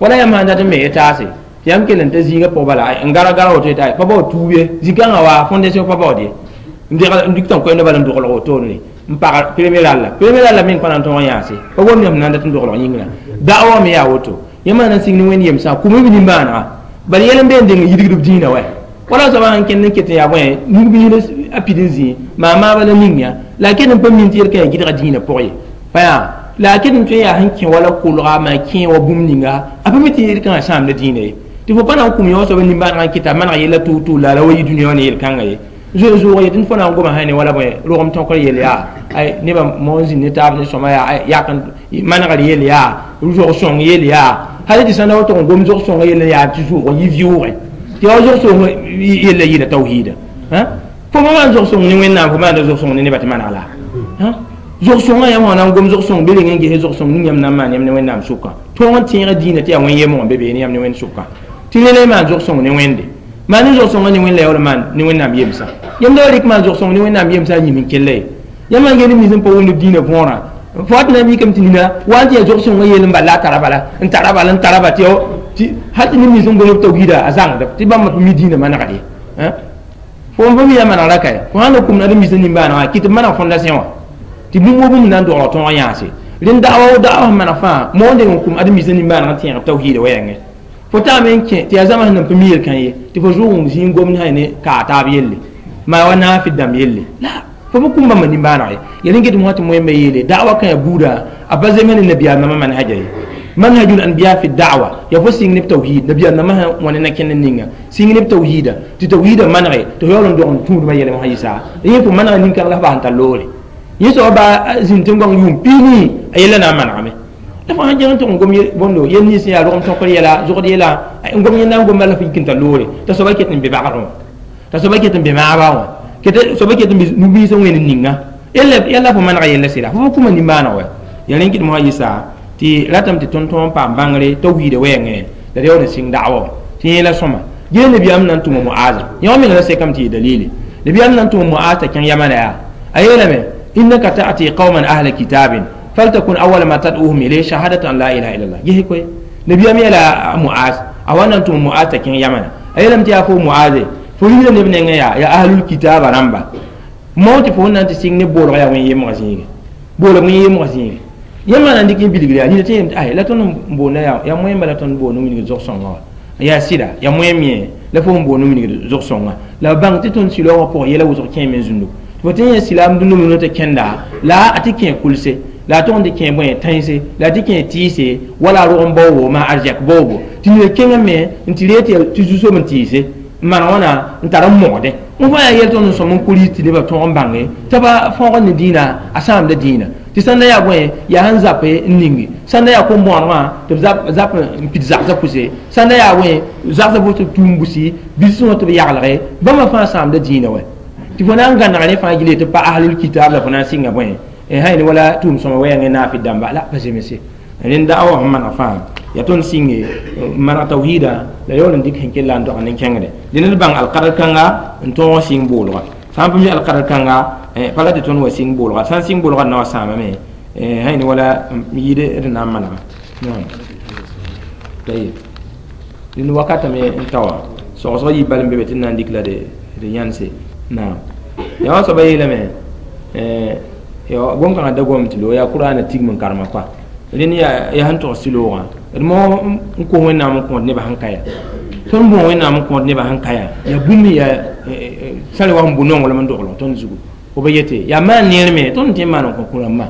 wala yãmb sãn dat n me taase tɩ yãmb kell n ta zĩigã pʋg bala n gara gara woto yeta pa bao tuub ye zĩ-kãngã wa fondation pa baood ye n dɩk tɩ n koɛɛmda bala n doglg wotone n pag premier ralla meng pa na n tõog n yãase pa wom yãmb na n dat n doglg yĩngrã. Da'wa me yaa woto yãmb na n sɩng ne wẽnd yemsã kʋm b nimbãanega bala yɛl n be n deng n yidgd b dĩinã wa wala soaba sãn kẽnd n ket n yaa bõe nug-biis a pid n zĩ maa-maaba la ning yã la a ket n pa min tɩ yel-kã yaa gɩdga dĩinã pʋg ye pa yaa la a ket n tõe n yaa sẽn kẽ wala kolga maa kẽ wa bũmb ninga a pa mi tɩ yel-kãngã sãamda dĩinã ye tɩ fo pa na n kũm yã wã soaba nimbãanegã n kɩta maneg yella tʋʋg-tʋʋg la wa yi dũniyã wã ne yel-kãngã ye. Zoe zoog ye tɩ fo na n goma sã ne wala bõe rogem tõkr yel yaa nebã moon zĩnd ne taab ne sõma yaa yak manegr yel yaa zog-sõng yel yaa hal tɩ sãn da wa tʋg n gom zog-sõngã yell n yaa tɩ zʋʋg n yɩ vɩʋʋgẽ tɩ yaa zog-sõng yella yɩla tawhiida. Fo pa maan zog-sõng ne Wẽnnaam fo maanda zog-sõng ne nebã tɩ maneg la zog-sõngã yãmb sã na n gom zog-sõng be reng n ges zog-sõng ning yãmb na n maan yãmb ne Wẽnnaam sʋkã tõog n tẽega dĩinã tɩ yaa wẽn-yemg n be beene yãmb ne Wẽnd sʋkã tɩ rẽ la y maan zog-sõng ne Wẽnde maan ne zog-sõngã ne Wẽnd la yaool maan ne Wẽnnaam yemsã yãmb da wa rɩk maan zog-sõng ne Wẽnnaam yemsã a yĩm n kella ye. Yãmb sãn gel nins n pa wʋmd b dĩinã võorã fo wa tɩ na n mikame tɩ nina wa n tɩ yaa zog-sõngã yell n bal la a tara bala n tara bala n tara ba tɩ hal tɩ neb nins n gom b tawhiida a zãngd tɩ bãmb pa mi dĩinã manegd ye. Fo n pa mi yaa manegra kae fo sãn na kũmd ad-m-biisã nimbãanegã kɩ tɩ b maneg fondation wã tɩ bũmb wo bũmb na n dogl tõog yãase. Rẽnd da'wa sẽn maneg fãa moonde n kũm ad-m-biisã nimbãanegã tẽeg b tawhiida wɛɛngẽ fo taame n kẽ tɩ yaa zãma sẽn nan pa mi yel-kã ye tɩ fo zʋʋg n zĩig n gomd sã ne kaa taab yelle maa wa naafɩ dãmb yelle la fo pa kũm bãmba nimbãaneg ye. Ya rẽn get mosã tɩ moẽmba yeele da'wa kã yaa buudã a pa zems ne nabiyaam nambã manhaja ye. Manhajul anbiya fi da'wa ya fo sɩng ne b tawhiid nabiyaam nambã sã wã ne na-kẽnd ninga sɩng ne b tawhiida tɩ tawhiidã manege tɩ fo yaool n dog n tũudmã yɛlem sã yɩsa yẽ fo manega nin-kãng la f bas n tar loore yẽ soaba baa zĩnd tẽn-goang yʋʋm piini a yella na n manegame la fo sãn kẽng n tʋg n gom bõndo yel nins yaa rogem tõkr yɛla zogd yɛla n gom yẽnda n gomba la f yik n tar loore t'a soaba ket n be bagrẽ wã t'a soaba ket n be maaba wã soaba ket n be nug-biis n wẽnd ninga yella fo manega yella sɩda fo pa kũma nimbãaneg wa ya rẽn kɩt mosã yɩsa tɩ ratame tɩ tõnd tõog n paam bãngre tawhiida wɛɛngẽ la d yaool n sɩng da'wa wã tɩ yẽla sõma. Gee nabiyaam na n tʋma Muaza yã wã menga la sekame tɩ yɩ dalili nabiyaam na n tʋma Muaz t'a kẽng yamana yaa a yeelame innaka ta'ti qauman ahla kitabin faltakun awwala ma tad'uhum ilayhi shahadatu an la ilaha illallah gese koe nabiyaam yeela Muaz a wa na n tʋma Muaz t'a kẽng yamana a yeelame tɩ yaa fo Muaze fo rigda neb nengẽ yaa ahlul kitaba rãmba mao tɩ fo n na n tɩ sɩng ne boolg yaa wẽn-yemgã zĩige boolg wẽn-yemgã zĩige yãmb na n dɩk n bilgr yaa nina tɩ yem tɩ la tõnd n boonda yaa moẽmba la tõnd boond n wilgd zog-sõngã wã yaa sɩda yaa moẽm yẽ la fo n boond n wilgd zog-sõngã la b bãng tɩ tõnd silaoongã pʋgã yɛla wʋsg kẽeme n zũndu fo tɩ yẽ silaam dũnna tɩ kẽnda la a tɩ kẽ kulse la a tʋg n tɩ kẽ bõe tãense la a tɩ kẽ tɩɩse wala a rog n baoobo maa arzɛk baoobo tɩ nina kẽngame n tɩ ree tɩ zu-soab n tɩɩse maan wãna n tar n mogdẽ n fãa yaa yɛl tõnd n sõm n kuris tɩ nebã tõog n bãnge t'a pa fõogd ne dĩinã a sãamda dĩinã tɩ sãn da yaa bõe yaa sẽn zape n ningi sãn da yaa kom-bõonegã tɩ b zap n pid zagsã pʋse sãn da yaa bõe zagsã pʋs tɩ b tũum busi bilsẽ wã tɩ b yaglge bãmba fãa sãamda dĩinã wɛ tɩ fo na n gãneg rẽ fãa gilẽ tɩ pa ahlul kitab la fo na n sɩnga bõe sã yel wala tʋʋm sõma wɛɛngẽ naafɩ dãmba la pa zemse rẽnd da'awa sẽn maneg fãa yaa tõnd sɩnge maneg tawhiida la yaool n dɩk sẽn kell la n dog nen-kẽngre dẽ ned bãng alkadr kãnga n tõog sɩng boolga sã n pa mi alkadr kãnga pa la tɩ tõnd wa sɩng boolga sã n sɩng boolga d na wa sãamame sã yel wala yɩɩd d na n manega dẽnd wakatame n ta wã sogsg yɩ bal n be be tɩ d na n dɩk la d yãnse naam yaa wã soaba yeelame gom-kãngã da gom tɩ lo yaa kʋraana tigm n karema koa rẽnd yaa sẽn tog sɩloogã d mo n kos wẽnnaam n kõot nebã sẽn ka ya tõnd bõo wẽnnaam n kõot nebã sẽn ka ya yaa bũmb yaa sã wa sẽn bʋ nonglem n doglg tõnd zugu fo ba yete yaa maan neer me tõnd tẽ n maan n kõ kũ-rãmbã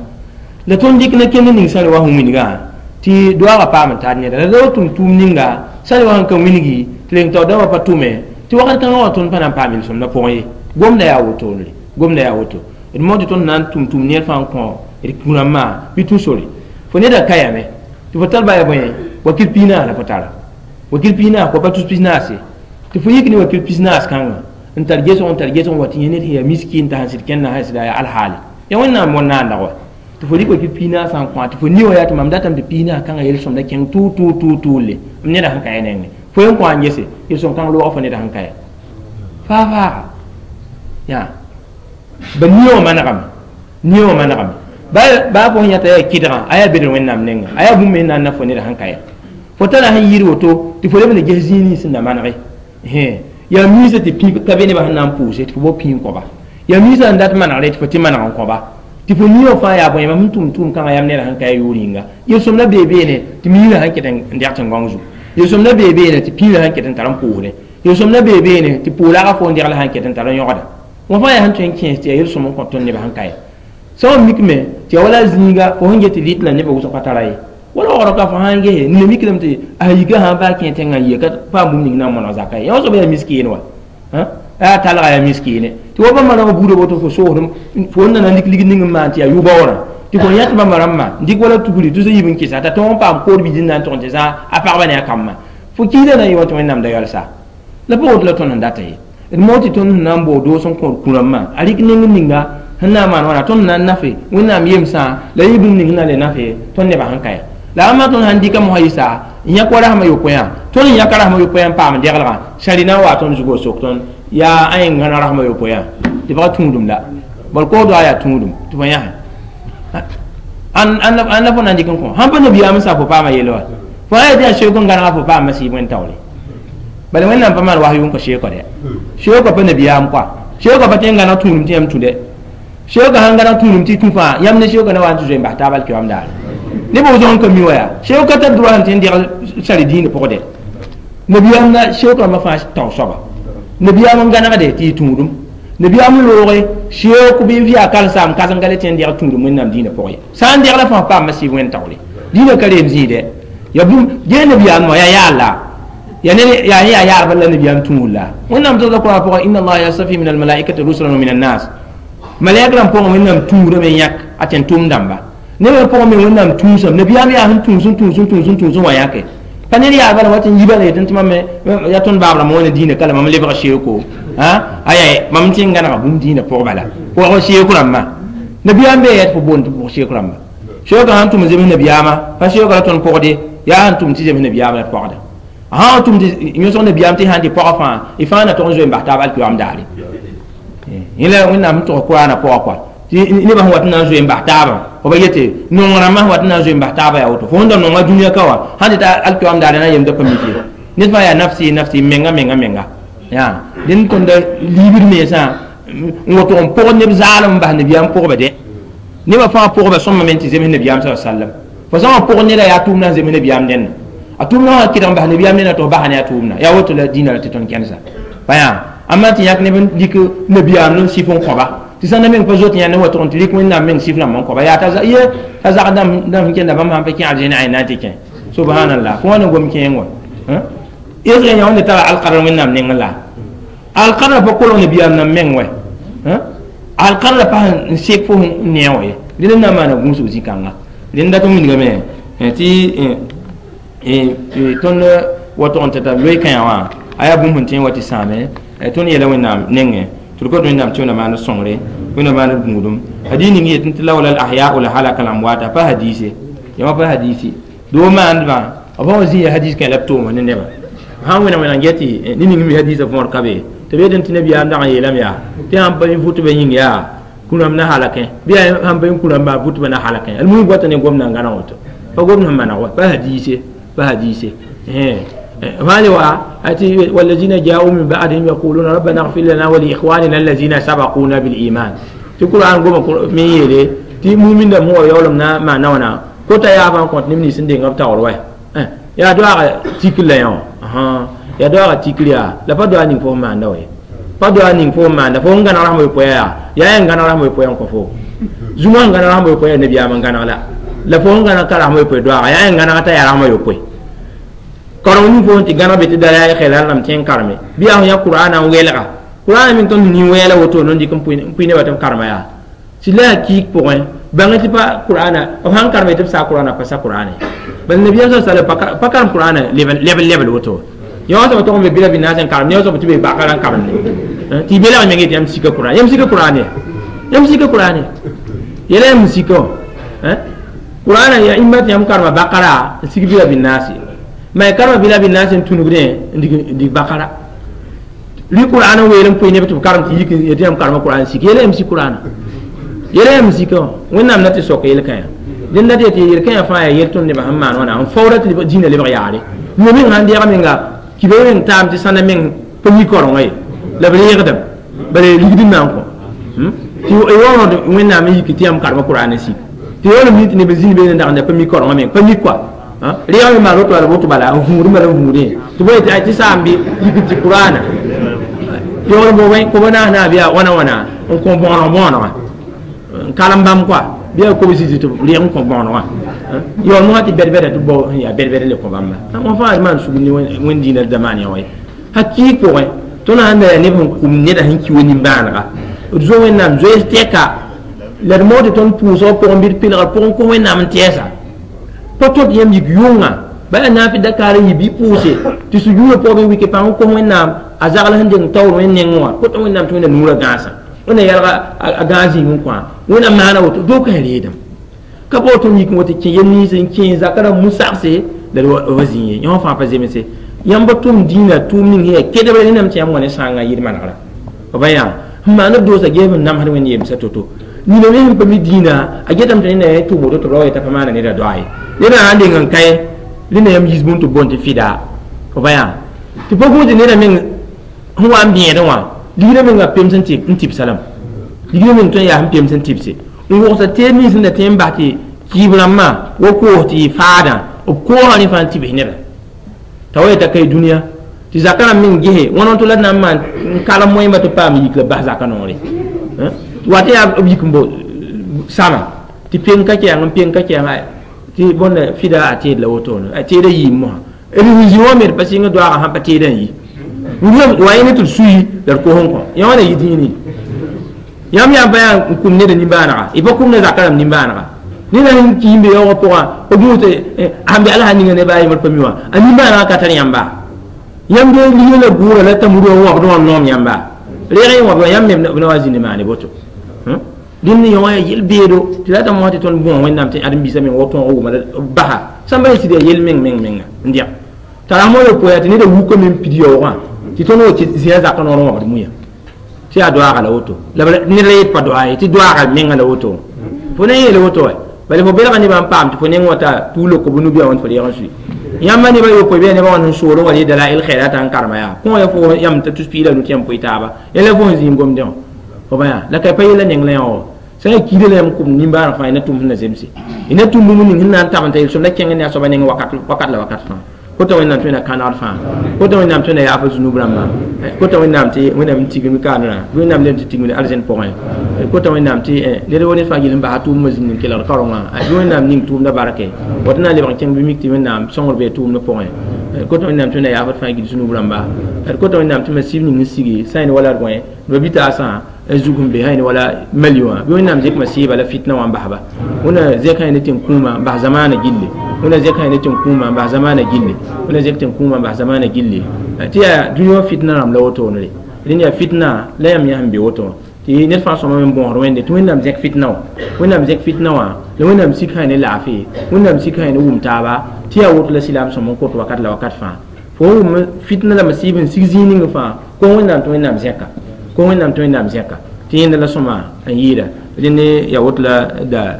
la tõnd dɩk na kend ning sã wa sẽn wilgã tɩ doaagã paam n tar neda la ra tʋm tʋʋm ninga sã wa sẽn ka wilgi tɩ reng taoor dãmbã pa tʋme tɩ wakat kãngã wã tõnd pa na n paam yel-sõmdã pʋgẽ ye gomda yaa wotone gomda yaa woto d mo tɩ tõnd na n tʋm tʋʋm neer fãa n kõ d kũ-rãmbã bɩ tũ sore fo neda ka yame tɩ fo tar baya bõe wakil piinaas la fo tara wakil piinaas kõ pa tus pisnaase tɩ fo yik ne wakil pisnaas kãngã n tar gesg n tar gesg n wa tɩ yẽ ned sẽn yaa miskin t'a sẽn sɩd kẽnda sã sɩda yaa alhaale yaa wẽnnaam wẽn-naanda wa tɩ fo rɩk wakil piinaasã n kõ tɩ fo ni wã yaa tɩ mam datame tɩ piinaas kãngã yel-sõmda kẽng tʋʋ tʋʋ tʋʋ tʋʋle m neda sẽn ka ya nengẽ fo yen kõ n gese yel-sõm kãng loogã fo neda sẽn ka ya faa faaga yaa ba nie wã manegame nie wã manegame baa fo sẽn yãta yaa kɩdgã a yaa bedr wẽnnaam nengã a yaa bũmb me na n na fo neda sẽn ka ya fo tara sẽn yɩɩd woto tɩ fo leb n ges zĩig nins sẽn na manege yaa miisã tɩ pĩ ka be nebã sẽn na n pʋʋse tɩ fo bao pĩ n kõba yaa miisã n dat manegre tɩ fo tɩ maneg n kõba tɩ fo nie wã fãa yaa bõe mam sẽn tʋm tʋʋm kãngã yam neda sẽn ka ya yʋʋr yĩnga yel-sõmda bee beene tɩ miirã sẽn ket n dɛg tẽn-gãong zugu yel-sõmda bee beene tɩ pĩirã sẽn ket n tar n pʋʋsdẽ yel-sõmda bee beene tɩ pʋʋlaga fo n degl sẽn ket n tar n yõgda wã fãa yaa sẽn tõe n kẽes tɩ yaa yel-sõm n kõ tõnd nebã sẽn ka ye sã n mikme tɩ yaa wala zĩiga fo sẽn get tɩ rɩt la nebã wʋsg pa tara ye wala waoogrã ka fo sãn gese nina mikrame tɩ a yika sã n baa kẽ tẽngã n yɩ ka paam bũmb ning na n mõneg zaka ye yã soaba yaa miskeen wa yaa talga yaa miskiine tɩ wa bãmba rãmbã buudã woto fo soosdem fo n na n lik ligd ning n maan tɩ yaa yʋ-baoorã tɩ fo yãt bãmba rãmbã n dɩk wala tugri tʋ yib n kɩsa t'a tõog n paam kood bilsd na n tʋg n tɩ zã a pagba ne a kambã fo kiidã na n yɩ wa tɩ wẽnnaam da yalsa la pa woto la tõnd n data ye d mo tɩ tõnd sẽn na n bao doos n kõod kũ-rãmbã a rɩk neng ninga sẽn na n maan wãna tõnd na n nafe wẽnnaam yemsã la yɩ bũmb ning sẽn na le nafe tõnd nebã sẽn ka ya la ãmba tõnd sãn dɩka mosã yɩsa n yãk wa rasmã yopoe tõnd n yãka rasmã yopoe n paam deglgã sãri na n wa tõnd zugu sok tõnd yaa a yẽng gãna rasmã yopoe tɩ pagã tũudum la bal kood wa yaa tũudum tɩ fo yãse ãn la fo na n dɩk n kõ sãn pa nabiyaam n sa fo paama yel wa fo sã yaa tɩ yaa seook n gãnega fo paama sɩɩb wẽn taoore bala wẽnnaam pa maan was yʋng kõ seookã dɛ seookã pa nabiyaam koa seookã pa tẽ n gãneg tũudum tɩ yãmb tũ dɛ seookã sãn gãneg tũudum tɩ tũ fãa yãmb ne seookã na wa n tɩ zoe n bas taab alkiyoam daare nebã wʋsg n ka mi wa yaa seookã tar droit sẽn tɩ n degl sari dĩinã pʋgdɛ nabiyaam la seook rãmbã fãa tao soaba nabiyaam n gãnegde tɩ yɩ tũudum nabiyaam n looge seook bɩ v yaa karen-saam kãsem ka le tɩ n degl tũudum wẽnnaam dĩinã pʋgẽ ye sã n degla fãa paama sɩɩb wẽn taoore dĩinã ka reem zĩide ya bũmb gee nabiyaam wã yaa yaal-la ya ne yaa yaa yaarba la nabiyaam tũud la wẽnnaam togda kʋrã pʋgẽ inna allaha yastafi min almalaikati rusulan wa min annas malaik rãmb pʋgẽ wẽnnaam tũudame yãk a tẽn tʋʋm dãmba nebã pʋgẽ me wẽnnaam tũusame nabiyaam yaa sẽn tũus n tũus n tũus n tũus n wa yãke pa ned yaa bala wat n yiba la yetɩ tɩ mam yaa tõnd baab rãmb wẽna dĩinã ka la mam lebg seooko aya mam tɩ n gãnega bũmb dĩinã pʋg bala pʋgg seook rãmbã nabiyaam bee yaa tɩ fo boond tɩ pʋg seook rãmba seookã sãn tʋm n zems nabiyaamã pa seookã la tõnd pʋgde yaa sẽn tʋm tɩ zems nabiyaamã la d pɔgda sã n tʋm tɩ yõsg nabiyaam tɩ sãn tɩ pɔgã fãa y fãa na tog n zoe n bas taab alkiyoam daare yẽla wẽnnaam sẽn tog kʋraanã pʋgã kɔa tɩ nebã sẽn wat n na n zoe n bas taabã fo ba yete nong rãmbã sẽn wat n na n zoe n bas taabã yaa woto fo sẽn da nonga dũniyã ka wã sãn tɩ ta alkiyoam daare na n yemda pa mik ye ned fãa yaa nafsi nafsi menga menga menga yaa dẽnd tõnda liibd mensã n woto n pʋgd neb zaalem n bas nabiyaam pʋgba dɛ nebã fãa pʋgba sõma me tɩ zems nabiyaam sa sallam fo sã n pʋgd neda yaa tʋʋmdã n zems nabiyaam dẽnna a tʋʋmdã wã kɩdg n bas nabiyaam dẽnna tɩ f basa ne a tʋʋmdã yaa woto la dĩinã la tɩ tõnd kẽnsa pa yaa ãmba tɩ yãk neb n dɩk nabiyaam n sɩf n kõba tɩ sãn da meng pa zoet yãnd n wa tʋg n tɩ rɩk wẽnnaam meng sɩf rãmb n kõba yaa t'a ye t'a zag dãmb sẽn kẽnda bãmb sãn pa kẽ arzẽn a na n tɩ kẽ subhanallah fo wã na gom kẽeng wã esg yã wẽnde tara alkadr wẽnnaam nengẽ la Alqadra pa kolg nabiyaam nan meng wɛ alqadra pa n sek fo n ne wã ye dẽnd n na n maana gũusg zĩ-kãnga dẽnd dat n wilgame tɩ tõnd wa tʋg n tɩ t'a loe kãyã wã a yaa bũmb sẽn tõe n wa tɩ sãame tõnd yeela Wẽnnaam nengẽ tɩ d kot Wẽnnaam tɩ wẽnnaam maan sõngre wẽnnaam maan gũudum hadis ning yetẽ tɩ lawla al ahya'u la halaka al amwata pa hadise yãmba pa hadisi doo maandbã b sã wa zĩ ya hadis kẽ la b tooma ne nebã sãn wẽna wẽna n get tɩ ne ning mi hadisã võor ka be tɩ b yetẽ tɩ nabiyaam dag n yeelame yaa tɩ sãn pa vʋtbã yĩng yaa kũrãmb na halakẽ bɩ yaa sãn pa kũrãmba vʋtbã na halakẽ almuhim goata ne gomdã n gãneg woto pa gomd sẽn maneg wa pa hadise pa hadise والذين جاءوا من بعدهم يقولون ربنا اغفر لنا ولإخواننا الذين سبقونا بالإيمان في القرآن قوم من يلي تي مؤمن دم هو يولم نا ما نونا كوتا يا فان كونت نمني سندين غب تاور واي يا دعاء تيكل يا ها يا دعاء تيكل يا لا با دعاء نين فو ما ندوي با دعاء نين فو ما ند فو ngana rahmo poya ya ya ngana rahmo poya ko fo zuma ngana rahmo poya nabi am ngana la la fo ngana ka rahmo poya دعاء ya ngana ta ya rahmo poya karong ni fo ti gana be ti dara ya khela lam ten karme bi a ya qur'ana welga qur'ana min ton ni wela woto non di kom puine batam karma ya si la ki point banga ti pa qur'ana o han karme ti sa qur'ana pa sa qur'ana bal nabiy sallallahu alaihi wasallam pa karam qur'ana level level level woto yo so to be bila binasen karme yo so ti be bakaran karme ti bela me ngeti am sika qur'ana yam sika qur'ana yam sika qur'ana yele yam sika hein qur'ana ya immat yam karma bakara sik bila binasi ma karma bila bin nas tunugre ndi bakara li qur'ana weelem poy ne to karam ti yik yeti am karma qur'an si yele am si qur'ana yele am si ko wẽnnaam na tɩ sok yel-kãyã dẽnd na tɩ yel-kãyã fãa yaa yel tõnd nebã sẽn maan wãna n faoora tɩ dĩinã lebg yaare no meng sãn deeg menga kibã meng taam tɩ sãnda meng pa mi kaorengã ye la b reegdame bala ligd n na n kõ tɩ yaood wẽnnaam n yik tɩ yãmb karma qur'an n sik tɩ yaoolem yĩ tɩ neb zĩnd beene n dag pa mi kaorengã meng pa mi koa reeg me maan woto bala woto bala n vũud bala n vũudẽ tɩ bõe tɩ saam bɩ yik tɩ qur'ana yaool bo wẽ kob naas naa bɩ yaa wãna wãna n kõ bõoneg bõonega n kalem bãmb koa bɩ yaa kobs tɩ reeg n kõ bõonegã yaool mosã tɩ bɛd-bɛda tɩ bao yaa bɛd-bɛd le kõ bãmba wã fãa maan sugr ne wẽnd dĩinã zamaan yã wa ye hakɩɩg pʋgẽ tõnd sãn da yaa neb sẽn kʋm neda sẽn ki wa nimbãanega d zo wẽnnaam zoees tɛka la d moog tɩ tõnd pʋʋsgã pʋgẽ bɩ d pelgr pʋgẽ kõ wẽnnaam n tɛɛsa pa tõt yãmb yik yʋnga bala na fi dakar yi bi pʋʋse tɩ sujuudã pʋgẽ bɩ wike pãng kos wẽnnaam a zagl sẽn deng taoor wẽnd nengẽ wã kota wẽnnaam tɩ wẽnna nuurã gãasã wẽnna yalga a gãas zĩig n kõ wẽnnaam maana woto dookã reedame ka bao tõnd yik n wa tɩ kẽ yel nins n kẽ zakã rãmb mu-sagse la d wa zĩ ye yõ fãa pa zemse yãmb tʋm dĩinã tʋʋm ning sẽn yaa kedbre rẽndame tɩ yãmb wa ne sãangã yɩl manegra b yaa n maan b doosa geeb n namsd wẽnd yemsa to-to nina me sẽn pa mi dĩinã a getame tɩ neda ya tʋʋm woto tɩ b ra wa yeta pa maana neda doa ye neda sãn deng n kae rẽnda yãmb yiis bũmb tɩ boond tɩ fɩda b yaa tɩ pa gũud tɩ neda meng sẽn wa n bẽedẽ wã ligdã menga pems n tɩbsa lame ligdã meng tõe n yaa sẽn pems n tɩbse n wogsa teed nins sẽn da tõe n bas tɩ kɩɩb rãmbã wa koos tɩ yɩ faadã b koosã rẽ fãa n tɩbs neda t'a wa yeta ka dũniyã tɩ zakã rãmb meng gese wãna tɩ la d na n maan n kalem moẽmba tɩ paam yik la bas zakã noore wa tɩ yaa b yik n bo sama tɩ peng ka kɛɛng n peng ka kɛɛng tɩ bõnda fɩda a teed la wotone a teedã yiim mosã d zĩ wã me d pa sɩng doaagã sãn pa teedã n yi wa yẽ ne tɩ d sui la d kos n kõ yã wãna yɩ dĩini yãmb yaa pa yaa n kʋm neda nimbãanega y pa kʋm ne zakã rãmb nimbãanega neda sẽn ki n be yaoogã pʋgã b gũus tɩ sãn be ala sã ninga neba a yembr pa mi wã a nimbãanegã ka tar yãmba yãmb de ligã la gʋʋra la tamurã wãbd wã noom yãmba reeg y wãbd wã yãmb me b na wa zĩnd maane boto dẽnd yõ wã yaa yel-beedo tɩ la ta mosã tɩ tõnd bõo wẽnnaam tɩ ãdem-biisã meng wa tõog wʋma basa sãmba sɩd yaa yel meng meng menga n dẽg t'a rasmõ yopoe tɩ neda wukame n pid yaoogã tɩ tõnd wa zĩa zakã noor n wãbd muya tɩ yaa doaaga la woto la ned la yet pa doa ye tɩ doaaga menga la woto fo na n yeele woto wa bala fo belga nebã n paam tɩ fo neng wata tuug loko bʋ nubia wãnd fo reeg n sui yãmba nebã yopoe bɩ nebã wãnd sẽn soolẽ wa ree dalail khairat n karema yaa kõ ya fo yãmb t'a tus piig la nu tɩ yãmb poe taaba yẽla fo sẽn zĩig gomdẽ wã fo ba yaa la ka pa yella neng la yã wã sã n kiida la yãmb kʋm nimbãaneg fãa y na tʋm sẽn na zemse y na tʋm bũmb ning sẽn na n tab n ta yel-sõmda kẽng ne a soaba neng wakat wakat la wakat fãa kota wẽnnaam tɩ wẽnna kãnegd fãa kota wẽnnaam tɩ wẽnna yaaf zunub rãmbã kota wẽnnaam tɩ wẽnnaam n tigim kaanrã bɩ wẽnnaam lem tɩ tigimd arzẽn pʋgẽ kota wẽnnaam tɩ ned wa ned fãa gill n basa tʋʋmdã zĩnd n kelgd kaorengã bɩ wẽnnaam ning tʋʋmdã barke wa tɩ na n lebg n kẽng bɩ mik tɩ wẽnnaam sõngr bee tʋʋmdã pʋgẽ D kota Wẽnnaam tɩ Wẽnna yaafd fãa gill sũ-noog rãmba. D kota Wẽnnaam tɩ masib ning n sigi sã yẽnd wala d gõe b bitaasã n zug n be sã yẽnd wala Mali wã bɩ Wẽnnaam zẽk masiiba la fitna wã n basba. Wẽnna zẽk sã yẽnd tẽn-kũumã n bas zamaanã gilli. Wẽnna zẽk sã yẽnd tẽn-kũumã n bas zamaanã gilli. Wẽnna zẽk tẽn-kũumã n bas zamaanã gilli. Tɩ yaa dũni wã fitna rãmb la wotone rẽnd yaa fitna la yãmb yã sẽn be woto wã tɩ ned fãa sõma me n bõosd Wẽnde tɩ Wẽnnaam zẽk fitna wã, Wẽnnaam zẽk fitna wã la Wẽnnaam sik sã ne laafɩ, Wẽnnaam sik sã ne wʋm taaba tɩ yaa woto la silaam sõm n kot wakat la wakat fãa. Fo wʋm fitna la masiib n sig zĩig ning fãa ko Wẽnnaam tɩ Wẽnnaam zẽka, ko Wẽnnaam tɩ Wẽnnaam zẽka tɩ yẽnda la sõma n yɩɩda. Rẽnd yaa woto la da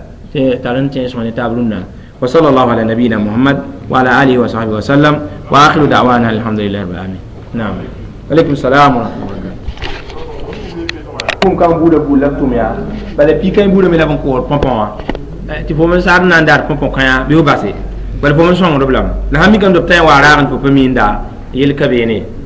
tar n tẽes ne taab rũnnã. Wa sallallahu ala nabiyina Muhammad wa ala alihi wa sahbihi wa sallam wa akhiru da'wana alhamdulillahi rabbil alamin. Naam, alaykum salam wa rahmatullahi. Kũm kan buudã buud la b tʋm yaa bala pika buudã me la b n kood põpõ wã tɩ fo me sad n na n daar põpõ kãyã bɩ f base bala fo me sõngd b lame la sãn mikame tɩ b tã n wa raagẽ tɩ fo pa miinda yel ka beene.